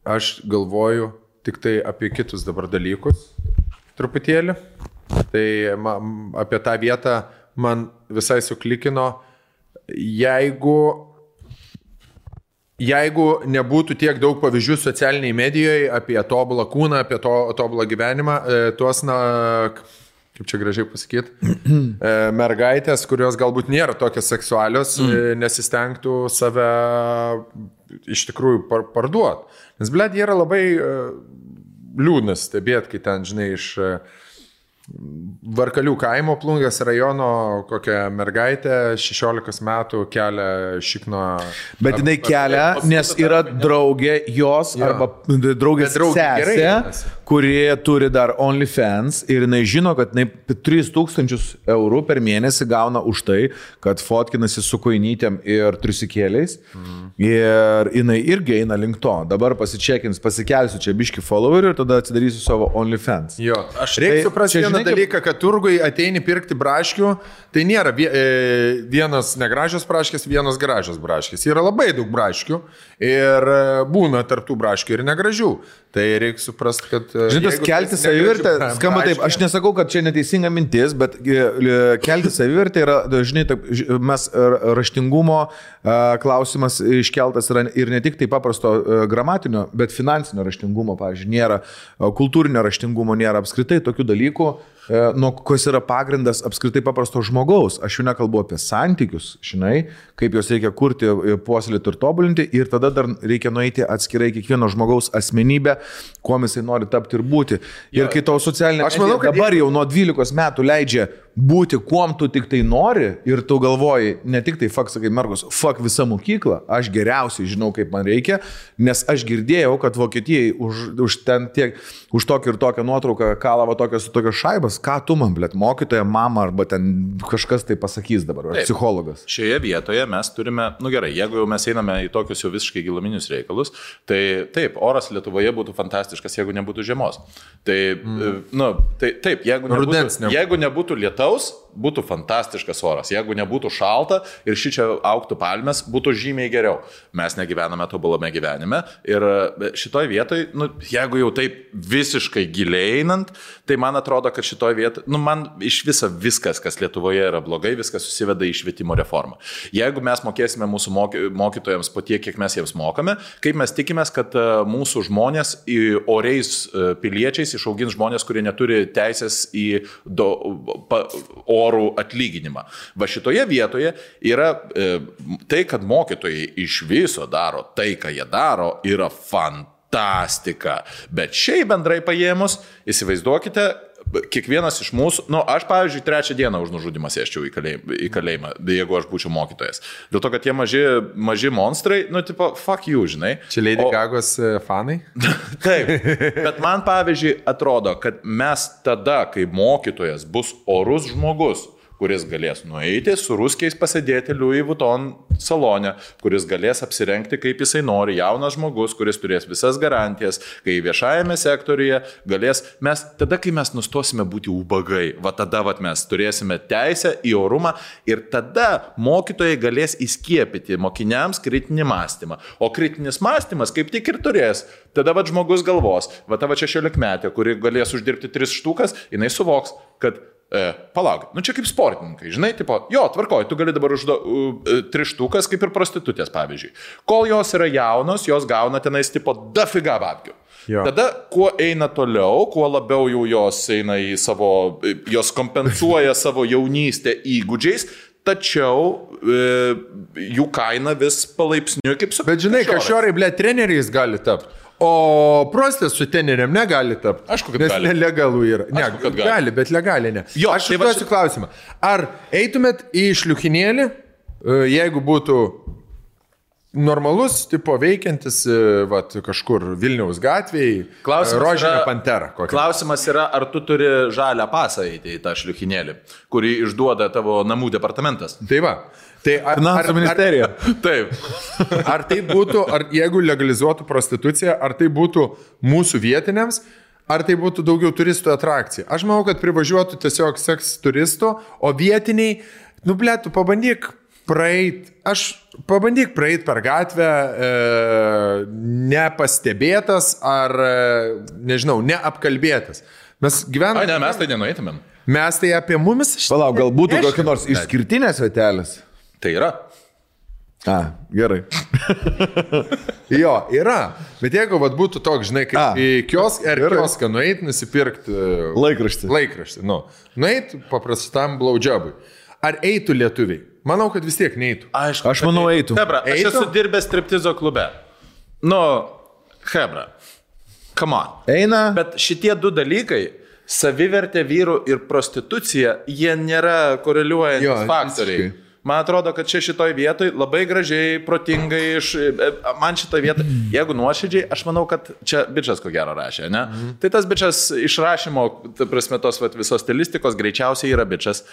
Aš galvoju tik tai apie kitus dabar dalykus truputėlį. Tai apie tą vietą man visai suklikino, jeigu nebūtų tiek daug pavyzdžių socialiniai medijoje apie tobulą kūną, apie tobulą gyvenimą, tuos, kaip čia gražiai pasakyti, mergaitės, kurios galbūt nėra tokios seksualios, nesistengtų save iš tikrųjų parduoti. Nes, blėd, yra labai liūdnas stebėti, kai ten, žinai, Varkalių kaimo Plungės rajono kokią mergaitę 16 metų kelia šikno. Bet jinai kelia, nes yra draugė jos arba draugės sesė, kuri turi dar OnlyFans ir jinai žino, kad jinai 3,000 eurų per mėnesį gauna už tai, kad fotkinasi su koinytėm ir trisikėliais. Ir jinai irgi eina link to. Dabar pasičekins, pasikelsiu čia biški followerių ir tada atsidarysiu savo OnlyFans. Jo, aš reikia suprasti vieną dalyką, kad turgui ateini pirkti braškių, tai nėra vienas negražios braškės, vienas gražios braškės. Yra labai daug braškių ir būna tarptų braškių ir negražių. Tai reikia suprasti, kad... Žinai, kelti savivertę, skamba taip, aš nesakau, kad čia neteisinga mintis, bet kelti savivertę yra, žinai, taip, mes raštingumo klausimas iškeltas yra ir ne tik tai paprasto gramatinio, bet finansinio raštingumo, pavyzdžiui, nėra, kultūrinio raštingumo nėra apskritai tokių dalykų, nuo kas yra pagrindas apskritai paprasto žmogaus. Aš jau nekalbu apie santykius, žinai, kaip juos reikia kurti, puoselėti ir tobulinti ir tada dar reikia nueiti atskirai kiekvieno žmogaus asmenybę, kuo jisai nori tapti ir būti. Ir kai tau socialinė medija dabar jau nuo 12 metų leidžia būti, kuom tu tik tai nori ir tu galvoji, ne tik tai fuck, sakai, mergos, fuck visą mokyklą, aš geriausiai žinau, kaip man reikia, nes aš girdėjau, kad Vokietijai už tokį ir tokią nuotrauką kalavo tokios šaibas, ką tu man, blėt, mokytoja, mama arba ten kažkas tai pasakys dabar, ar psichologas. Šioje vietoje mes turime, gerai, jeigu jau mes einame į tokius jau visiškai giluminius reikalus, tai taip, oras Lietuvoje būtų fantastiškas, jeigu nebūtų žiemos. Tai, taip, jeigu nebūtų lietaus, būtų fantastiškas oras. Jeigu nebūtų šalta ir šičia augtų palmės, būtų žymiai geriau. Mes negyvename tobulame gyvenime ir šitoj vietoj, jeigu jau taip visiškai giliai einant, tai man atrodo, kad šitoj vietoj, man iš viso viskas, kas Lietuvoje yra blogai, viskas susiveda į švietimo reformą. Jeigu mes mokėsime mūsų mokytojams po tiek, kiek mes jiems mokame, kaip mes tikimės, kad mūsų žmonės oriais piliečiais išaugins žmonės, kurie neturi teisės į orų atlyginimą. Va šitoje vietoje yra tai, kad mokytojai iš viso daro tai, ką jie daro, yra fantastika. Bet šiaip bendrai paėmus, įsivaizduokite, kiekvienas iš mūsų, aš pavyzdžiui 3 dieną už nužudimą sėsčiau į kalėjimą, jeigu aš būčiau mokytojas. Dėl to, kad tie maži monstrai, tipo, fuck you, žinai. Čia Lady Gagos fanai? Taip, bet man pavyzdžiui atrodo, kad mes tada, kai mokytojas bus orus žmogus, kuris galės nueiti su ruskiais pasėdėti Louis Vuitton salone, kuris galės apsirengti kaip jisai nori, jaunas žmogus, kuris turės visas garantijas, kai viešajame sektoriuje galės, kai mes nustosime būti ubagai, tada mes turėsime teisę į orumą ir tada mokytojai galės įskiepyti mokiniams kritinį mąstymą. O kritinis mąstymas kaip tik ir turės. Tada žmogus galvos, tavo 16-metė, kuri galės uždirbti 3 štukas, jinai suvoks, kad palauk, čia kaip sportininkai, žinai, tipo, tvarkoj, tu gali dabar 3 štukas kaip ir prostitutės, pavyzdžiui. Kol jos yra jaunos, jos gauna tenais, tipo, dafiga babkių. Tada, kuo eina toliau, kuo labiau jau jos eina į jos kompensuoja savo jaunystę įgūdžiais, tačiau jų kaina vis palaipsniui kaip su... Bet žinai, kažiorai, treneriais gali tapti. O prostės su treneriam negali tapti. Aišku, kad gali. Nes nelegalų yra. Gali, bet legaliai ne. Aš užduosiu klausimą. Ar eitumėt į šliuchinėlį, jeigu būtų normalus, tipo veikiantis, kažkur Vilniaus gatvėje, rožinė pantera? Klausimas yra, ar tu turi žalią pasą eiti į tą šliuchinėlį, kurį išduoda tavo namų departamentas. Tai va. Tai Finansų ministerija. Taip. Ar tai būtų, jeigu legalizuotų prostituciją, ar tai būtų mūsų vietiniams, ar tai būtų daugiau turistų atrakcija? Aš manau, kad privažiuotų tiesiog seks turistų, o vietiniai, tu pabandyk praeit per gatvę nepastebėtas ar, nežinau, neapkalbėtas. Mes gyvename... Ne, mes tai nenueitumėm. Mes tai apie mumis... Palauk, gal būtų kokia nors išskirtinės vietelės? Tai yra. Gerai. Jo, yra. Bet jeigu būtų toks, žinai, kaip į kioską nueit, nusipirkti laikraštį. Nueit paprastam blowjobui. Ar eitų lietuviai? Manau, kad vis tiek neeitų. Aišku, aš manau, eitų. Hebra, aš esu dirbęs striptizo klube. Hebra, come on. Eina. Bet šitie 2 dalykai savivertė vyrų ir prostitucija, jie nėra koreliuojantis faktoriai. Visiškai. Man atrodo, kad čia šitoj vietoj labai gražiai, protingai, man šitoj vietoj, jeigu nuoširdžiai, aš manau, kad čia bičas ko gero rašė, ne? Tai tas bičas išrašymo, ta prasme, tos visos stilistikos greičiausiai yra bičas.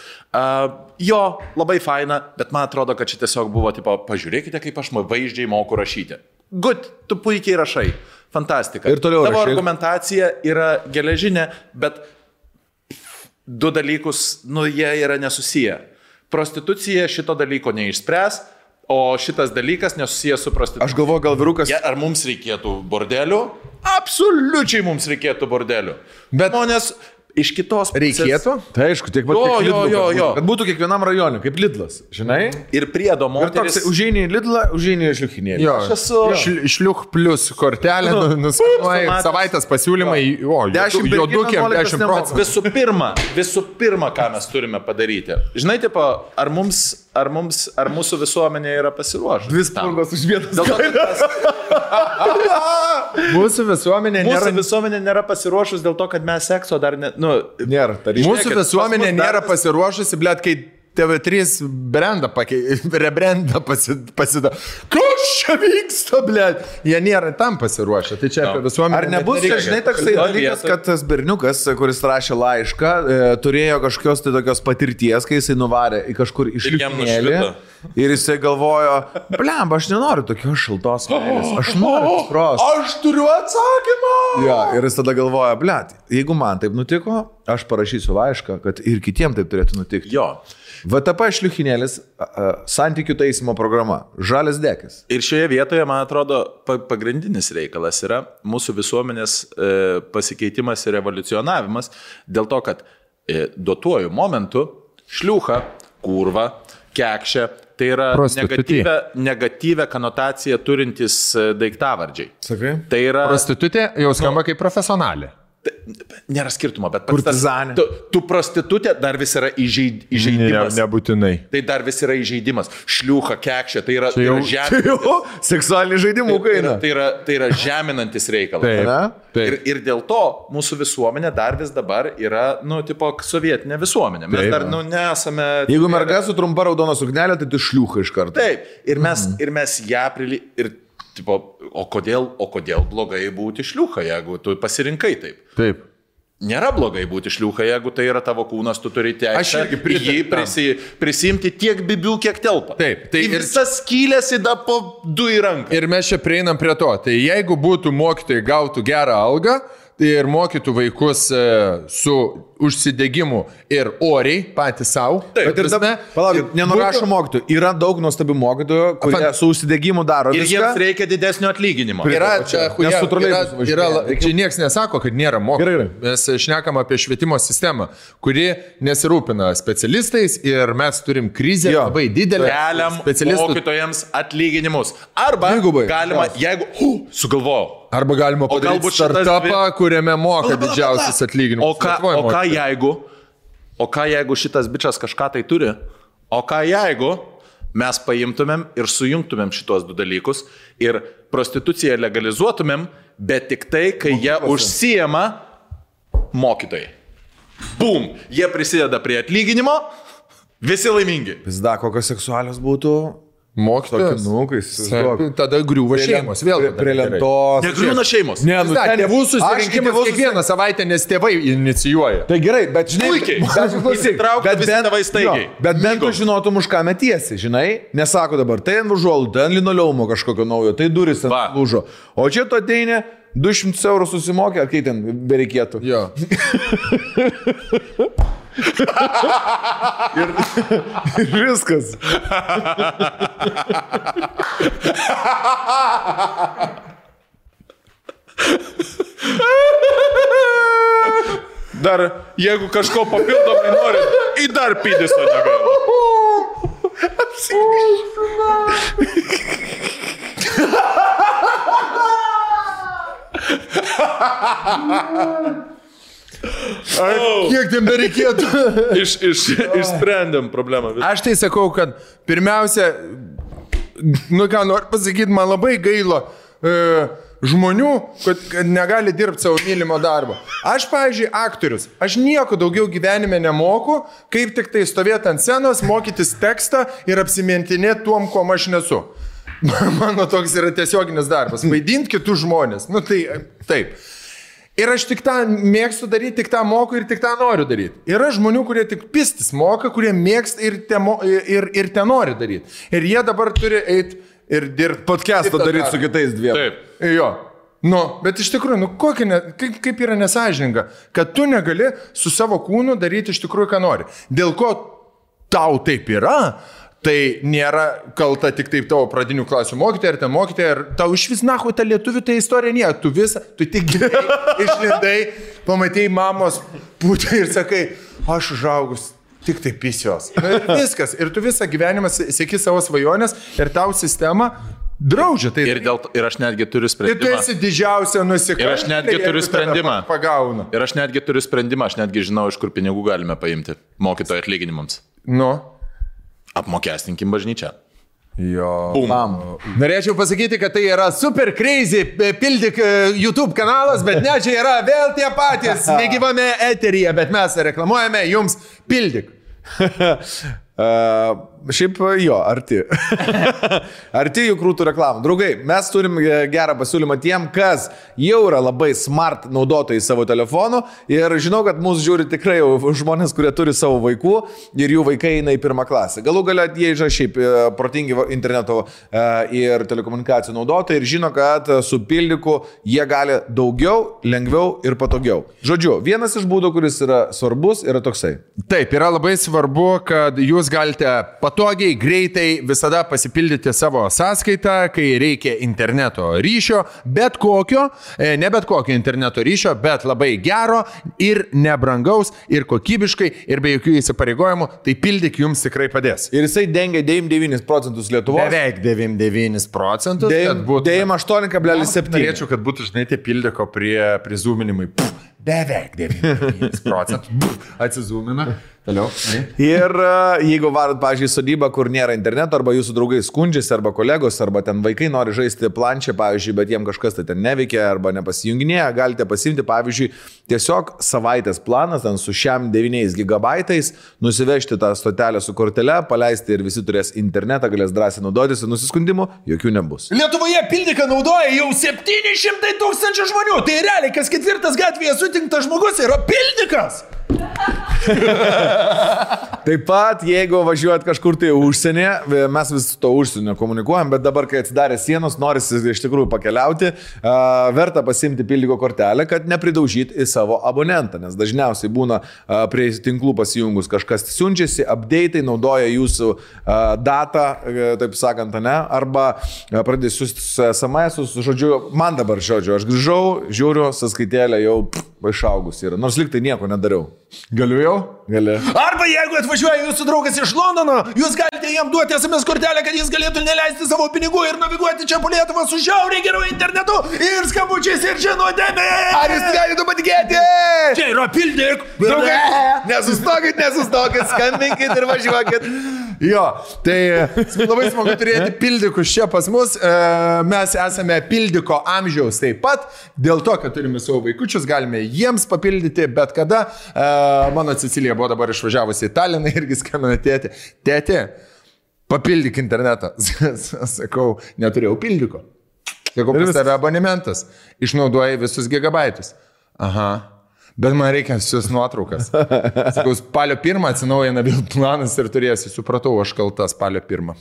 Jo, labai faina, bet man atrodo, kad čia tiesiog buvo, tipo, pažiūrėkite, kaip aš vaizdžiai moku rašyti. Good, tu puikiai rašai. Fantastika. Ir toliau tavo argumentacija yra geležinė, bet du dalykus, jie yra nesusiję. Prostitucija šito dalyko neišspręs, o šitas dalykas nesusijęs su prostitucija. Aš galvoju, gal vyrukas... Ar mums reikėtų bordelių? Absoliučiai mums reikėtų bordelių. Bet žmonės iš kitos pusės... Reikėtų? Tai aišku, tiek pat kiek Lidlas. Kad būtų kiekvienam rajone, kaip Lidlas, žinai? Ir priedo moteris... Ir toks, užeini į Lidlą, užeini į šliuchinėlį. Jo, šliuch plus kortelė, nuskanuoji, savaitės pasiūlymai, juodukiam 10%. Visų pirma, ką mes turime padaryti. Žinai, tipo, ar mūsų visuomenė yra pasiruošusi? Dvi spalvos už vienas kainas. Mūsų visuomenė nėra pasiruošus dėl to, kad mes sekso dar nėra. Mūsų visuomenė nėra pasiruošusi, blėt, kai TV3 rebrendą pasidaro. Kas čia vyksta, blėt? Jie nėra tam pasiruošę. Tai čia apie visuomenę. Ar nebus, žinai, toksai dalykas, kad tas berniukas, kuris rašė laišką, turėjo kažkokios tai tokios patirties, kai jisai nuvarė į kažkur išlikinėlį. Ir jisai galvojo, blemba, aš nenoriu tokios šiltos meilės, aš noriu tikros. Aš turiu atsakymą. Ja, ir jis tada galvoja, blet, jeigu man taip nutiko, aš parašysiu laišką, kad ir kitiem taip turėtų nutikti. Jo. VTP šliuchinėlis, santykių taisymo programa, žalias dekis. Ir šioje vietoje, man atrodo, pagrindinis reikalas yra mūsų visuomenės pasikeitimas ir evoliucionavimas dėl to, kad duotuoju momentu šliucha, kurva, kekšė, tai yra negatyvę konotaciją turintys daiktavardžiai. Sakai? Tai yra... Prostitutė jau skamba kaip profesionalė. Nėra skirtumo, bet tu prostitutė dar vis yra įžeidimas. Nebūtinai. Tai dar vis yra įžeidimas. Šliucha, kekšė, tai yra žeminantis. Seksualiniai žaidimų kaina. Tai yra žeminantis reikalas. Ir dėl to mūsų visuomenė dar vis dabar yra, tipo, sovietinė visuomenė. Mes dar, nesame... Jeigu merga su trumpa raudona suknelė, tai tu šliucha iš karto. Taip. Ir mes ją tipo, o kodėl blogai būti šliucha, jeigu tu pasirinkai taip? Taip. Nėra blogai būti šliucha, jeigu tai yra tavo kūnas, tu turi teisę jį prisimti tiek bibių, kiek telpa. Taip. Tai visas skylės įda po 2 į ranką. Ir mes čia prieinam prie to. Tai jeigu būtų mokytojai gautų gerą algą ir mokytų vaikus su užsidegimu ir oriai patys savo. Bet ir dabar, palaukit, nenurašo mokytojų. Yra daug nuostabių mokytojų, kurie su užsidegimu daro viską. Ir jiems reikia didesnio atlyginimo. Čia nieks nesako, kad nėra mokytojų. Mes šnekam apie švietimo sistemą, kuri nesirūpina specialistais ir mes turim krizę labai didelę. Keliam mokytojams atlyginimus. Arba galima, jeigu sugalvojau. Arba galima padaryti startupą, kuriame moka didžiausias atlyginimus. O ką jeigu šitas bičas kažką tai turi? O ką jeigu mes paimtumėm ir sujungtumėm šitos 2 dalykus ir prostituciją legalizuotumėm, bet tik tai, kai jie užsijama mokytojai. Bum! Jie prisideda prie atlyginimo, visi laimingi. Pizda, kokios seksualios būtų... Mokytojas. Tada griūva šeimos. Vėl prie lentos. Negriūna šeimos. Tėvų susirinkimas kiekvieną savaitę, nes tėvai inicijuoja. Tai gerai, bet žinai... Įsitraukti visi tėvai staigiai. Bet bent tu žinotum, už ką metiesi, žinai? Nesako dabar, tai ant užuolų, tai ant linoleumo kažkokio naujo, tai duris ant lūžo. O čia tu ateini, 200 eurų susimokė, ar kai ten bereikėtų. Jo. ir viskas. Dar, jeigu kažko papildomai nori, į dar pidiso negaila. Kiek ten bereikėtų? Išsprendėm problemą. Aš tai sakau, kad pirmiausia, ką noriu pasakyti, man labai gaila žmonių, kad negali dirbti savo mylimo darbo. Aš, pavyzdžiui, aktorius, aš nieko daugiau gyvenime nemoku, kaip tik tai stovėti ant scenos, mokytis tekstą ir apsimintinėti tuom, kuo aš nesu. Mano toks yra tiesioginis darbas. Vaidinti kitus žmonės. Nu tai taip. Ir aš tik tą mėgstu daryti, tik tą moku ir tik tą noriu daryti. Yra žmonių, kurie tik pistis moka, kurie mėgsta ir te nori daryti. Ir jie dabar turi eiti ir dirbti. Podcast'ą daryti su kitais dviem. Taip. Jo. Nu, bet iš tikrųjų, kaip yra nesažininga, kad tu negali su savo kūnu daryti iš tikrųjų, ką nori. Dėl ko tau taip yra, tai nėra kalta tik taip tavo pradinių klasių mokytoja ir ten mokytoja, ir tau iš vis nahu ta lietuvių tai istorija nėra, tu tik gimei, išlindai, pamatėjai mamos pūtę ir sakai, aš užaugus, tik tai pisios. Viskas, ir tu visą gyvenimą seki savo svajonės ir tau sistema draudžia. Tai ir aš netgi turiu sprendimą. Ir tu esi didžiausia nusikaltėlė. Ir aš netgi turiu sprendimą. Pagauna. Ir aš netgi turiu sprendimą, aš netgi žinau, iš kur pinigų galime paimti mokytojo atlyginimams. Nu. Apmokestinkim bažnyčią. Jo. Bum. Norėčiau pasakyti, kad tai yra super crazy pildyk YouTube kanalas, bet ne, čia yra vėl tie patys negyvame eteryje, bet mes reklamuojame jums pildyk. Šiaip jo, arti. Arti jų krūtų reklamų. Draugai, mes turim gerą pasiūlymą tiem, kas jau yra labai smart naudotojai savo telefonų ir žinau, kad mūsų žiūri tikrai žmonės, kurie turi savo vaikų ir jų vaikai eina į pirmą klasę. Galų galia jie yra šiaip protingi interneto ir telekomunikacijų naudotojai ir žino, kad su pildyku jie gali daugiau, lengviau ir patogiau. Žodžiu, vienas iš būdų, kuris yra svarbus, yra toksai. Taip, yra labai svarbu, kad jūs galite patogiai, greitai visada pasipildyti savo sąskaitą, kai reikia interneto ryšio, bet kokio, ne bet kokio interneto ryšio, bet labai gero ir nebrangaus ir kokybiškai ir be jokių įsipareigojimų, tai pildyk jums tikrai padės. Ir jisai dengia 99% Lietuvos. Beveik 99%. 98,7. Norėčiau, kad būtų, žinai, tie pildyko prizūminimai. Beveik 99%. Atsizūmina. Toliau. Ir jeigu varat, pavyzdžiui, sodybą, kur nėra interneto, arba jūsų draugai skundžiasi, arba kolegos, arba ten vaikai nori žaisti planšę, pavyzdžiui, bet jiem kažkas tai ten neveikia, arba nepasijunginėja, galite pasimti, pavyzdžiui, tiesiog savaitės planas, ten su šiam 9 gigabaitais, nusivežti tą stotelę su kortele, paleisti ir visi turės internetą, galės drąsiai naudotis ir nusiskundimų jokių nebus. Lietuvoje pildyką naudoja jau 700 000 žmonių, tai realiai kas ketvirtas gatvėje sutinktas žmogus yra pildykas. Taip pat, jeigu važiuojat kažkur tai užsienį, mes vis to užsienio komunikuojam, bet dabar, kai atsidarė sienos, norisi iš tikrųjų pakeliauti, verta pasimti pildyko kortelę, kad nepridaužyti į savo abonentą, nes dažniausiai būna prie tinklų pasijungus kažkas siunčiasi, update'ai naudoja jūsų datą, taip sakant, ne, arba pradėsiu SMS-us, žodžiu, man dabar žodžiu, aš grįžau, žiūriu, sąskaitėlė jau išaugus yra, nors liktai nieko nedariau. Galiu jau? Gali. Arba jeigu atvažiuoja jūsų draugas iš Londono, jūs galite jam duoti SMS kortelę, kad jis galėtų neleisti savo pinigų ir naviguoti čia po Lietuvą su žiauriai geru internetu ir skambučiais ir žinutėmis. Ar jūs galite patikėti? Čia yra pildyk. Draugai, nesustokit, skambinkit ir važiuokit. Jo, tai labai smagu turėti pildykus čia pas mus. Mes esame pildyko amžiaus taip pat, dėl to, kad turime savo vaikučius, galime jiems papildyti bet kada. Mano Cecilija buvo dabar išvažiavusi į Taliną irgi skambina tėtė. Tėtė, papildyk internetą. Sakau, neturėjau pildyko. Sakau, pas tave abonementas. Išnaudoji visus gigabaitus. Aha. Bet man reikia visus nuotraukas. Sakau, spalio 1 atsinaujina vėl planas ir turėsi. Supratau, aš kalta spalio 1.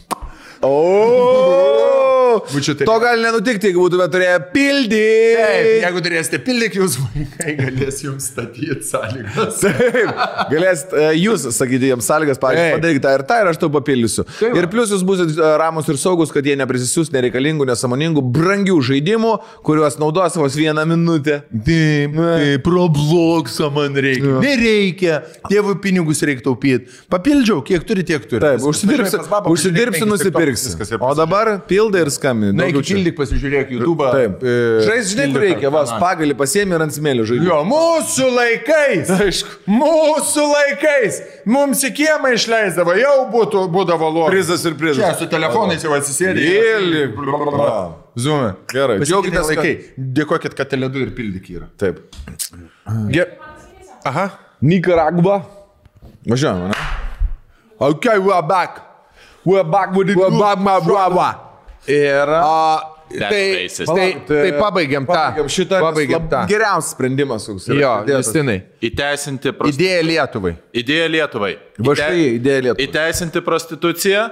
To gali nenutikti, jeigu būtume turėję pildyti. Taip, jeigu turėsite pildyti, jūs vaikai galės jums statyti sąlygas. Taip, galėsit jūs sakyti jiems sąlygas, pavyzdžiui, padaryk tą ir aš tau papildysiu. Taip. Ir plus jūs būsit ramus ir saugus, kad jie neprisisiūs nereikalingų, nesąmoningų, brangių žaidimų, kuriuos naudos vos 1 minutę. Taip, Robloxą man reikia. Nereikia, tėvų pinigus reikia taupyti. Papildžiau, kiek turi, tiek turi. Taip, užsidirbsi, nusipirksi. O dabar pildai ir skambinai. žaidžiam. Na, pildyk, pasižiūrėk YouTube. Taip. Žinai, kur reikia, pagalį pasiemi ir ant smėlio žaidži. Jo, mūsų laikais. Aišku. Mūsų laikais. Mums į kiemą išleisdavo, jau būdavo logas. Prizas ir prizas. Čia su telefonais jau atsisėdė. Zoom'e. Gerai. Pasidžiaugite laikai. Dėkokit, kad Tele2 ir pildyk yra. Taip. Aha. Nicaragua. Važiuojame, ne? Okay, we're back. We're back with it. We're back, my brother. Ir... Tai pabaigiam tą. Pabaigiam tą. Geriausias sprendimas. Jo, Justinai. Įteisinti Idėja Lietuvai. Idėja Lietuvai. Idėja Lietuvai. Įteisinti prostituciją,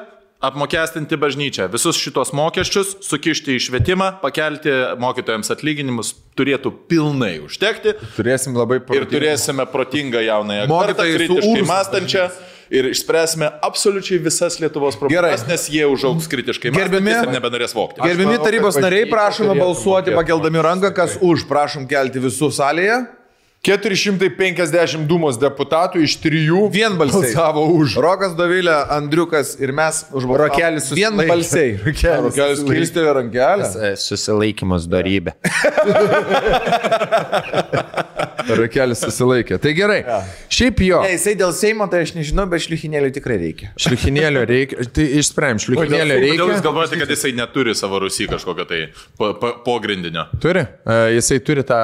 apmokestinti bažnyčią. Visus šitos mokesčius sukišti į švietimą, pakelti mokytojams atlyginimus turėtų pilnai užtekti. Turėsim labai ir turėsime protingą jaunąją kartą, kritiškai mąstančią. Ir išspręsime absoliučiai visas Lietuvos problemas, nes jie užaugs kritiškai mąstantis ir nebenorės vokti. Gerbimi tarybos nariai, prašome balsuoti pakeldami ranką, kas už. Prašom kelti visų salėje. 450 Dūmos deputatų iš 3 vienbalsiai balsavo už. Rokas, Dovilė, Andriukas ir mes už balsavimą. Rokelis vienbalsiai. Rokelis kilstelė rankelę. Susilaikymas darybė. Rokelis susilaikė. Tai gerai. Ja. Šiaip jo. Ne, jisai dėl Seimo, tai aš nežinau, bet šliuchinėlių tikrai reikia. Šliuchinėlių reikia. Tai išsprendžiam. Šliuchinėlių reikia. Kodėl jūs galvojate, kad jisai neturi savo Rusy kažkokio tai pogrindinio? Turi. Jisai turi tą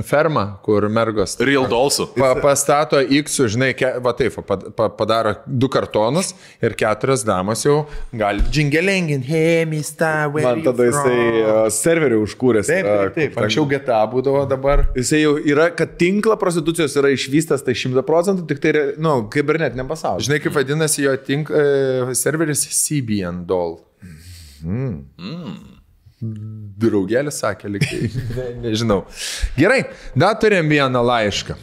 fermą, kur mergos Real Dollsų. Pastato X, žinai, va taip, padaro 2 kartonus ir 4 damos jau gali džingelengin, hey, mister, where man tada jisai serverį užkūręs. Taip. Anksčiau GTA būdavo dabar. Jisai jau yra, kad tinklą prostitucijos yra išvystas, tai 100%, tik tai, kibernetiniam pasaulyje. Žinai, kaip vadinasi jo serveris CBN Doll. Draugelis sakė, lygiai. Nežinau. Gerai, dar turim vieną laišką.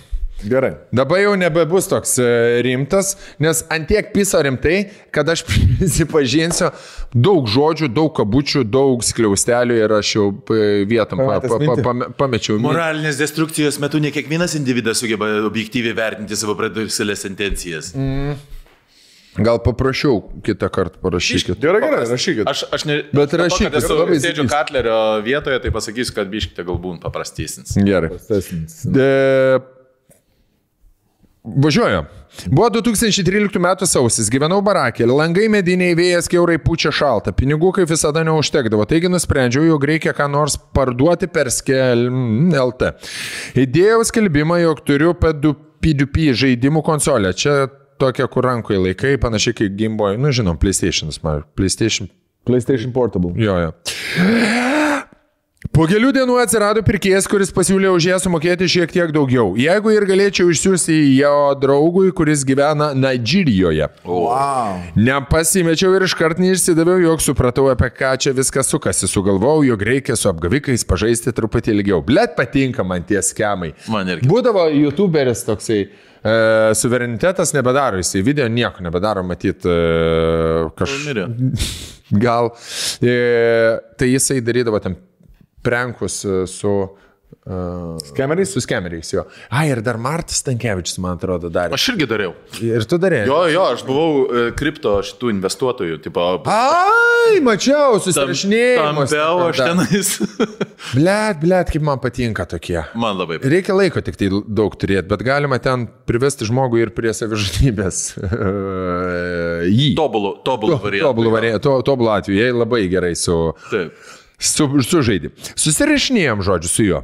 Gerai. Dabar jau nebebus toks rimtas, nes antiek piso rimtai, kad aš prisipažinsiu, daug žodžių, daug kabučių, daug skliaustelių ir aš jau vietom pamečiau. Moralinės destrukcijos metu ne kiekvienas individas sugeba objektyviai vertinti savo pradėjusias intencijas. Gal paprašiau kitą kartą parašykit. Gerai, rašykit. Aš ne... Bet rašykit. Aš sėdžiu Katlerio vietoje, tai pasakysiu, kad biškite galbūt paprastesnis. Gerai. Važiuoju. Buvo 2013 metų sausis, gyvenau barakė, langai mediniai, vėjas kiaurai pučia šalta, pinigų kaip visada neužtekdavo, taigi nusprendžiau, jog reikia ką nors parduoti per LT. Įdėjau skelbimą, jog turiu P2P žaidimų konsolę. Čia tokia, kur rankoje laikai, panašiai kaip Game Boy, žinom, PlayStation Portable. Jo. Po kelių dienų atsirado pirkėjas, kuris pasiūlė už ją sumokėti šiek tiek daugiau. Jeigu ir galėčiau išsiųsti jo draugui, kuris gyvena Nigeриjoje. Wow. Nepasimečiau ir iškart neišsidaviau, jog supratau, apie ką čia viskas sukasi. Sugalvojau, jog reikia su apgavikais pažaisti truputį ilgiau. Blet, patinka man tie skemai. Būdavo YouTuberis toksai, suverenitetas nebedaro, jisai video nieko nebedaro, matyt, gal. Tai jisai darydavo tam prankus su skemeriais? Su skemeriais, jo. Ir dar Martas Stankevičius, man atrodo, darė. Aš irgi dariau. Ir tu darėjai? Jo, aš buvau kripto šitų investuotojų. Tipo, mačiau, susirašinėjimus. Tampiau aš tenais. Blet, kaip man patinka tokie. Man labai. Reikia laiko tik tai daug turėti, bet galima ten privesti žmogų ir prie savižudybės. Tobulų variantų. Tobulų atveju, jie labai gerai sužaidė. Susirašinėjom žodžiu su juo.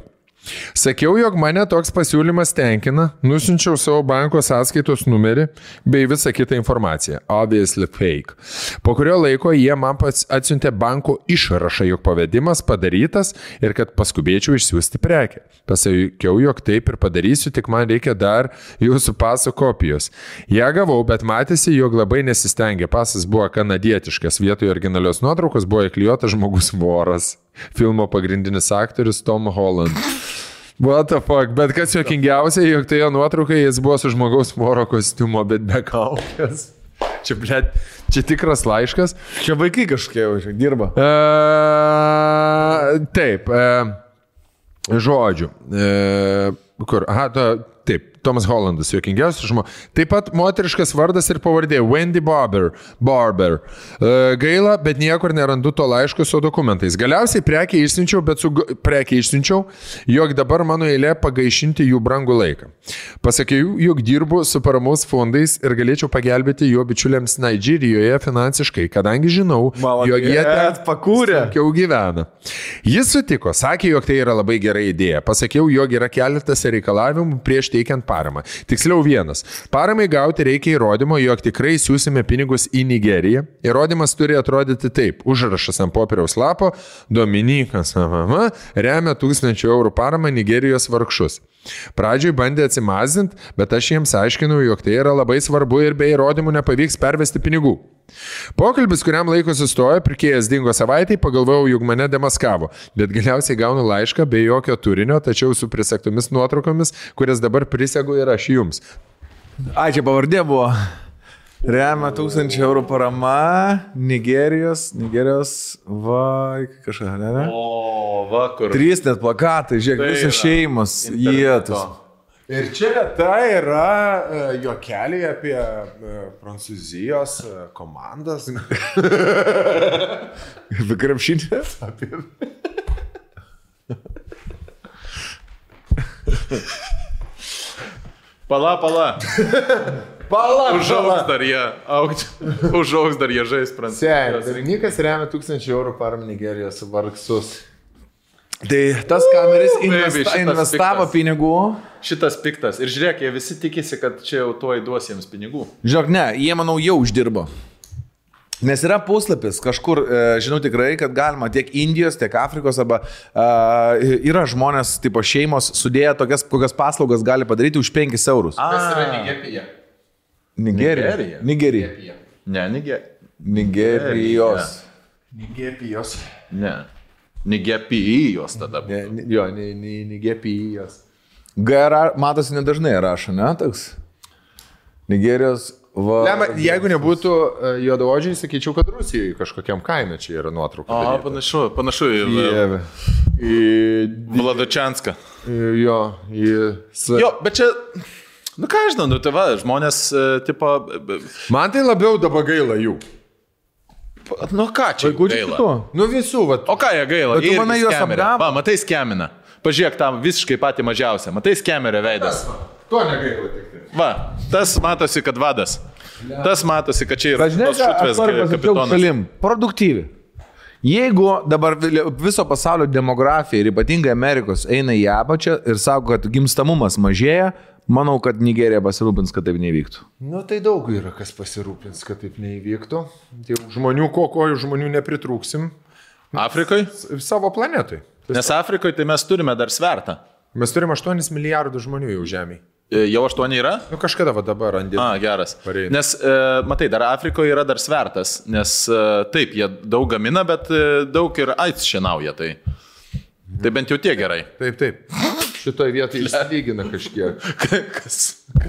Sakiau, jog mane toks pasiūlymas tenkina, nusinčiau savo banko sąskaitos numerį bei visą kitą informaciją. Obviously fake. Po kurio laiko jie man atsiuntė banko išrašą, jog pavedimas padarytas ir kad paskubėčiau išsiųsti prekę. Pasakiau, jog taip ir padarysiu, tik man reikia dar jūsų paso kopijos. Ja gavau, bet matėsi, jog labai nesistengė. Pasas buvo kanadietiškas, vietoje originalios nuotraukos buvo įklijuotas žmogus voras. Filmo pagrindinis aktorius Tom Holland. What the fuck, bet kas juokingiausia, jog tai jo nuotraukai jis buvo su žmogaus voro kostiumo, bet be kaukės. Čia tikras laiškas. Čia vaikai kažkokie dirba. Taip, žodžiu. Kur? Taip, Tomas Hollandas, juokingiausias žmogus. Taip pat moteriškas vardas ir pavardė Wendy Barber. Gaila, bet niekur nerandu to laiško su dokumentais. Galiausiai prekiai išsiunčiau, jog dabar mano eilė pagaišinti jų brangų laiką. Pasakiau, jog dirbu su paramos fondais ir galėčiau pagelbėti jo bičiuliams Nigeриjoje finansiškai, kadangi žinau, jog jie ten sunkiau gyvena. Jis sutiko, sakė, jog tai yra labai gera idėja. Pasakiau, jog yra keletas reikalavimų prieš teikiant paramą. Tiksliau vienas. Paramai gauti reikia įrodymo, jog tikrai siūsime pinigus į Nigeriją. Įrodymas turi atrodyti taip. Užrašas ant popieriaus lapo. Dominikas remia 1000 eurų paramą Nigerijos vargšus. Pradžioj bandė atsimazinti, bet aš jiems aiškinau, jog tai yra labai svarbu ir be įrodymų nepavyks pervesti pinigų. Pokalbis, kuriam laiko sustojo, pirkėjas dingo savaitai, pagalvojau, jog mane demaskavo, bet galiausiai gaunu laišką be jokio turinio, tačiau su prisegtomis nuotraukomis, kurias dabar prisegu ir aš jums. Čia pavardė buvo. Remia 1000 eurų parama, Nigerijos, kažką, ne? O, vakur. 3 net plakatai, žiūrėk, visos šeimos, jėtus. Ir čia tai yra juokeliai apie Prancūzijos komandas. Apie krepšinį? Pala. Užaugs dar jie žais Prancūzijos. Berniukas remia 1000 eurų paramą Nigerijos vargšus. Tai tas kameris investavo pinigų. Šitas piktas. Ir žiūrėk, jie visi tikisi, kad čia jau tuoj duos jiems pinigų. Žiūrėk, ne, jie, manau, jau uždirbo. Nes yra puslapis kažkur, žinau tikrai, kad galima tiek Indijos, tiek Afrikos, arba yra žmonės, tipo šeimos, sudėję tokias, kokias paslaugas gali padaryti už 5 eurus. Kas yra Nigerija? Nigerija. Ne, Nigerijos. Ne. Nigepijos tada. Jo, Nigepijos. Matosi nedažnai rašo, ne, toks? Nigerijos Jeigu nebūtų juodaodžiai, sakyčiau, kad Rusijoje kažkokiam kaime čia yra nuotrauka. Panašu į Vladačianską. Jo, bet čia, ką aš žinau, tai va, žmonės, tipo... Man tai labiau dabar gaila jų. Ką čia gaila? Visų, va. O ką jie gaila? Tu manai juos apgavo? Va, matai skemina. Pažiūrėk tam visiškai patį mažiausią. Matai skemerio veidas. To negaila tik tai. Va, tas matosi, kad vadas. Tas matosi, kad čia yra šutvės kapitonas. Produktyvi. Jeigu dabar viso pasaulio demografija ir ypatingai Amerikos eina į apačią ir sako, kad gimstamumas mažėja, manau, kad Nigerija pasirūpins, kad taip neįvyktų. Tai daug yra, kas pasirūpins, kad taip neįvyktų. Žmonių, ko žmonių nepritrūksim. Afrikai? Savo planetai. Nes Afrikoje tai mes turime dar svertą. Mes turime 8 milijardų žmonių jau žemėje. Jau 8 yra? Kažkada va dabar randė. Geras. Nes, matai, dar Afrikoje yra dar svertas, nes taip, jie daug gamina, bet daug ir AIDS šienauja, tai bent jau tiek gerai. Taip. Šitoje vietoje išsilygina kažkiek. Kas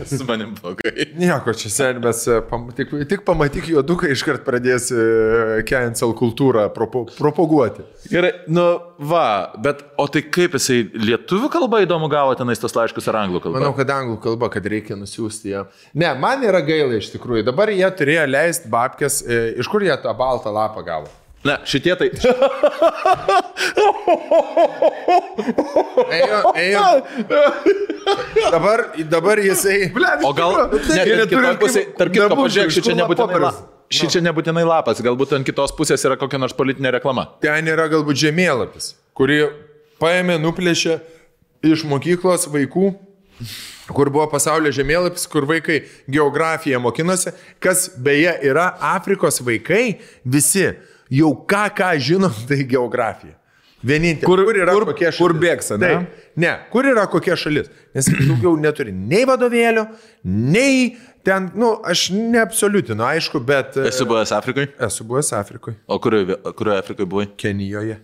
su manim blogai? Nieko, čia senbės, tik pamatyk juoduką, iškart pradės cancel kultūrą propaguoti. Gerai, bet o tai kaip jisai lietuvių kalba įdomu gavo tenais tos laiškus ar anglų kalba? Manau, kad anglų kalba, kad reikia nusiųsti ją. Ne, man yra gaila iš tikrųjų. Dabar jie turėjo leisti babkės, iš kur jie tą baltą lapą gavo? Ne, šitie tai... Ėjo. Dabar jisai... O gal... Tarp kitko, pažiūrėk, šičia nebūtinai lapas, galbūt ant kitos pusės yra kokia nors politinė reklama. Ten yra galbūt žemėlapis, kurį paėmė, nuplėšė iš mokyklos vaikų, kur buvo pasaulio žemėlapis, kur vaikai geografiją mokinosi, kas beje yra Afrikos vaikai, visi jau ką žinom, tai geografija. Vienintelė. Kur yra kokia šalis? Kur bėgsa, ne? Ne, kur yra kokia šalis? Nes daugiau neturi nei vadovėlio, nei ten, aš neabsoliutinu, aišku, bet... Esi buvęs Afrikoje? Esu buvęs Afrikoje. O kurioje Afrikoje buvai? Kenijoje.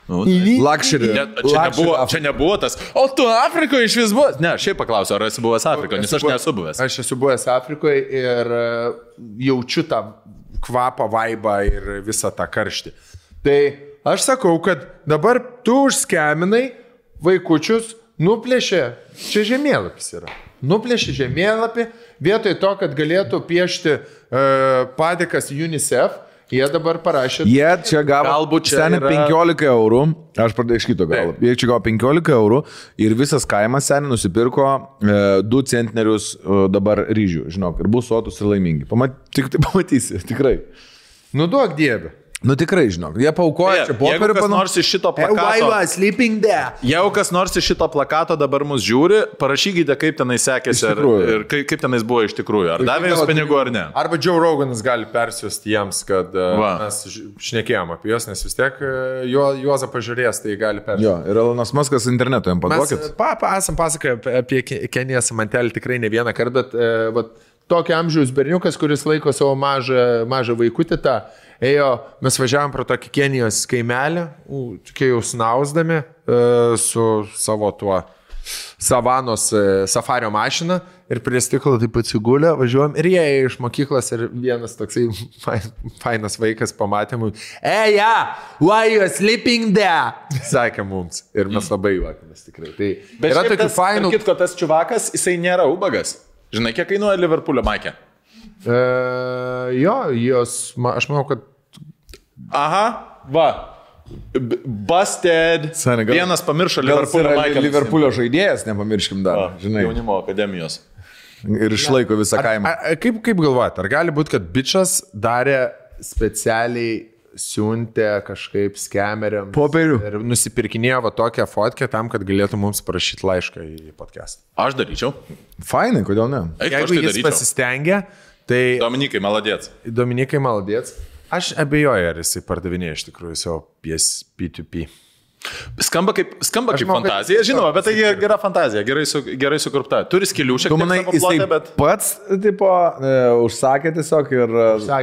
Luxury. Čia nebuvo tas. O tu Afrikoje iš vis buvęs? Ne, šiaip paklausiu, ar esi buvęs Afrikoje, nes aš nesu buvęs. Aš esu buvęs Afrikoje ir jaučiu tą kvapą, vaibą ir visą tą karštį. Tai aš sakau, kad dabar tu užskeminai vaikučius nuplėšė, čia žemėlapis yra, nuplėšė žemėlapį, vietoj to, kad galėtų piešti padėkas UNICEF, jie dabar parašė. Jie čia gavo seniai 15 eurų, aš pradėjau iš kito galo. Jie čia gavo 15 eurų ir visas kaimas seniai nusipirko 2 centnerius dabar ryžių, žinok, ir bus sotus ir laimingi. Tik tai pamatysi, tikrai. Nu duok dievę. Nu tikrai, žinok, jie paukoja čia popierių nors iš šito plakato. Jeigu kas nors iš šito plakato dabar mus žiūri, parašykite, kaip tenai sekėsi ir kaip tenais buvo iš tikrųjų. Ar davė jums pinigų ar ne. Arba Joe Roganas gali persiųsti jiems, kad mes šnekėjom apie juos, nes vis tiek Juozą pažiūrės, tai gali persiųsti. Jo, ir Elonas Muskas internetu jam paduokit. Mes esam pasakoję apie Kenijas Mantelį tikrai ne vieną kartą, bet tokio amžiaus berniukas, kuris laiko savo mažą vaikutį tą. Mes važiavom pro tokį Kenijos kaimelį, kai jau snausdami su savo tuo savanos safario mašina ir prie stiklo taip atsigulę, važiuojam ir jie iš mokyklos ir vienas toksai fainas vaikas pamatė mums, why you sleeping there? Sakė mums ir mes labai juokėmės tikrai. Tai bet yra tokių fainų. Kitko, tas čiuvakas, jisai nėra ubagas. Žinai, kiek kainuoja Liverpoolio maikė? Aš manau, kad aha, va. Busted. Vienas pamiršo Liverpoolio maikė. Liverpoolio žaidėjas, nepamirškim dar. Žinai. Jaunimo akademijos. Ir išlaiko visą kaimą. Kaip galvojat, ar gali būti, kad bičas darė specialiai siuntė kažkaip skemeriam popierių ir nusipirkinėjo va tokią fotkę tam, kad galėtų mums parašyti laišką į podcastą? Aš daryčiau. Fainai, kodėl ne? Jeigu jis pasistengia, tai... Dominikai maladėts. Aš abejoju, ar jisai pardavinėja iš tikrųjų savo P2P. Skamba kaip fantazija, žinoma, bet tai gera fantazija, gerai sukurpta. Turi skilių šiek tiek savo plote, bet... Pats, tipo, užsakė tiesiog ir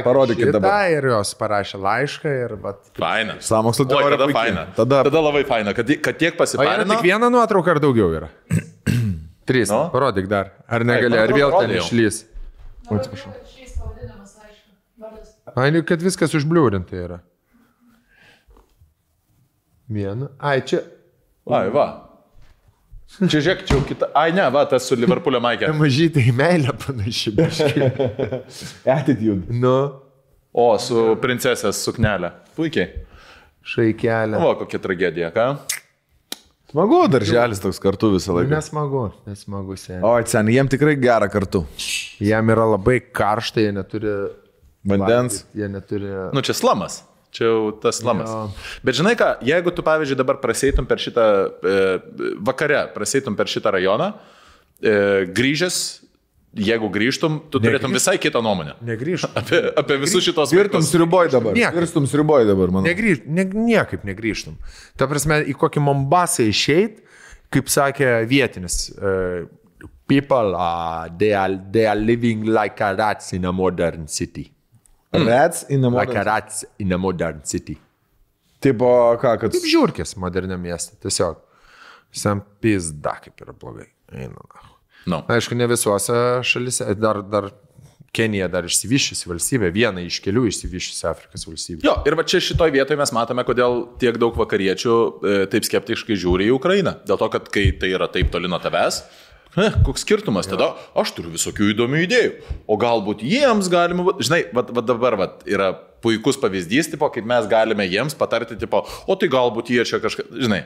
parodykit dabar. Ir jos parašė laišką ir... Faina. Sąmokslo teorija tada faina. Tada labai faina, kad tiek pasiparino. O yra tik viena nuotrauka ar daugiau yra? 3, parodyk dar. Ar negali, ar vėl ten išlys? Atsiprašau. Kad viskas užbliūrinta yra. Viena. Ai, čia. Ai, va. Čia žiūrėk, čia jau kita. Ai, ne, va, tas su Liverpoolio maikė. Mažytai į meilę panaši. Attitude. Nu. O, su princesės suknelė. Puikiai. Šaikelė. O, kokia tragedija, ką? Smagu, darželis toks kartu visą laiką. Nesmagu, seniai. O, seniai, jiem tikrai gera kartu. Jiem yra labai karšta, jie neturi... Vandens. Jie neturi... Nu, čia slamas. Čia jau tas slamas. Bet žinai ką, jeigu tu, pavyzdžiui, dabar praseitum per šitą, vakare praseitum per šitą rajoną, grįžęs, jeigu grįžtum, tu turėtum visai kitą nuomonę. Negrįžtum. Apie visus šitos Virstum sriuboj dabar, manau. Niekaip negrįžtum. Ta prasme, į kokį Mombasą išeit, kaip sakė vietinis, people, they are living like a rats in a modern city. Rats in a modern... Like a rats in a modern city. Tipo, ką, kad... Kaip žiūrkės moderniam miestą, tiesiog. Visam pizda, kaip yra blogai. No. Aišku, ne visuose šalise, dar Kenija dar išsivyščiusi valstybė, viena iš kelių išsivyščiusi Afrikos valstybė. Jo, ir va čia šitoj vietoje mes matome, kodėl tiek daug vakariečių taip skeptiškai žiūri į Ukrainą. Dėl to, kad kai tai yra taip toli nuo tavęs, koks skirtumas, tada aš turiu visokių įdomių idėjų, o galbūt jiems galima, žinai, va dabar yra puikus pavyzdys, tipo, kaip mes galime jiems patarti, tipo, o tai galbūt jie čia kažką, žinai,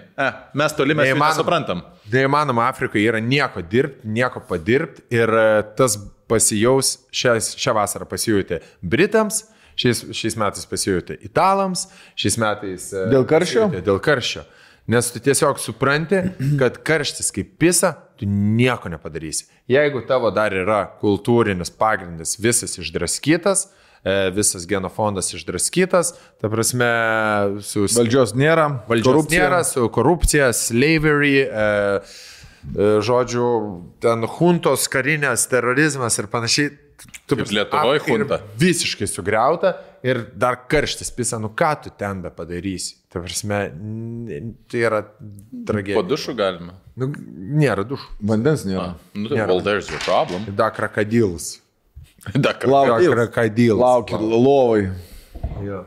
mes toli mes nesuprantam. Neįmanoma, Afrikoje yra nieko dirbti, nieko padirbti ir tas pasijaus, šią vasarą pasijutė Britams, šiais metais pasijutė Italams, šiais metais... Dėl karščio? Dėl karščio. Nes tu tiesiog supranti, kad karštis kaip pisa, tu nieko nepadarysi. Jeigu tavo dar yra kultūrinis pagrindas visas išdraskytas, visas genofondas išdraskytas, ta prasme, su... Valdžios nėra, su korupcija, slavery, žodžiu, ten huntos, karinės, terorizmas ir panašiai. Kaip Lietuvoje hunta. Visiškai sugriauta ir dar karštis pisa, nu ką tu ten be padarysi. Ta prasme, tai yra tragedija. Po dušų galima? Nu, nėra dušų. Vandens nėra. Well, there's your problem. Da krokodils. Lauki lovai. Jo.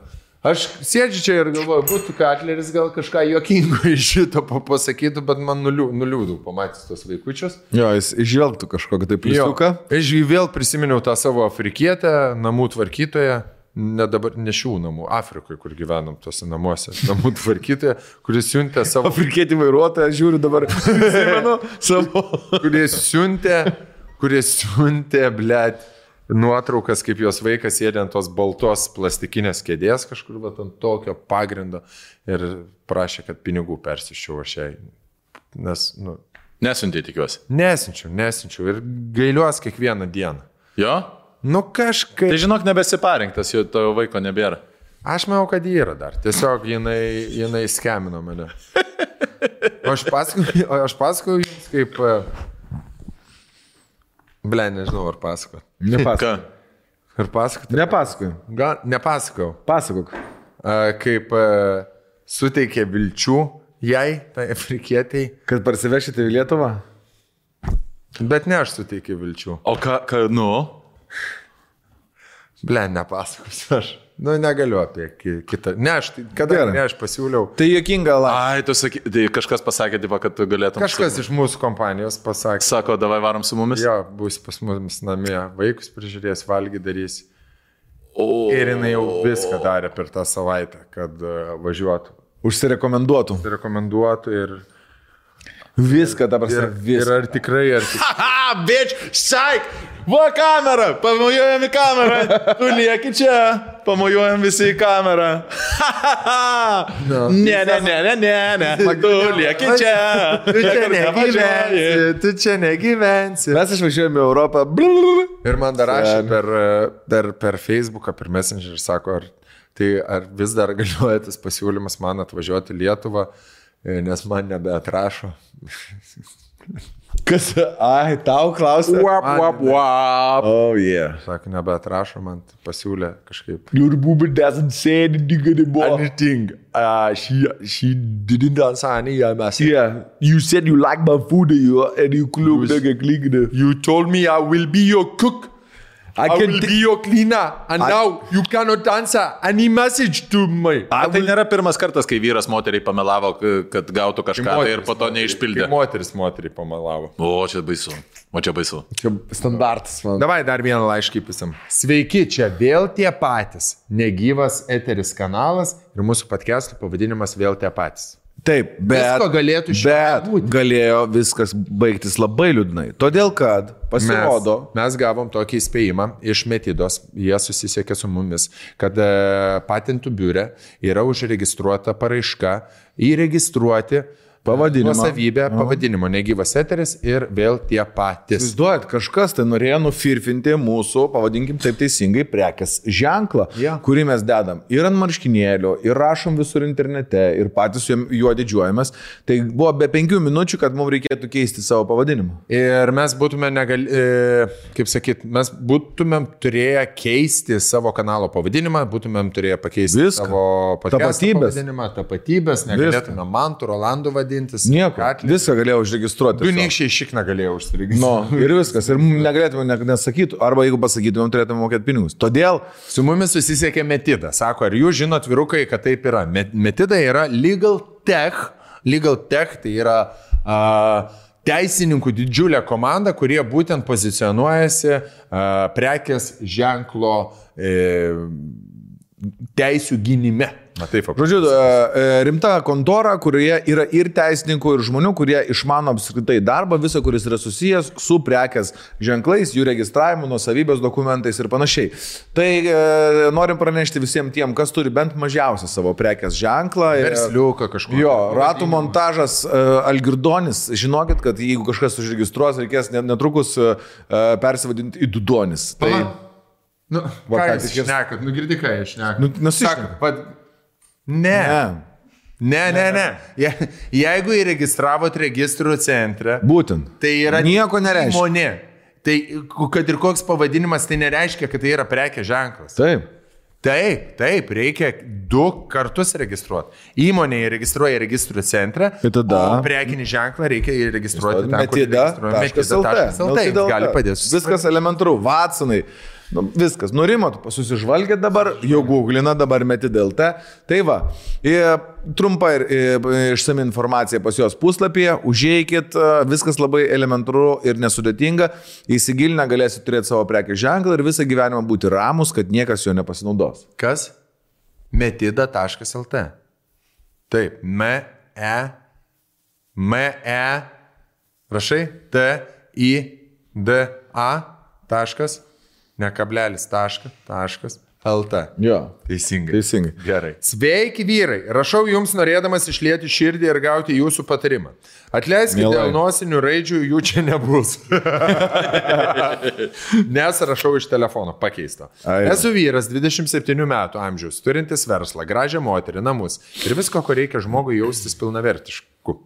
Aš sėdžiu čia ir galvoju, būtų Katleris gal kažką juokingo iš šito pasakytų, bet man nuliūdau pamatys tos vaikučius. Jo, jis išvelgtų kažkokią tai pliusiuką. Aš vėl prisiminiau tą savo afrikietę, namų tvarkytoją, ne šių namų, Afrikoje, kur gyvenom tose namuose, namų tvarkytoją, kuris siuntė savo... Afrikietį vairuotoją, žiūriu dabar, savo... kuris siuntė, blėt, nuotraukas, kaip jos vaikas sėdė ant tos baltos plastikinės kėdės kažkur, bet ant tokio pagrindo ir prašė, kad pinigų persiščiau aš jai. Nes, Nesiuntė, tikiuosi. Nesinčiau ir gailiuos kiekvieną dieną. Jo? Kažkaip. Tai žinok, nebesiparinktas, jo tavo vaiko nebėra. Aš manau, kad jį yra dar. Tiesiog jinai skemino mane. O aš pasakoju jums kaip... nežinau, ar pasakot. Nepasakok. Ar pasakot? Nepasakoj. Gal nepasakau. Pasakok. Kaip suteikė vilčių jai, tai afrikietiai. Kad parsivešite į Lietuvą? Bet ne aš suteikiau vilčių. O ką, nepasakosiu aš. Negaliu apie kitą. Aš pasiūliau. Tai juokinga Ai, tu sakai, tai kažkas pasakė, kad galėtum... Kažkas iš mūsų kompanijos pasakė. Sako, davai varom su mumis? Jo, bus pas mumis namie. Vaikus prižiūrės, valgy darys. Ir jinai jau viską darė per tą savaitę, kad važiuotų. Užsirekomenduotų ir... Viską dabar viską. Ir ar tikrai... Haha, bitch, saik! Va kamera, pamojuojam į kamerą. Tu lieki čia, pamojuojam visi į kamerą. Ne. Tu lieki čia. Tu čia negyvensi. Mes išvažiuojame į Europą. Ir man dar rašė per Facebooką, per Messenger, sako, ar vis dar galioja tas pasiūlymas man atvažiuoti į Lietuvą, nes man nebeatrašo. Kas? Ai, tau klausė. Oh, yeah. Sako, nebeatrašo, man pasiūlė kažkaip. Your booby doesn't say anything anymore. Anything. She didn't answer any message. Yeah, you said you like my food and you clicked. You told me I will be your cook. I will be your cleaner. And now you cannot answer any message to me. Tai nėra pirmas kartas, kai vyras moteriai pamelavo, kad gautų kažką ir po to neišpildė. Moteris moteriai pamelavo. O, čia baisu. Čia standartas, man. Davai dar vieną laiškį pisam. Sveiki, čia vėl tie patys. Negyvas eteris kanalas ir mūsų podcast'o pavadinimas vėl tie patys. Taip, bet galėjo viskas baigtis labai liūdnai. Todėl, kad pasirodo... Mes gavom tokį įspėjimą iš Metidos, jie susisiekė su mumis, kad patentų biure yra užregistruota paraiška įregistruoti nuosavybę pavadinimo, negyvas eteris ir vėl tie patys. Įsivaizduojat, kažkas tai norėjo nufirfinti mūsų, pavadinkim taip teisingai, prekės ženklą, kurį mes dedam ir ant marškinėlio, ir rašom visur internete, ir patys juo didžiuojamės. Tai buvo be 5 minučių, kad mums reikėtų keisti savo pavadinimą. Ir mes būtume mes būtumėm turėję keisti savo kanalo pavadinimą, būtumėm turėję pakeisti savo pavadinimą, tapatybės, negalėtume Mantų, Rolandų vadinti. Nieko, viską galėjau užregistruoti. Du niekščiai šikną galėjau užsiregistruoti. Ir viskas. Ir negalėtume nesakyti, arba jeigu pasakytumėm, turėtume mokėti pinigus. Todėl su mumis susisiekė Metida. Sako, ar jūs žinot, vyrukai, kad taip yra? Metida yra Legal Tech. Legal Tech tai yra teisininkų didžiulė komanda, kurie būtent pozicionuojasi prekės ženklo teisių gynime. Žodžiu, rimta kontora, kurioje yra ir teisininkų, ir žmonių, kurie išmano apskritai darbą, visą, kuris yra susijęs su prekės ženklais, jų registravimu, nuosavybės dokumentais ir panašiai. Tai norim pranešti visiems tiem, kas turi bent mažiausią savo prekės ženklą. Versliuką kažkokį. Jo, ratų montažas Algirdonis. Žinokit, kad jeigu kažkas užregistruos, reikės netrukus persivadinti į Dudonis. Tai... ką jūs šnekat? Girdi, ką jūs šnekat? Ne. Jeigu įregistravot registrų centre, būtent. Tai yra nieko nereiškia. Įmonė. Tai kad ir koks pavadinimas, tai nereiškia, kad tai yra prekės ženklas. Taip, reikia 2 kartus registruoti. Įmonė įregistruoja registrų centrą, o prekinį ženklą reikia įregistruoti Metida.lt. Gali padėti. Viskas elementaru. Watsonai. Nu, viskas, nurimot, susižvalgėt dabar, jau googlina, dabar meti DLT. Tai va, trumpa ir išsami informacija pas jos puslapyje, užeikit, viskas labai elementaru ir nesudėtinga, įsigilinę galėsit turėti savo prekės ženklą ir visą gyvenimą būti ramus, kad niekas jo nepasinaudos. Kas? Metida.lt. Taip, rašai, TIDA taškas, ne kablelis, taškas, LT. Jo. Teisingai. Gerai. Sveiki vyrai, rašau jums norėdamas išlieti širdį ir gauti jūsų patarimą. Atleiskite dėl nosinių raidžių, jų čia nebus. Nes rašau iš telefono, pakeisto. Esu vyras 27 metų amžiaus, turintis verslą, gražią moterį, namus ir visko, ko reikia žmogui jaustis pilnavertišku.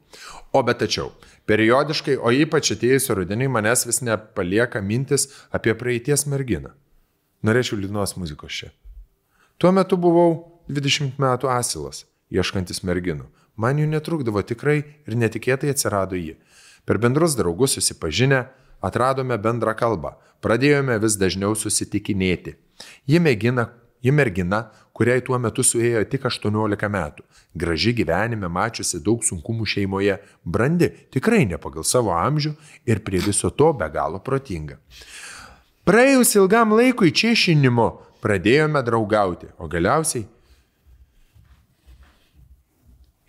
O bet tačiau, periodiškai, o ypač atėjusio rudenį, manęs vis nepalieka mintis apie praeities merginą. Norėčiau liūdnos muzikos čia. Tuo metu buvau 20 metų asilas, ieškantis merginų. Man jų netrukdavo tikrai ir netikėtai atsirado ji. Per bendrus draugus susipažinę, atradome bendrą kalbą. Pradėjome vis dažniau susitikinėti. Ji mergina, kuriai tuo metu suėjo tik 18 metų. Graži gyvenime, mačiusi daug sunkumų šeimoje, brandi, tikrai ne pagal savo amžių ir prie viso to be galo protinga. Praėjus ilgam laikui češinimo pradėjome draugauti, o galiausiai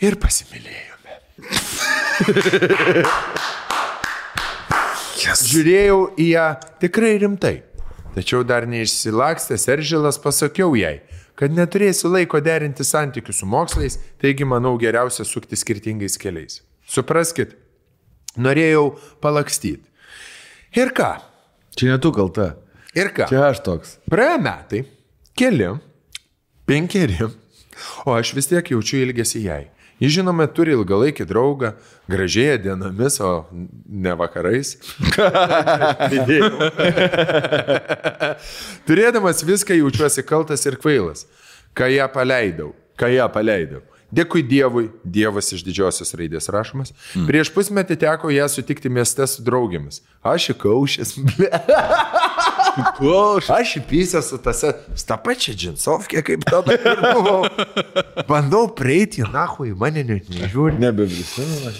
ir pasimylėjome. Žiūrėjau į ją tikrai rimtai, tačiau dar neišsilakstęs Eržilas pasakiau jai, kad neturėsiu laiko derinti santykių su mokslais, taigi manau geriausia sukti skirtingais keliais. Supraskit, norėjau palakstyti. Ir ką? Čia ne tu kalta. Ir ką? Čia aš toks. Praėjo metai, 5, o aš vis tiek jaučiu ilgesį jai. Ji žinoma turi ilgalaikį draugą, gražėja dienomis, o ne vakarais. Turėdamas viską jaučiuosi kaltas ir kvailas, ką ją paleidau. Dėkui Dievui, Dievas iš didžiosios raidės rašomas. Prieš pusmetį teko ją sutikti mieste su draugėmis. Aš įkaušęs. Aš įpysęs su tą pačią džinsovkę, kaip tada ir buvau. Bandau prieiti, nahui, mane net nežiūri. Nebeprisimenu,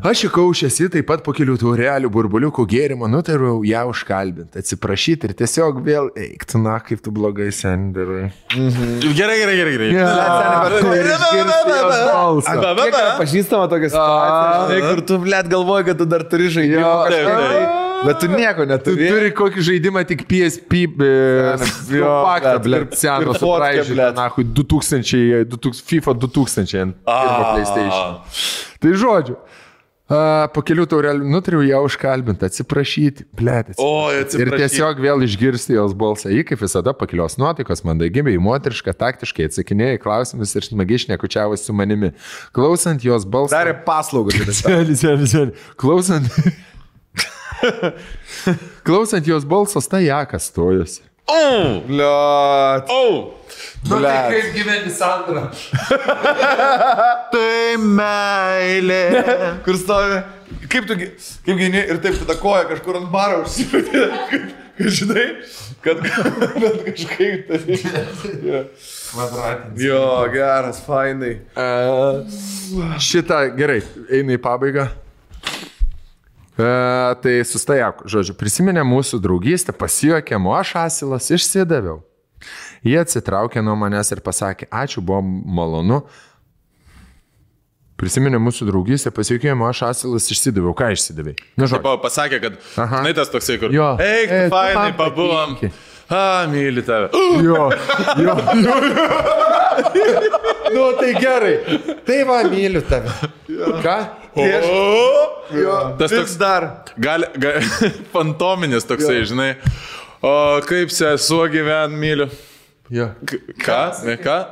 aš įkaušęs, taip pat po kelių taurelių burbuliukų gėrimo nutariau ją užkalbinti, atsiprašyti ir tiesiog vėl eikti, na, kaip tu blogai sendarai. Gerai. Pažįstama tokia situacija, kur tu, blėt, galvoji, kad tu dar turi žaidimą kažką, bet tu nieko neturi. Tu turi kokį žaidimą tik PSP, paktą, blėt, seną, supraižytą, nahui, FIFA 2000 ant pirmo PlayStation. Tai žodžiu. Po kelių taurelių nutariau ją užkalbinti, atsiprašyti, blėt, ir tiesiog vėl išgirsti jos balsą. Ji, kaip visada, pakilios nuotaikos, mandagiai, moteriška, taktiškai atsakinėjo į klausimus ir smagiai šnekučiavosi su manimi. Klausant jos balsą... Darė paslaugą. Klausant jos balsos, tai jakas stojosi. Bliat. Nu tai kaip gyveni, Sandra? Tai meilė. Kur stovi? Kaip gyveni ir taip tada koja kažkur ant baro užsipėtė. Kad žinai, kad kažkaip tai. Jo, geras, fainai. Šitą, gerai, eina į pabaigą. Tai sustajak, žodžiu, prisiminė mūsų draugystę, pasijuokėm, o aš asilas išsidaviau. Jie atsitraukė nuo manęs ir pasakė, ačiū, buvo malonu. Prisiminė mūsų draugystę, pasijuokėm, o aš asilas išsidaviau. Ką išsidavai? Pasakė, kad, žinai, tas toksai, kur, eik, fainai, pabuvom. Myli tave. Jo. Nu, tai gerai. Tai va, myliu tave. Ką? Tas toks dar. Fantominis toksai, žinai. O kaip sesuo gyven, myliu. Ką?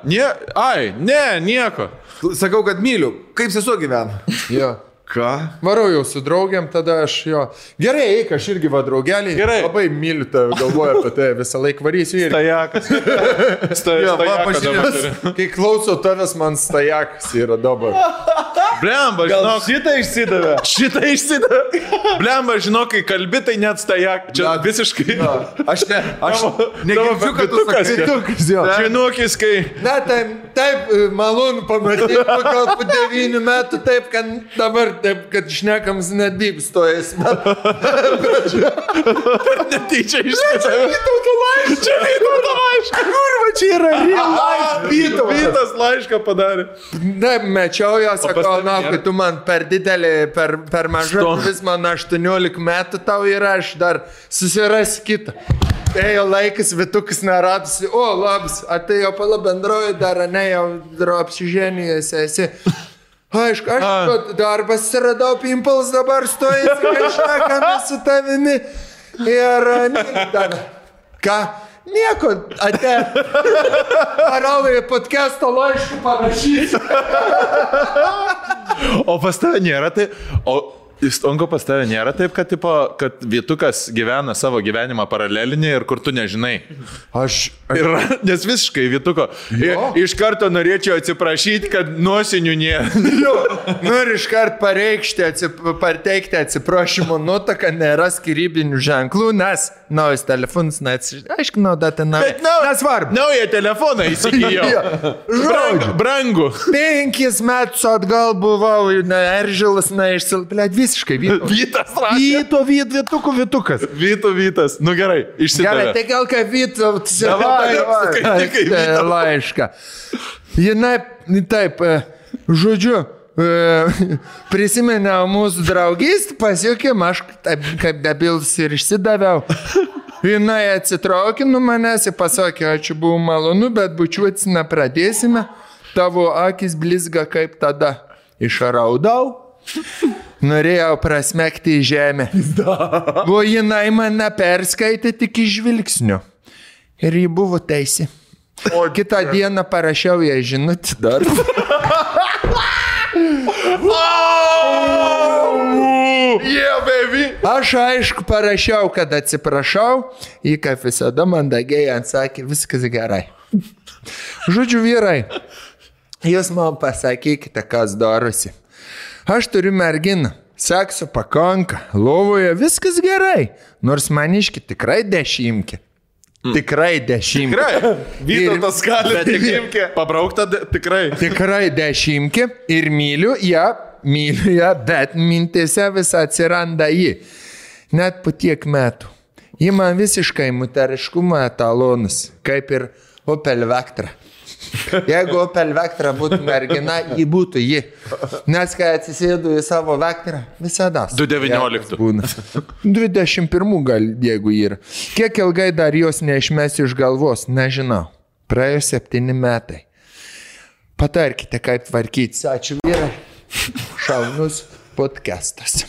Nieko. Sakau, kad myliu. Kaip sesuo gyvena? Ką? Varau jau su draugiam, tada aš jo. Gerai, eik, aš irgi va draugelį. Gerai. Labai myliu tave, galvoju apie tai, visą laiką varysiu ir... Stajakas. Kai klausau tavęs, man stajakas yra dabar. Blemba, žinok. Šitą išsidavė. Blemba, žinok, kai kalbi, tai net stajak. Čia visiškai. Aš negirdžiu, kad tu sakai vitukas, jo. Žinokis, kai... Na, taip, malonu pamatyti, gal po 9 metų, taip, kad dabar, taip, kad šnekams net bib stojas. Netyčia išsidavė. Čia Vytauto laišką. Kurva, čia yra real life. Vytas laišką padarė. Na, mečiau jo, sakau, na, kai tu man per didelį, per mažą, vis man 18 metų tau yra, aš dar susirasiu kitą. Ėjo laikas, Vitukas neradusi, o, labas, atėjo pala bendroji dar, ne, jau apsiženijęs esi. Aišku, aš darbas radau, Pimples dabar stojasi, kažkame su tavimi. Ir dar, ką? Nieko, ate. Parau į podcast'o laiškų parašyti. O pas tave nėra tai... Stonko pas tave nėra taip, kad, tipo, kad Vytukas gyvena savo gyvenimą paralelinį ir kur tu nežinai. Nes visiškai Vytuko. Iš karto norėčiau atsiprašyti, kad nuosinių nėra. Noriu iš karto pareikšti, pateikti atsiprašymo nutaką, nėra skirybinių ženklų, nes naujas telefonas, aiškinau, datą naują. Nesvarbu. Naują telefoną įsigijau. Brangu. 5 metus atgal buvau, Eržilas, išsilplėt. Visiškai Vytas rašė. Vytukas. Vytas. Nu gerai, išsidavė. Gerai, tai gal ką Vytas laišką. Jinai, taip, žodžiu, prisimeniau mūsų draugystę, pasiekėm, aš kaip debilas ir išsidaviau. Jinai atsitraukė nuo manęs ir pasakė, ačiū, buvo malonu, bet bučiuotis nepradėsime. Tavo akis blizga kaip tada. Išraudau. Norėjau prasmekti į žemę. O jinai mane perskaitė tik iš žvilgsnių. Ir ji buvo teisi. O kitą dieną parašiau ją žinutę dar. Yeah, baby. Aš aišku parašiau, kad atsiprašau. Ji kaip visada mandagiai atsakė, viskas gerai. Žodžiu, vyrai, jūs man pasakykite, kas darosi. Aš turiu merginą, sekso pakanka, lovoje viskas gerai, nors maniški tikrai 10. Tikrai 10. Tikrai, Vytautas gali 10. Pabraukta tikrai. Tikrai 10 ir myliu ją, bet mintėse vis atsiranda ji. Net po tiek metų. Ji man visiškai moteriškumo etalonas, kaip ir Opel Vectra. Jeigu Opel Vectra būtų mergina, ji būtų ji. Nes kai atsisėdu į savo Vectrą, visada. 2019. 21 gal, jeigu yra. Kiek ilgai dar jos neišmesiu iš galvos, nežinau. Praėjo 7 metai. Patarkite, kaip tvarkytis. Ačiū, vyrai. Šaunus podcastas.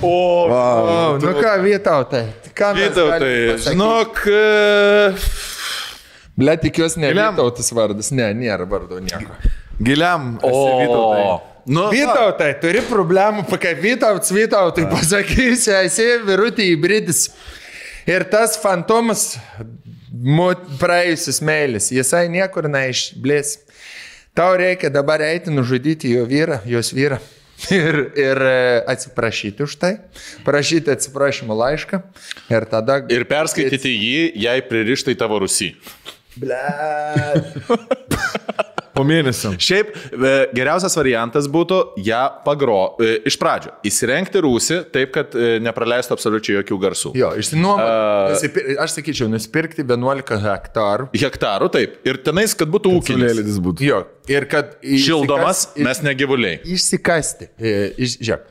Nu ką, Vytautai? Vytautai, žinok... Ble, tikiuosi, ne Vytautas vardas. Ne, nėra vardo nieko. Giliam esi Vytautai. Vytautai, turi problemų, kaip Vytautai pasakysi, esi virutį įbridis. Ir tas fantomas praėjusis meilis, jisai niekur neišblės. Tau reikia dabar eiti nužudyti jo vyrą, jos vyrą. Ir atsiprašyti už tai, prašyti atsiprašymo laišką ir tada... Ir perskaityti jį, jei pririštai tavo Rusį. Po mėnesio. Šiaip geriausias variantas būtų ją iš pradžio įsirengti rūsį taip, kad nepraleistų absoliučiai jokių garsų. Jo, išsinuomoti, aš sakyčiau, nusipirkti 11 hektarų. Hektarų, taip. Ir tenais, kad būtų ūkinis. Jo, ir kad... Šildomas, mes ne gyvuliai. Išsikasti. Žiūrėk,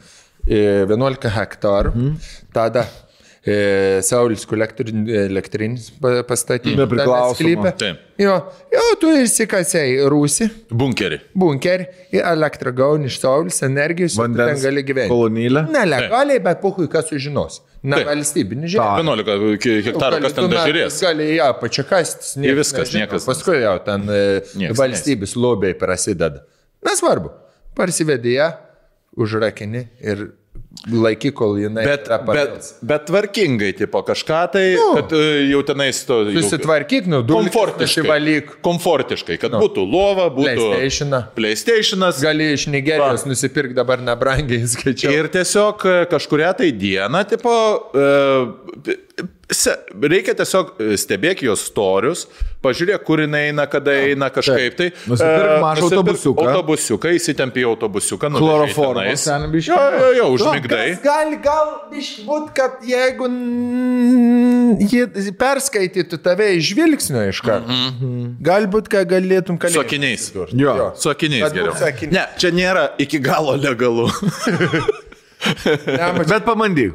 11 hektarų. Tada Saulis elektrinis pastatyti. Nepriklausoma. Jo, tu išsikasei rūsį. Bunkerį. Ir elektrą gauni iš Saulis energijos. Vandens ten gali gyventi. Kolonėlę. Nelegaliai, bet puhui, kas sužinos. Valstybinį žemę. 11 hektarų, kas ten dažiūrės. Gali ją pačiakastis. Niekas. Paskui jau ten valstybės lobiai prasideda. Nesvarbu. Parsivedė ją, užrakini ir laiky, kol jinai... Bet tvarkingai, tipo kažką tai, kad jau tenais to... Susitvarkyk, komfortiškai, kad būtų lova, būtų... PlayStationas. Gali iš Nigerijos nusipirkti dabar nebrangiai, skaičiau. Ir tiesiog kažkuria tai diena, tipo... Reikia tiesiog stebėk jos storius, pažiūrėk, kur jinai eina, kada eina kažkaip tai. Nusipirk mažą autobusiuką, įsitempi į autobusiuką. Chloroformas. Jo, užmigdai. Gal būt, kad jeigu jie perskaitytų tave iš žvilgsnio iš karto, galbūt, ką galėtum kalėti. Su akiniais. Su akiniais geriau. Ne, čia nėra iki galo legalu. Bet pabandyk.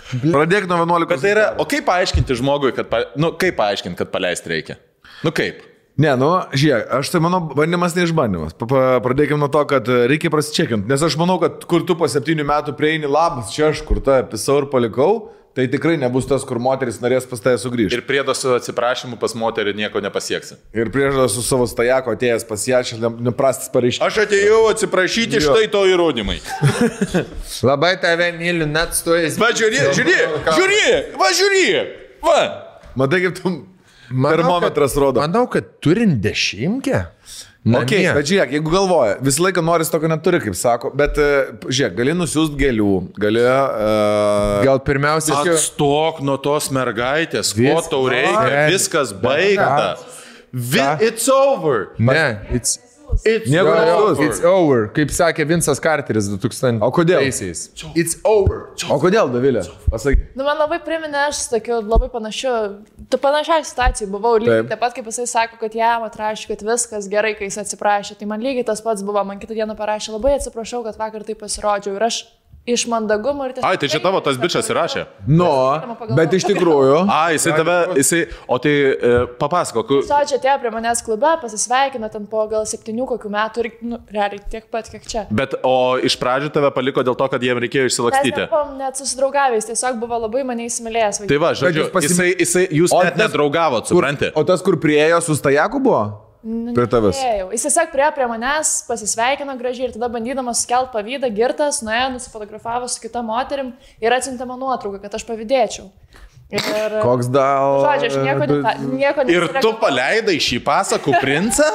Pradėk nuo 11. Bet tai yra, o kaip paaiškinti žmogui, kad paleisti reikia? Kaip? Ne, žiūrėk, tai mano bandymas neišbandymas. Pradėkime nuo to, kad reikia prasičekinti. Nes aš manau, kad kur tu po 7 metų prieini, labas, čia aš kur tą pisau ir palikau, tai tikrai nebus tas, kur moteris norės pas tave sugrįžti. Ir priedo su atsiprašymu pas moterį nieko nepasieksi. Ir priedo su savo stajako atėjęs pas ją, neprastas pareiškimas. Aš atėjau atsiprašyti, štai to įrodymai. Labai tave myliu, net stojas. Va, žiūrėk. Va. Matai, kaip tu termometras rodo. Manau, kad turint 10. Okay, bet žiūrėk, jeigu galvoja, visą laiką noris tokio neturi, kaip sako, bet žiūrėk, gali nusiųsti gėlių, gali... Gal pirmiausia... Atstok nuo tos mergaitės, ko tau reikia, viskas baigta. It's over. Ne, It's over, kaip sakė Vincas Carteris 2000. O kodėl? It's over. O kodėl, Dovilė? Pasakyk. Man labai priminė, aš tokiu labai panašiai situacijai buvau, lygiai taip pat, kaip jisai sako, kad jam atrašė, kad viskas gerai, kai jis atsiprašė. Tai man lygiai tas pats buvo, man kitą dieną parašė, labai atsiprašau, kad vakar taip pasirodžiau ir aš iš mandagumo ir tiesiog... Ai, tai čia tavo tas bičas įrašė? Bet iš tikrųjų... O tai papasakok. Čia atėjo prie manęs klube, pasisveikino ten po gal 7 kokių metų ir, realiai, tiek pat, kiek čia. Bet, o iš pradžių tave paliko dėl to, kad jiem reikėjo išsilakstyti? Mes nebuvom net susidraugavęs, tiesiog buvo labai mane įsimylėjęs. Tai va, žodžiu, jūs net nedraugavot, supranti? O tas, kur priejo su stajaku buvo? Prie tavęs. Jis tiesiog priejo prie manęs, pasisveikino gražiai ir tada bandydamas skelbti pavydą, girtas, nuėjo, nusifotografavo su kita moterim ir atsiuntė man nuotrauką, kad aš pavydėčiau. Ir, koks dal... Žodžiu, aš nieko ir tu paleidai šį pasakų princą?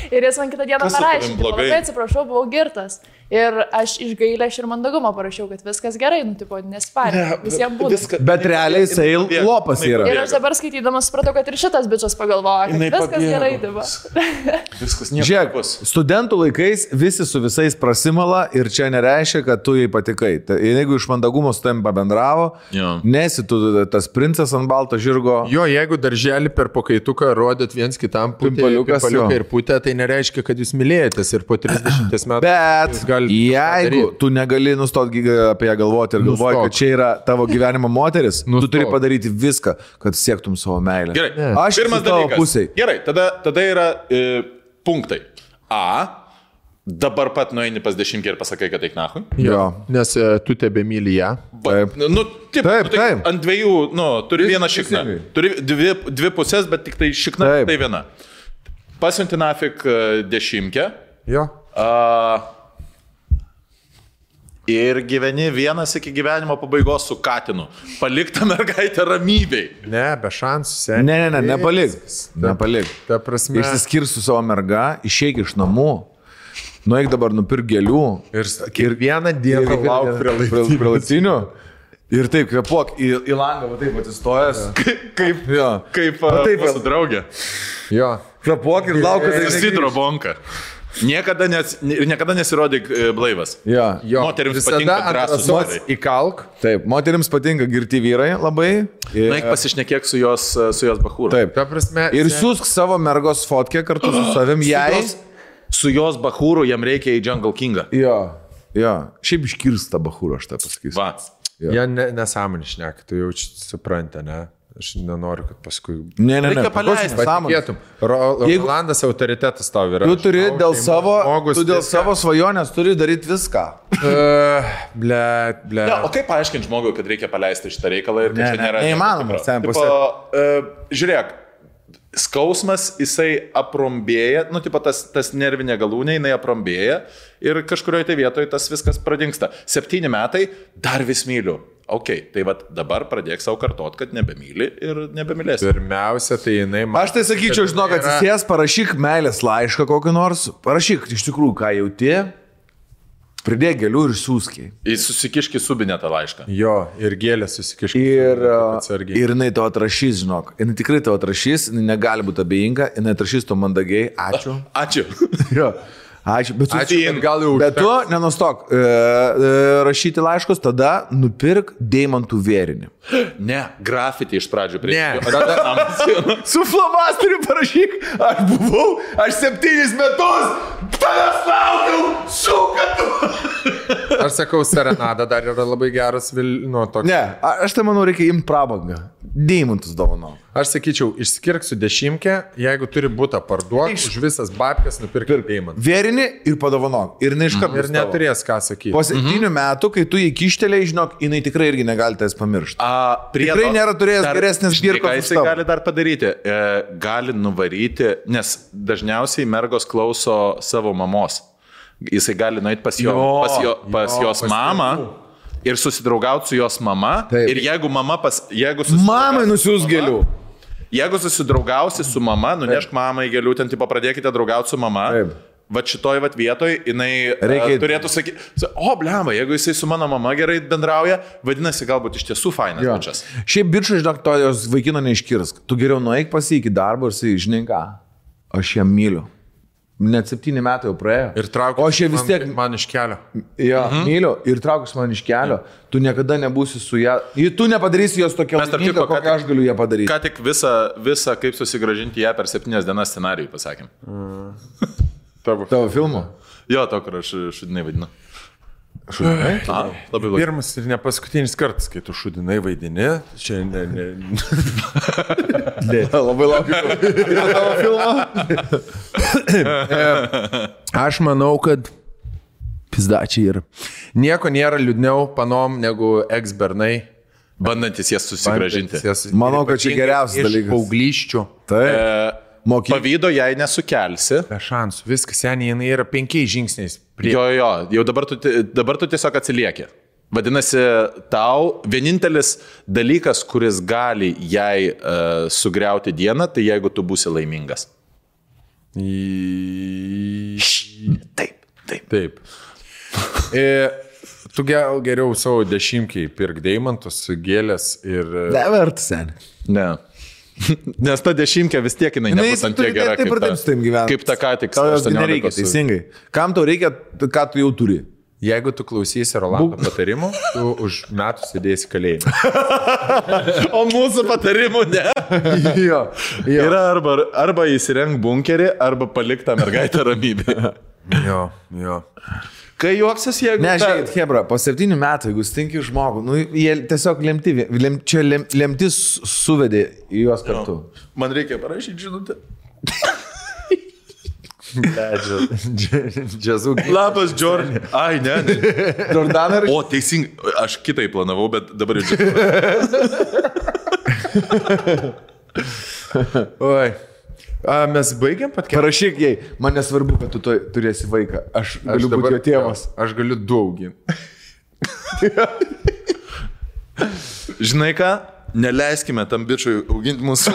Ir jis man kitą dieną parašė, labai atsiprašau, buvau girtas. Ir aš iš gailės ir mandagumo parašiau, kad viskas gerai, nesparė, visiems būtų. Bet realiai jisai lopas yra. Ir aš dabar skaitydamas supratau, kad ir šitas bičas pagalvojo, kad viskas gerai dirba. Viskas nieko. Žiūrėk, studentų laikais visi su visais prasimala ir čia nereiškia, kad tu jai patikai. Jeigu iš mandagumo su tavim pabendravo, nesi tu tas princas ant balto žirgo. Jo, jeigu darželį per pakaituką rodyt viens kitam paliuką ir putę, tai nereiškia, kad jūs mylėjotės ir po 30 metų. Bet jeigu tu negali nustoti apie ją galvoti ir galvoji, kad čia yra tavo gyvenimo moteris, tu turi padaryti viską, kad siektum savo meilę. Gerai, aš pirmas dalykas. Gerai, tada yra punktai. Dabar pat nueini pas 10 ir pasakai, kad eik nahui. Jo, nes tu tebe myli ją. Taip. Ant dviejų, turi vieną šikną. Turi dvi pusės, bet tik tai šikna, tai viena. Pasiunti nafik 10. Jo. Ir gyveni vienas iki gyvenimo pabaigos su katinu. Palik tą mergaitę ramybei. Ne, be šansų. Ne, nepalik. Ta prasme. Išsiskirk su savo merga, išeik iš namų, nueik dabar nupirk gėlių. Ir vieną dieną lauk prie laiptinių. Ir taip, kvepuok į langą, va taip atsistojęs. Kaip mūsų draugė. Jo. Kvepuok ir lauk, kad Sidro bonka. Niekada nesirodyk blaivas. Moterims patinka drąsus vyrai. Įkalk. Taip, moterims patinka girti vyrai labai. Naik pasišnekėk su jos bachūru. Taip. Ta prasme, ir siūsk savo mergos fotkę kartu su savim jai. Su jos bachūru jam reikia į Jungle Kingą. Jo. Šiaip iškirsta bachūro, aš tą pasakysiu. Va. Jie nesąmonį šneka, tu jau supranti, ne? Aš nenoriu, kad paskui... Ne. Reikia paleisti. Patikėtum. Rolandas autoritetas tau yra. Tu turi dėl savo svajonės turi daryti viską. Ble. Ne, o kaip paaiškinti žmogui, kad reikia paleisti šitą reikalą ir kad čia nėra... Neįmanoma. Žiūrėk, skausmas, jisai aprombėja, tas nervinė galūnė, jinai aprombėja ir kažkurioje tai vietoje tas viskas pradingsta. 7 metai, dar vis myliu. Ok, tai dabar pradėk savo kartot, kad nebemyli ir nebemylėsi. Pirmiausia, tai jinai... Aš tai sakyčiau, žinok, atsisės, parašyk meilės laišką kokį nors, parašyk iš tikrųjų, ką jauti, pridėk gėlių ir siūskiai. Jis susikiški subinę tą laišką. Jo, ir gėlę susikiški. Ir jinai to atrašys, žinok. Jinai tikrai to atrašys, jinai negali būti abejinga, jinai atrašys to mandagiai. Ačiū. Ačiū. Jo. Ačiū, bet gal jau. Bet tu nenustok rašyti laiškus, tada nupirk deimantų vėrinį. Ne, grafitį iš pradžių prie. Ne. Su flomasteriu parašyk, aš 7 metus tavęs laukiau, šūkatu. Aš sakau, serenada dar yra labai geras toks. Ne, aš tai manau, reikia imti prabangą. Deimantus dovanau. Aš sakyčiau, išskirk su 10, jeigu turi būtą parduoti, už visas babkes nupirk deimantų. Vėrinį ir padovanok. Ir neiškart. Ir neturės ką sakyti. Po 7 metų, kai tu jį kištelėjai, žinok, jinai tikrai irgi negali tavęs pamiršti. Tikrai nėra turėjęs geresnės birkos. Ką jisai gali dar padaryti? Gali nuvaryti, nes dažniausiai mergos klauso savo mamos. Jisai gali nueiti pas jos mamą. Ir susidraugauti su jos mama. Taip. Ir jeigu mama mamai nusiūs gėlių. Jeigu susidraugausi su mama, nunešk mamai gėlių, ten tipo pradėkite draugauti su mama. Taip. Šitoj vietoj jinai turėtų sakyti, blemba, jeigu jisai su mano mama gerai bendrauja, vadinasi, galbūt iš tiesų fainas bičas. Šiaip bičai, žinok, to jos vaikino neiškirsk. Tu geriau nueik pas jį iki darbo ir sakai, žinai ką, aš ją myliu. Net 7 metai jau praėjo. Ir traukus man iš kelio. Jo, myliu. Ir traukus man iš kelio. Tu niekada nebūsi su ją. Tu nepadarysi jos tokia laiminga, kokią aš galiu ją padaryti. Ką tik visą kaip susigražinti ją per 7 dienas scenarijų pasakėm. Tavo filmo? Jo, to, kur aš šudinai vadinu. Šudinai? Labai blogai. Pirmas ir ne paskutinis kartas, kai tu šudinai vaidini. Čia labai laukiu. Ir tavo filmo? Aš manau, kad pizdačiai ir nieko nėra liūdniau panom negu ex-bernai. Bandantis jas susigražinti. Manau, kad čia geriausias dalykas. Paaugliščių. Taip. Pavydo jai nesukelsi. Be šansų. Viskas, seniai, jinai yra 5 žingsniais. Jau dabar tu tiesiog atsilieki. Vadinasi, tau vienintelis dalykas, kuris gali jai sugriauti dieną, tai jeigu tu būsi laimingas. Taip. Tu geriau savo 10 pirk deimantus, gėlės ir... Nevertas, seniai. Ne. Nes ta 10 vis tiek jinai nebus ant tiek gera, kaip ta ką tik. Tau jos nereikia, teisingai. Kam tau reikia, ką tu jau turi? Jeigu tu klausysi Rolando patarimų, tu už metų sėdėsi kalėjime. O mūsų patarimų ne. Jo. Yra arba įsirenk bunkerį, arba palik tą mergaitę ramybę. Jo. Kai juoksis, jeigu... Ne, žiūrėkit, Hebra, po 7 metų, jeigu stinki žmogų, jie tiesiog lemtis suvedė į juos kartu. Man reikia parašyti žinutę. Džiazų. Labas, Džordžai. Ai, ne. Jordaną ir... O, teisingai, aš kitai planavau, bet dabar jau... Oi. Mes baigiam patkėti. Parašyk jai, man nesvarbu, kad tu turėsi vaiką. Aš galiu būti jo tėvas. Aš galiu 2 auginti. Žinai ką? Neleiskime tam bičiui auginti mūsų.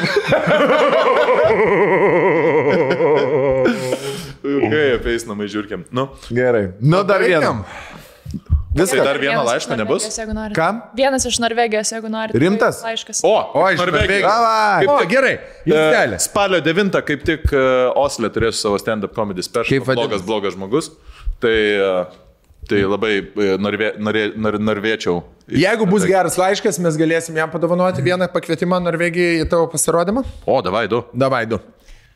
Kai apeis namai žiūrkiam. Gerai. Dar vienam. Viską. Dar vieną laišką nebus? Kam? Vienas iš Norvegijos, jeigu nori. Rimtas? Laiškas. Iš Norvegijos. Gerai. Spalio 9 kaip tik Osle turėsiu savo stand-up comedy special. Blogas žmogus. Tai labai norvėčiau. Jeigu bus geras laiškas, mes galėsim jam padovanoti vieną pakvietimą Norvegijai į tavo pasirodymą. Davai du.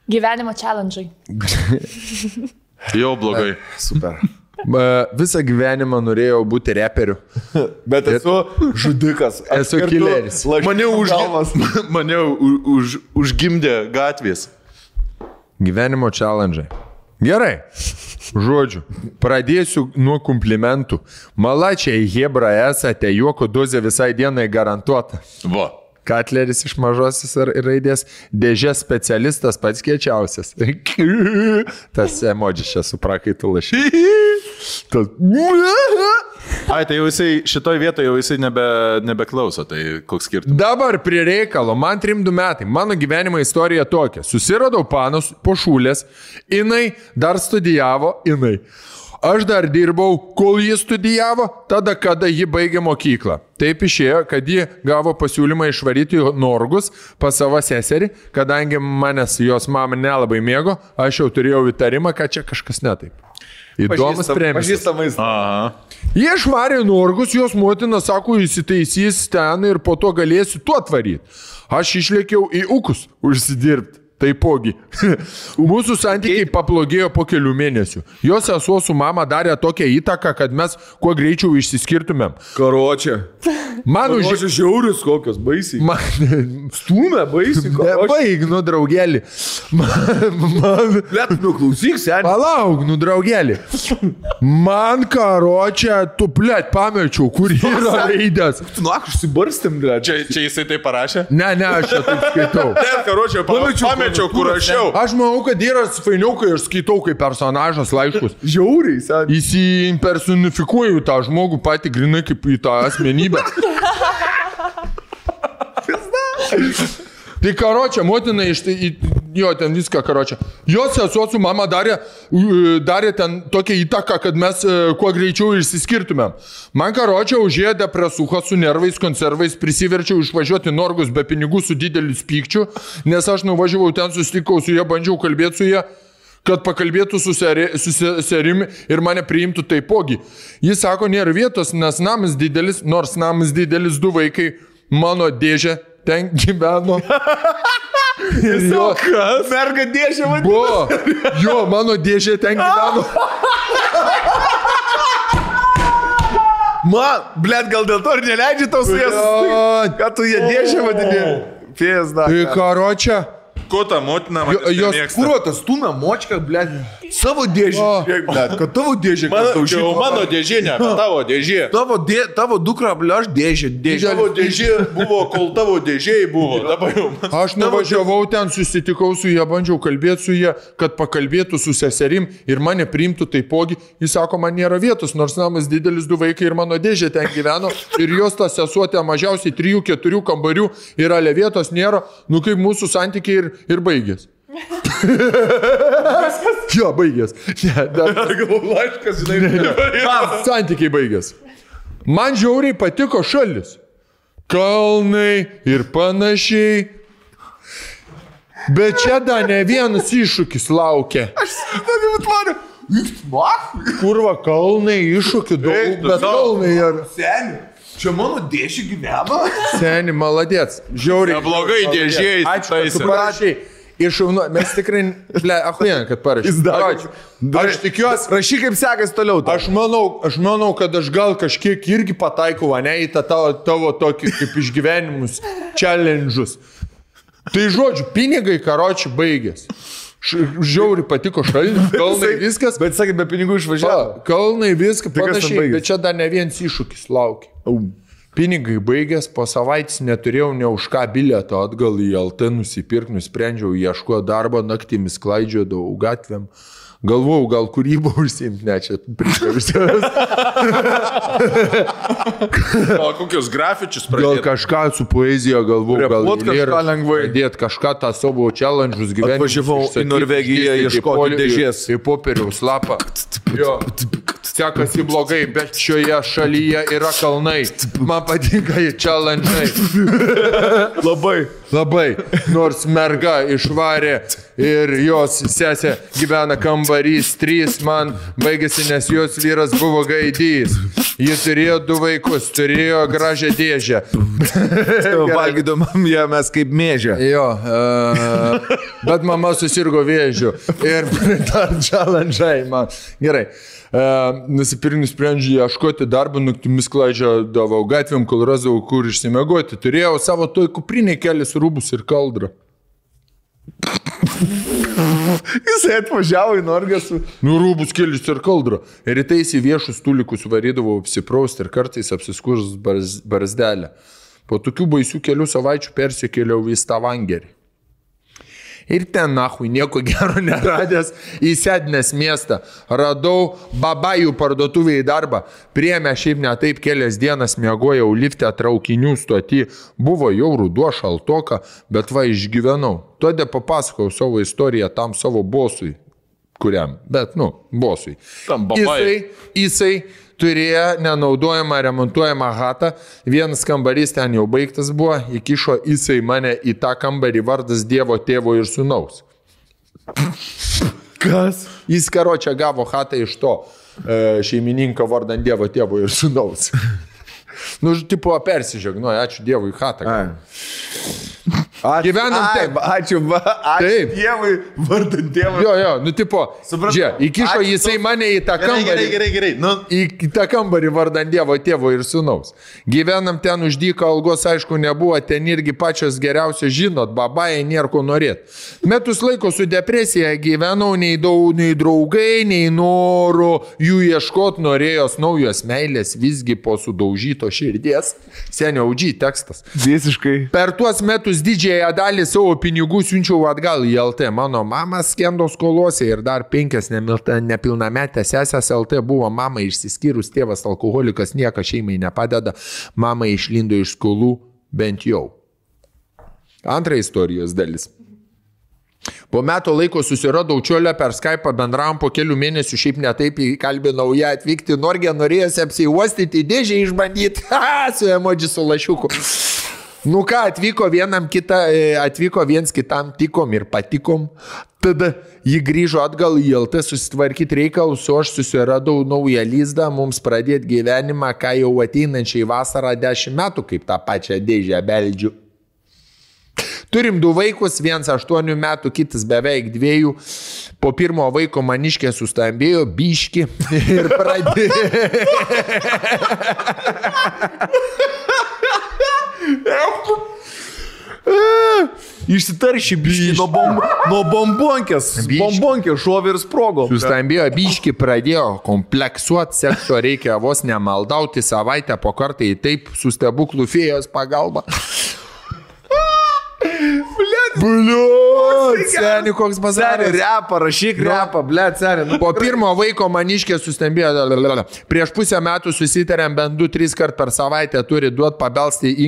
Gyvenimo challenge. Jau blogai. Super. Visą gyvenimą norėjau būti reperiu. Bet esu žudikas. Esu kileris. Mane užgimdė gatvės. Gyvenimo challenge. Gerai. Žodžiu, pradėsiu nuo komplimentų. Malačiai, hebra esate, juoko dozė visai dienai garantuota. Va. Katleris iš mažosios raidės, dėžės specialistas pats kiečiausias. Tas emodžis čia su prakaitu lašy. Ai, tai jau jisai, šitoj vietoje jau jisai nebeklauso, tai koks skirtumas. Dabar prie reikalo, man 32 metai, mano gyvenimo istorija tokia. Susiradau panos po šūlės, jinai dar studijavo, Aš dar dirbau, kol ji studijavo, tada, kada ji baigė mokyklą. Taip išėjo, kad ji gavo pasiūlymą išvaryti Norgus pas savo seserį, kadangi manęs jos mama nelabai mėgo, aš jau turėjau įtarimą, kad čia kažkas netaip. Įdomus premijas. Pažįstamais. Jie išvarė Norgus, jos motina sako, įsitaisys ten ir po to galėsiu tuo atvaryti. Aš išlėkiau į Ukus užsidirbti. Taipogi. Mūsų santykiai pablogėjo po kelių mėnesių. Jos sesuo su mama darė tokią įtaką, kad mes kuo greičiau išsiskirtumėm. Karočią. Karočią žiaurius kokios, baisiai. Stūmė, baisiai. Nebaig, nu, draugelį. Blet, nu, klausyk, seniai. Palauk, nu, draugelį. Man karočią, tu, blet, pamečiau, kur yra raidės. Tu, nu, užsibarstėm, blet. Čia jisai tai parašė? Ne, aš čia taip skaitau. Blet, karočią, pamečiau, kur rašiau. Aš manau, kad yra fainiau, kai aš skaitau kaip personažas laiškus. Žiauriai, seniai. Įsimpersonifikuoju tą žmogų patį grinai kaip į tą asmenybę. Tai karočią, motina jo, ten viską karočią. Jos sesuo su mama darė ten tokią įtaką, kad mes kuo greičiau išsiskirtumėm. Man karočią užėjo depresuha su nervais, konservais, prisiverčiau išvažiuoti Norgus be pinigų su dideliu pykčiu, nes aš nuvažiavau ten, susitikau su ją, bandžiau kalbėti su ją, kad pakalbėtų su serimi ir mane priimtų taipogi. Jis sako, nėra vietos, nes namas didelis, nors namas didelis, 2 vaikai, mano dėžė ten gyveno. Kas? Merga dėžė vadinasi. Buvo. Jo, mano dėžė ten gyveno. Man, blet, gal dėl to ir neleidži tau su jas. Ką tu jie dėžė vadinė? Pėsda. Tai karočią. Ko ta motina jos kruotas, stūmė močką, blet, savo dėžį. Blet, kad tavo dėžė, kad tau šitą. Mano dėžė, ne, tavo dėžė. Tavo dukra, blet, aš dėžė. Tavo dėžė buvo, kol tavo dėžėjai buvo. Aš nuvažiavau ten, susitikau su ją, bandžiau kalbėti su ją, kad pakalbėtų su seserim ir mane priimtų taipogi. Jis sako, man nėra vietos, nors namas didelis, 2 vaikai ir mano dėžė ten gyveno. Ir jos ta sesuotė mažiausiai 3-4 kambarių ir ale vietos nėra. Nu kaip mūsų santykiai ir baigės. Jo, baigės. Laiškas, žinai. Santykiai baigės. Man žiauriai patiko šalis. Kalnai ir panašiai. Bet čia dar ne vienas iššūkis laukia. Aš tvariu. Kurva, kalnai, iššūkių daug, bet kalnai yra. Seni. Čia mano dėžė gyveno? Seni, maladėts. Žiauriai. Neblogai dėžėjai. Ačiū, tu parašai. Iššaunu, mes tikrai, achuien, kad parašai. Aš tikiuosi. Rašy, kaip sekasi toliau. Aš manau, kad aš gal kažkiek irgi pataikau, ne, į tą tavo tokį kaip išgyvenimus, challenge'us. Tai žodžiu, pinigai karočiui baigės. Žiauriai patiko šalinis, kalnai viskas. Bet sakai, be pinigų išvažiavo. Kalnai viskas, panašiai, bet čia dar ne vienas iššūkis laukia. Pinigai baigės, po savaitės neturėjau ne už ką bilieto atgal į LT nusipirkti, nusprendžiau ieškoti darbo, naktimis klaidžiodavau gatvėm. Galvojau, gal kūrybą užsiimti, ne, čia prikavisės. O kokius grafičius pradėti? Gal kažką su poezija galvojau, gal pradėti kažką tą savo challenge'us gyvenimą. Atvažiavau į Norvegiją ieškoti dėžės. Į popieriaus lapą. Jo. Sekasi blogai, bet šioje šalyje yra kalnai. Man patinka į challenge'ai. Labai. Nors merga išvarė ir jos sesė gyvena kambarys 3, man baigėsi, nes jos vyras buvo gaidys. Ji turėjo 2 vaikus, turėjo gražią dėžę. Valgydom ją mes kaip mėžę. Jo, bet mama susirgo vėžiu ir dar challenge man. Gerai. Nusprendžiu ieškoti darbą, naktimis klaidžiodavau gatvėm, kol rasdavau, kur išsimegoti. Turėjau savo toj kuprinėj kelis rūbus ir kaldrą. Jisai atvažiavo į Norgą su... Rūbus kelis ir kaldrą. Ir rytais į viešus tulikus varydavau apsiprausti ir kartais apsiskurs barzdelę. Po tokių baisių kelių savaičių persikėliau į Stavangerį. Ir ten, nahui, nieko gero neradęs, į Sednės miestą. Radau babajų parduotuvėje darbą. Priėmė šiaip ne taip, kelias dienas miegojau lifte traukinių stoti. Buvo jau ruduo šaltoka, bet va išgyvenau. Todėl papasakau savo istoriją tam savo bosui. Kuriam? Bet, bosui. Tam babai. Jisai turėjo nenaudojamą remontuojamą hatą, vienas kambarys ten jau baigtas buvo, įkišo jisai mane į tą kambarį vardas Dievo tėvo ir sūnaus. Kas? Jis karočią gavo hatą iš to šeimininką vardan Dievo tėvo ir sūnaus. Tipo persižegnoja, ačiū Dievui hatą. Gyvenam taip. Ačiū Dievui, vardan Dievo. Jo, tipo, įkišo jisai mane į tą kambarį. Gerai. Į tą kambarį vardan Dievo tėvo ir sūnaus. Gyvenam ten už dyką, algos aišku nebuvo, ten irgi pačios geriausios žinot, babai, nėra ko norėt. Metus laiko su depresija gyvenau, nei draugai, nei noro jų ieškot, norėjos naujos meilės, visgi po sudaužyto širdies. Senio OG tekstas. Visiškai. Per tuos metus didžiąją dalį savo pinigų siunčiau atgal į LT. Mano mama skendo skolose ir dar 5 nepilnametės sesės LT buvo mama išsiskyrus, tėvas alkoholikas, niekas šeimai nepadeda, mama išlindo iš skolų bent jau. Antra istorijos dalis. Po metų laiko susiradau čiolę per Skype'ą, bendravom po kelių mėnesių, šiaip netaip įkalbinau ją atvykti, Norge norėjosi apsiuostyti, dėžę išbandyti, su emoji su lašiuku. Atvyko viens kitam tikom ir patikom, tada jį grįžo atgal į LT susitvarkyti reikalus, o aš susiradau naują lizdą, mums pradėti gyvenimą, ką jau ateinančiai vasarą 10 metų, kaip tą pačią dėžę beldžiu. Turim 2 vaikus, vienas 8 metų, kitas beveik 2. Po pirmo vaiko maniškė sustambėjo, biški ir pradėjo. Išsitarši biški nuo bombonkės. Bombonkė šovė ir sprogo. Sustambėjo biški, pradėjo kompleksuoti, sekso reikia vos nemaldauti, savaitę po kartą į taip su stebuklų fėjos pagalba. Seni, koks bazaras. Repą, rašyk repą, seni. Po pirmo vaiko maniškė sustambėjo. Prieš pusę metų susitarėm bent 2-3 kart per savaitę turi duoti pabelsti į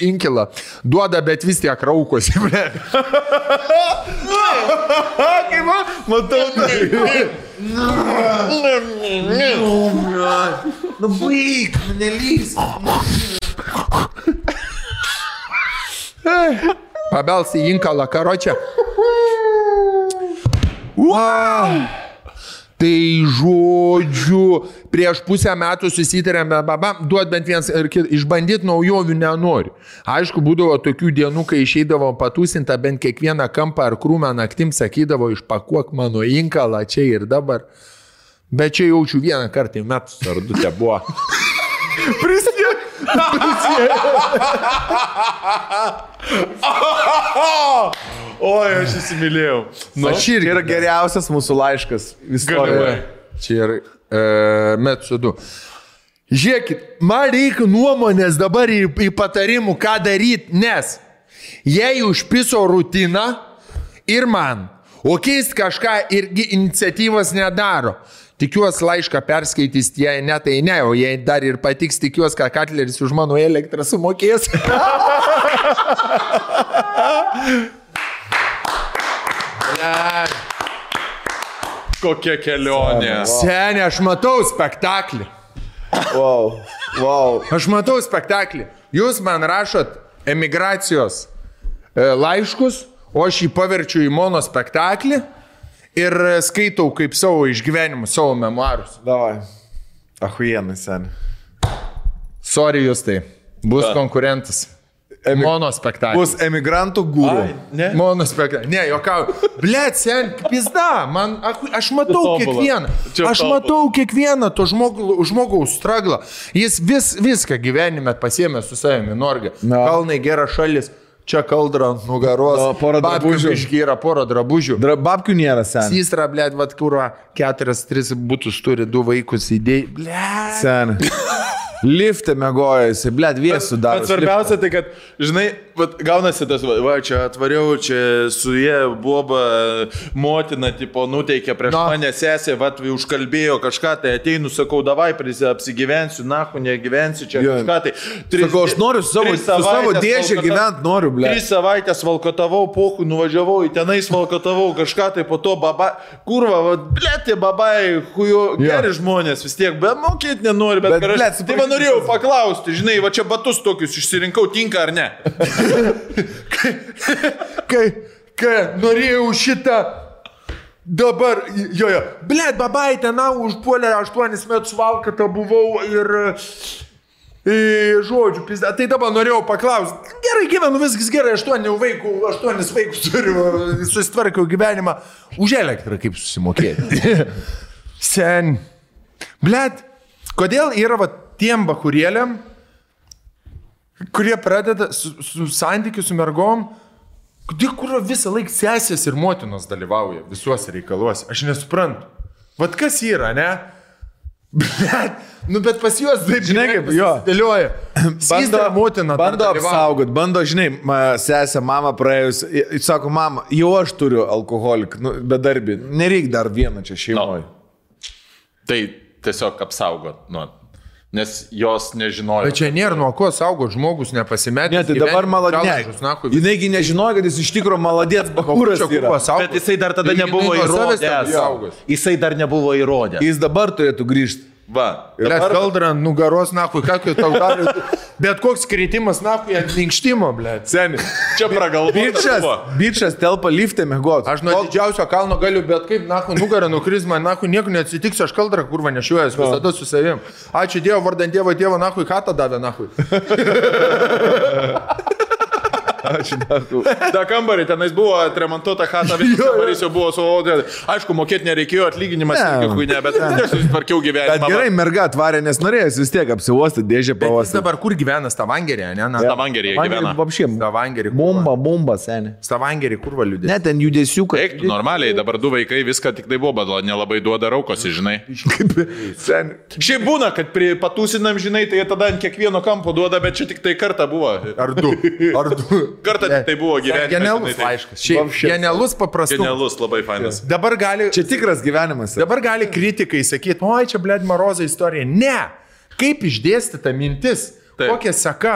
inkilą. Duoda, bet vis tiek raukosi. Kaip matau tai. Baig, nelys. Pabelsi į inkalą, karočią. Tai žodžiu, prieš pusę metų susitarėme, duot bent vienas ir išbandyti naujovių nenori. Aišku, būdavo tokių dienų, kai išeidavo patūsinta bent kiekvieną kampą ar krūmą naktim, sakydavo, išpakuok mano inkalą čia ir dabar. Bet čia jaučiu vieną kartą į metus ar 2 te buvo. Prisiek. Oi, aš įsimylėjau. Čia yra geriausias mūsų laiškas istorijoje. Čia yra metų 2. Žiūrėkit, man reikia nuomonės dabar į patarimų, ką daryti, nes jei užpiso rutiną ir man, o keist kažką irgi iniciatyvas nedaro. Tikiuosi laišką perskaitys, jei ne, tai ne, o jei dar ir patiks, tikiuosi, kad Katleris už mano elektrą sumokės. Kokia kelionė. Seni, aš matau spektaklį. Wow. Aš matau spektaklį. Jūs man rašot emigracijos laiškus, o aš jį paverčiu į monospektaklį ir skaitau kaip savo išgyvenimus, savo memuarus. Davai. Ahuienai, sen. Sorry jūs tai. Bus konkurentas. Monospektaklis. Bus emigrantų gūrų. Monospektaklis. Ne, jokau. Blet, sen, pizda. Aš matau kiekvieną. Aš matau kiekvieną to žmogaus straglą. Jis viską gyvenime pasiėmė su savimi. Norge. Kalnai, gera šalis. Čia kaldra ant nugaros. Porą drabužių. Išgyra porą drabužių. Babkių nėra, sen. Sistra, blet, vat kurva, 4-3 būtus turi, 2 vaikus įdėjai. Blet. Sen. Liftė mėgoja, jisai, blėt, viesų daro. Bet svarbiausia tai, kad, žinai, gaunasi tas, va, čia atvariau, čia su jie boba motina, tipo, nuteikė prieš mane sesė, va, užkalbėjo kažką, tai ateinu, sakau, davai, apsigyvensiu, nahu, negyvensiu, čia kažką, tai... Sakau, aš noriu su savo dėžę gyventi, noriu, blėt. 3 savaitės valkotavau, pohu, nuvažiavau, į tenais valkotavau, kažką, tai po to baba, kurva, va, blėt, tie babai, hujo, geri žmonės vis tiek, bet mokėti nenori, bet blėt, tai norėjau paklausti, žinai, va čia batus tokius išsirinkau, tinka ar ne? Kai norėjau šitą dabar, blėt, babai ten užpuolė 8 metus valkatą buvau ir žodžiu, pizda, tai dabar norėjau paklausti, gerai gyvenu, viskas gerai, 8 vaikų turiu, susitvarkiau gyvenimą, už elektrą kaip susimokėti. Sen, blėt, kodėl yra va tiem bakurėliam, kurie pradeda su santykiu su mergom, kur visą laiką sesės ir motinos dalyvauja visuose reikaluose. Aš nesuprantu. Vat kas yra, ne? Bet pas juos taip, žinai, kaip jo dėlioja. Bando apsaugot, bando, žinai, sesė, mama praėjus, sako, mama, jau aš turiu alkoholik, bedarbį, nereik dar vieną čia šeimoje. Tai tiesiog apsaugot, nes jos nežinojo. Bet čia nėra nuo ko saugot, žmogus nepasimetė. Ne, tai dabar maladės. Jinaigi nežinojo, kad jis iš tikro maladės bakūras yra. Bet jisai dar tada nebuvo įrodęs. Jisai dar nebuvo įrodęs. Jis dabar turėtų grįžti. Va. Blet, kaldra ant nugaros, nakui, ką tau gali. Bet koks kritimas, nakui, ant minkštimo, blet. Seni. Čia pragalvo. Bičas telpa liftė mėgot. Aš nuo didžiausio kalno galiu, bet kaip, nakui, nugarą nukris, man, nakui, nieko neatsitiks, aš kaldrą kurva nešiuojas, visada su savim. Ačiū Dievo, vardant Dievo, nakui, katą davė, nakui. Ačiū, nakui. Ta kambarį, tenais buvo atremontuota chata, visas kambarys jau buvo su odė. Aišku, mokėti nereikėjo, atlyginimas ne, bet susitvarkiau gyvenimą. Bet gerai, merga atvarė, nes norėjęs vis tiek apsiuostyti dėžę pavasarį. Dabar kur gyvena Stavangerė, ne? Stavangerė gyvena. Stavangerė. Bomba, seni. Stavangerė, kur valiudė. Ne, ten judesių, kad... Eiktų normaliai, dabar 2 vaikai viską tik tai buvo, bet nelabai duoda raukosi, žinai. Šiaip būna, kad patūsinam, žinai, tai tada ant kiekvieno kampo duoda, bet čia tik tai kartą buvo. Ar du. Kartą tai buvo gyvenimas. Genialus laiškas. Genialus paprastas. Genialus, labai fainas. Dabar gali... Čia tikras gyvenimas. Dabar gali kritikai sakyti, oi, čia, blėd, Marozo istorija. Ne! Kaip išdėstyta mintis? Taip. Kokia seka?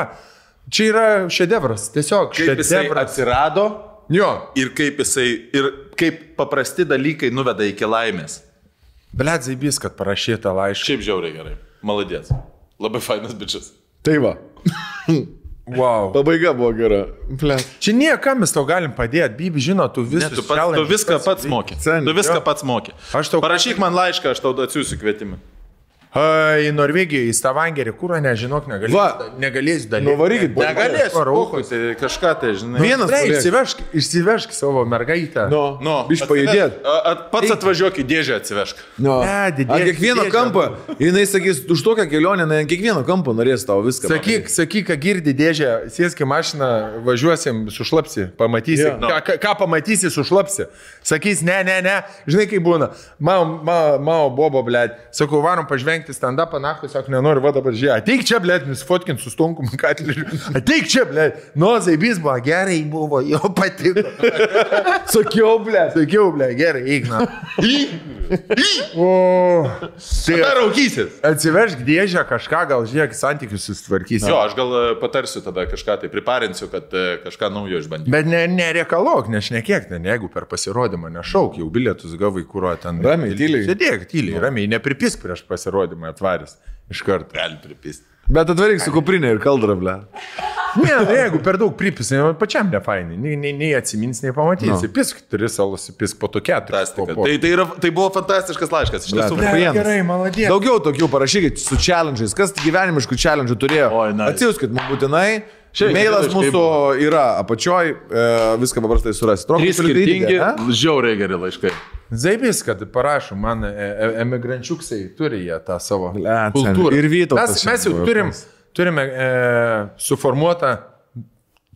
Čia yra šedevras. Tiesiog kaip jisai atsirado. Jo. Ir kaip paprasti dalykai nuveda iki laimės. Blėd, zaibys, kad parašyta laišką. Šiaip žiauriai gerai. Maladės. Labai fainas bičias. Tai va. Wow. Pabaiga buvo gera. Čia niekam mes tau galim padėti. Bibi, žino, tu viską pats moki. Tu viską pats moki. Parašyk man laišką, aš tau atsiųsiu kvietimą. Į Norvegiją, į Stavangerį, kur nežinok, negalėsiu dalyvauti. Nuvarykit, negalėsiu. Tai kažką tai, žinai. Vienas išsivežk savo mergaitę. Biš pajudėt. Pats atvažiuok į dėžę atsivežk. Ant kiekvieno kampo, jinai sakys, už tokią kelionę, ant kiekvieno kampo norės tau viską. Sakyk, ką girdi dėžę, sėski mašiną, važiuosim, sušlapsi, pamatysi. Ką pamatysi, sušlapsi. Sakys, ne. Žinai, kaip būna. Mao bobo, blėt. Sakau, varom pažvengti stand-upą, nahui, sako, nenoriu, va dabar žiūrėti. Ateik čia, blėt, nusifotkinti su Stonkum Katleriu. Ateik čia, blėt. Zaibys buvo, gerai buvo, jo patiko. Sakiau, blėt, gerai, eik, na. Tai raukysis. Atsivežk dėžę kažką, gal žiūrėk, santykius susitvarkysi. Jo, aš gal patarsiu tada kažką, tai priparinsiu, kad kažką naujo išbandysiu. Bet nereikalok, nešnekėk, jeigu per pasirodymą nešauk, jau bilietus gavai, kurio ten. Ramiai, tyliai. Sėdėk, tyliai, ramiai, nepripisk prieš pasirodymą atvarys. Iš karto. Gali pripist. Bet atvaryk su kuprinė ir kaldra, ble. Ne, jeigu per daug pripisai, pačiam nefainai, nei atsimins, nei pamatysi. Pisk 3 salos, pisk po to 4. Tai buvo fantastiškas laiškas. Iš tiesų, gerai, maladė. Daugiau tokių parašykit su challenge'ais. Kas gyvenimiškų challenge'ų turėjo? Atsiųskit mums būtinai. Mailas mūsų yra apačioj, viską paprastai surasti. 3 skirtingi, žiauriai geri laiškai. Zaibis, kad parašom, man emigrančiuksai turi jie tą savo kultūrą. Ir Vytautas. Mes jau turime suformuotą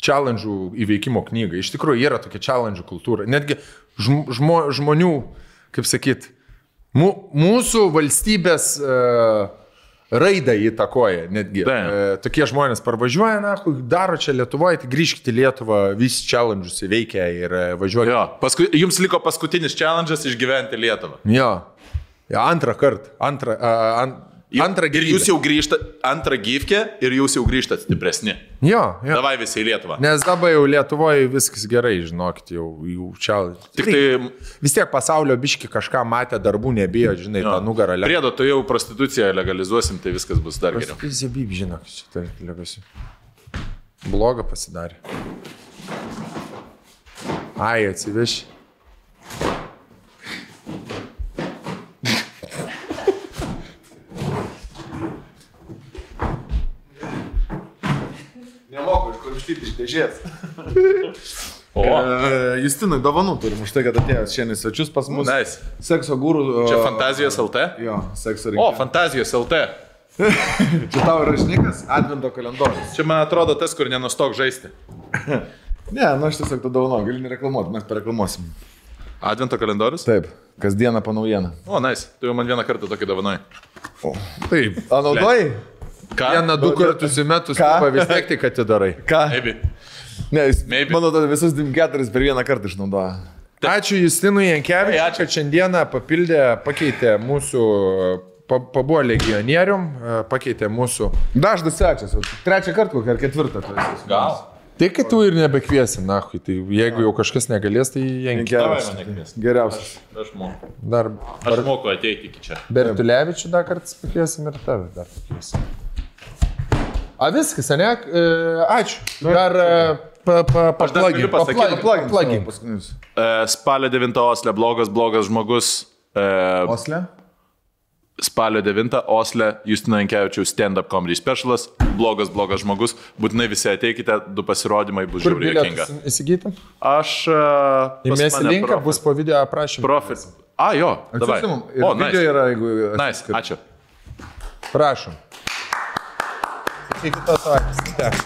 challenge'ų įveikimo knygą. Iš tikrųjų, yra tokia challenge'ų kultūra. Netgi žmonių, kaip sakyt, mūsų valstybės raidą įtakoja netgi. Tokie žmonės parvažiuoja, daro čia Lietuvoje, tai grįžkite į Lietuvą, visi challenge'us įveikia ir važiuoja. Jo, jums liko paskutinis challenge'as išgyventi Lietuvą. Jo, antrą kartą. Antrą gyvybę. Ir jūs jau grįžtate, antrą gyvkę ir jūs jau grįžtate stipresni. Jo. Davai visi į Lietuvą. Nes dabar jau Lietuvoje viskas gerai, žinokit, jau čia. Tik tai vis tiek pasaulio biški kažką matė, darbų nebijo, žinai, tą nugarą. Priedo, tu jau prostituciją legalizuosim, tai viskas bus dar geriau. Zebib, žinok, šitą legasiu. Blogą pasidarė. Ai, atsiveši. Iš dėžės. Justinui dovanų turim už tai, kad atėjęs šiandien svečius pas mus. Nice. Sekso gūrų. Čia Fantazijos LT? Jo, sekso rinkimai. Fantazijos LT. Čia tavo rašnikas, advento kalendorius. Čia man atrodo tas, kur nenustok žaisti. Ne, aš tiesiog tą dovaną, gali nereklamuoti, mes pareklamuosim. Advento kalendorius? Taip, kasdieną po naujieną. Nice. Tu jau man vieną kartą tokį dovanai. Taip. Naudojai? Ką? 1-2 kartus į metus vis tiek tik atidarai. Ką? Ne, jis, Maybe. Manau, visus 4 per vieną kartą išnaudoja. Ačiū Justinui Jankevičiui, kad šiandieną pakeitė mūsų, pabuvo legionierium, pakeitė mūsų. Dažnas svečias, 3 kartą ar 4. Gal? Tai kad tu ir nebekviesi, nahui, tai jeigu jau kažkas negalės, tai Jankevičius. Geriausias. Aš moku. Aš moku ateiti iki čia. Bertulevičių dar kartą pakviesim ir tave dar pakviesim. Viskas, ne? Ačiū. Dar paplagin. Spalio 9 Osle, blogas žmogus. Osle? Spalio 9 Osle, Justino Jankevičiaus stand-up comedy specialas. Blogas žmogus. Būtinai visi ateikite, 2 pasirodymai bus žiauriai juokinga. Įsigytum? Aš... Įmėsi linką, bus po video aprašymą. Profit. Jo, davai. Video yra, jeigu... Nice, ačiū. Prašom. Iki kitos savaitės.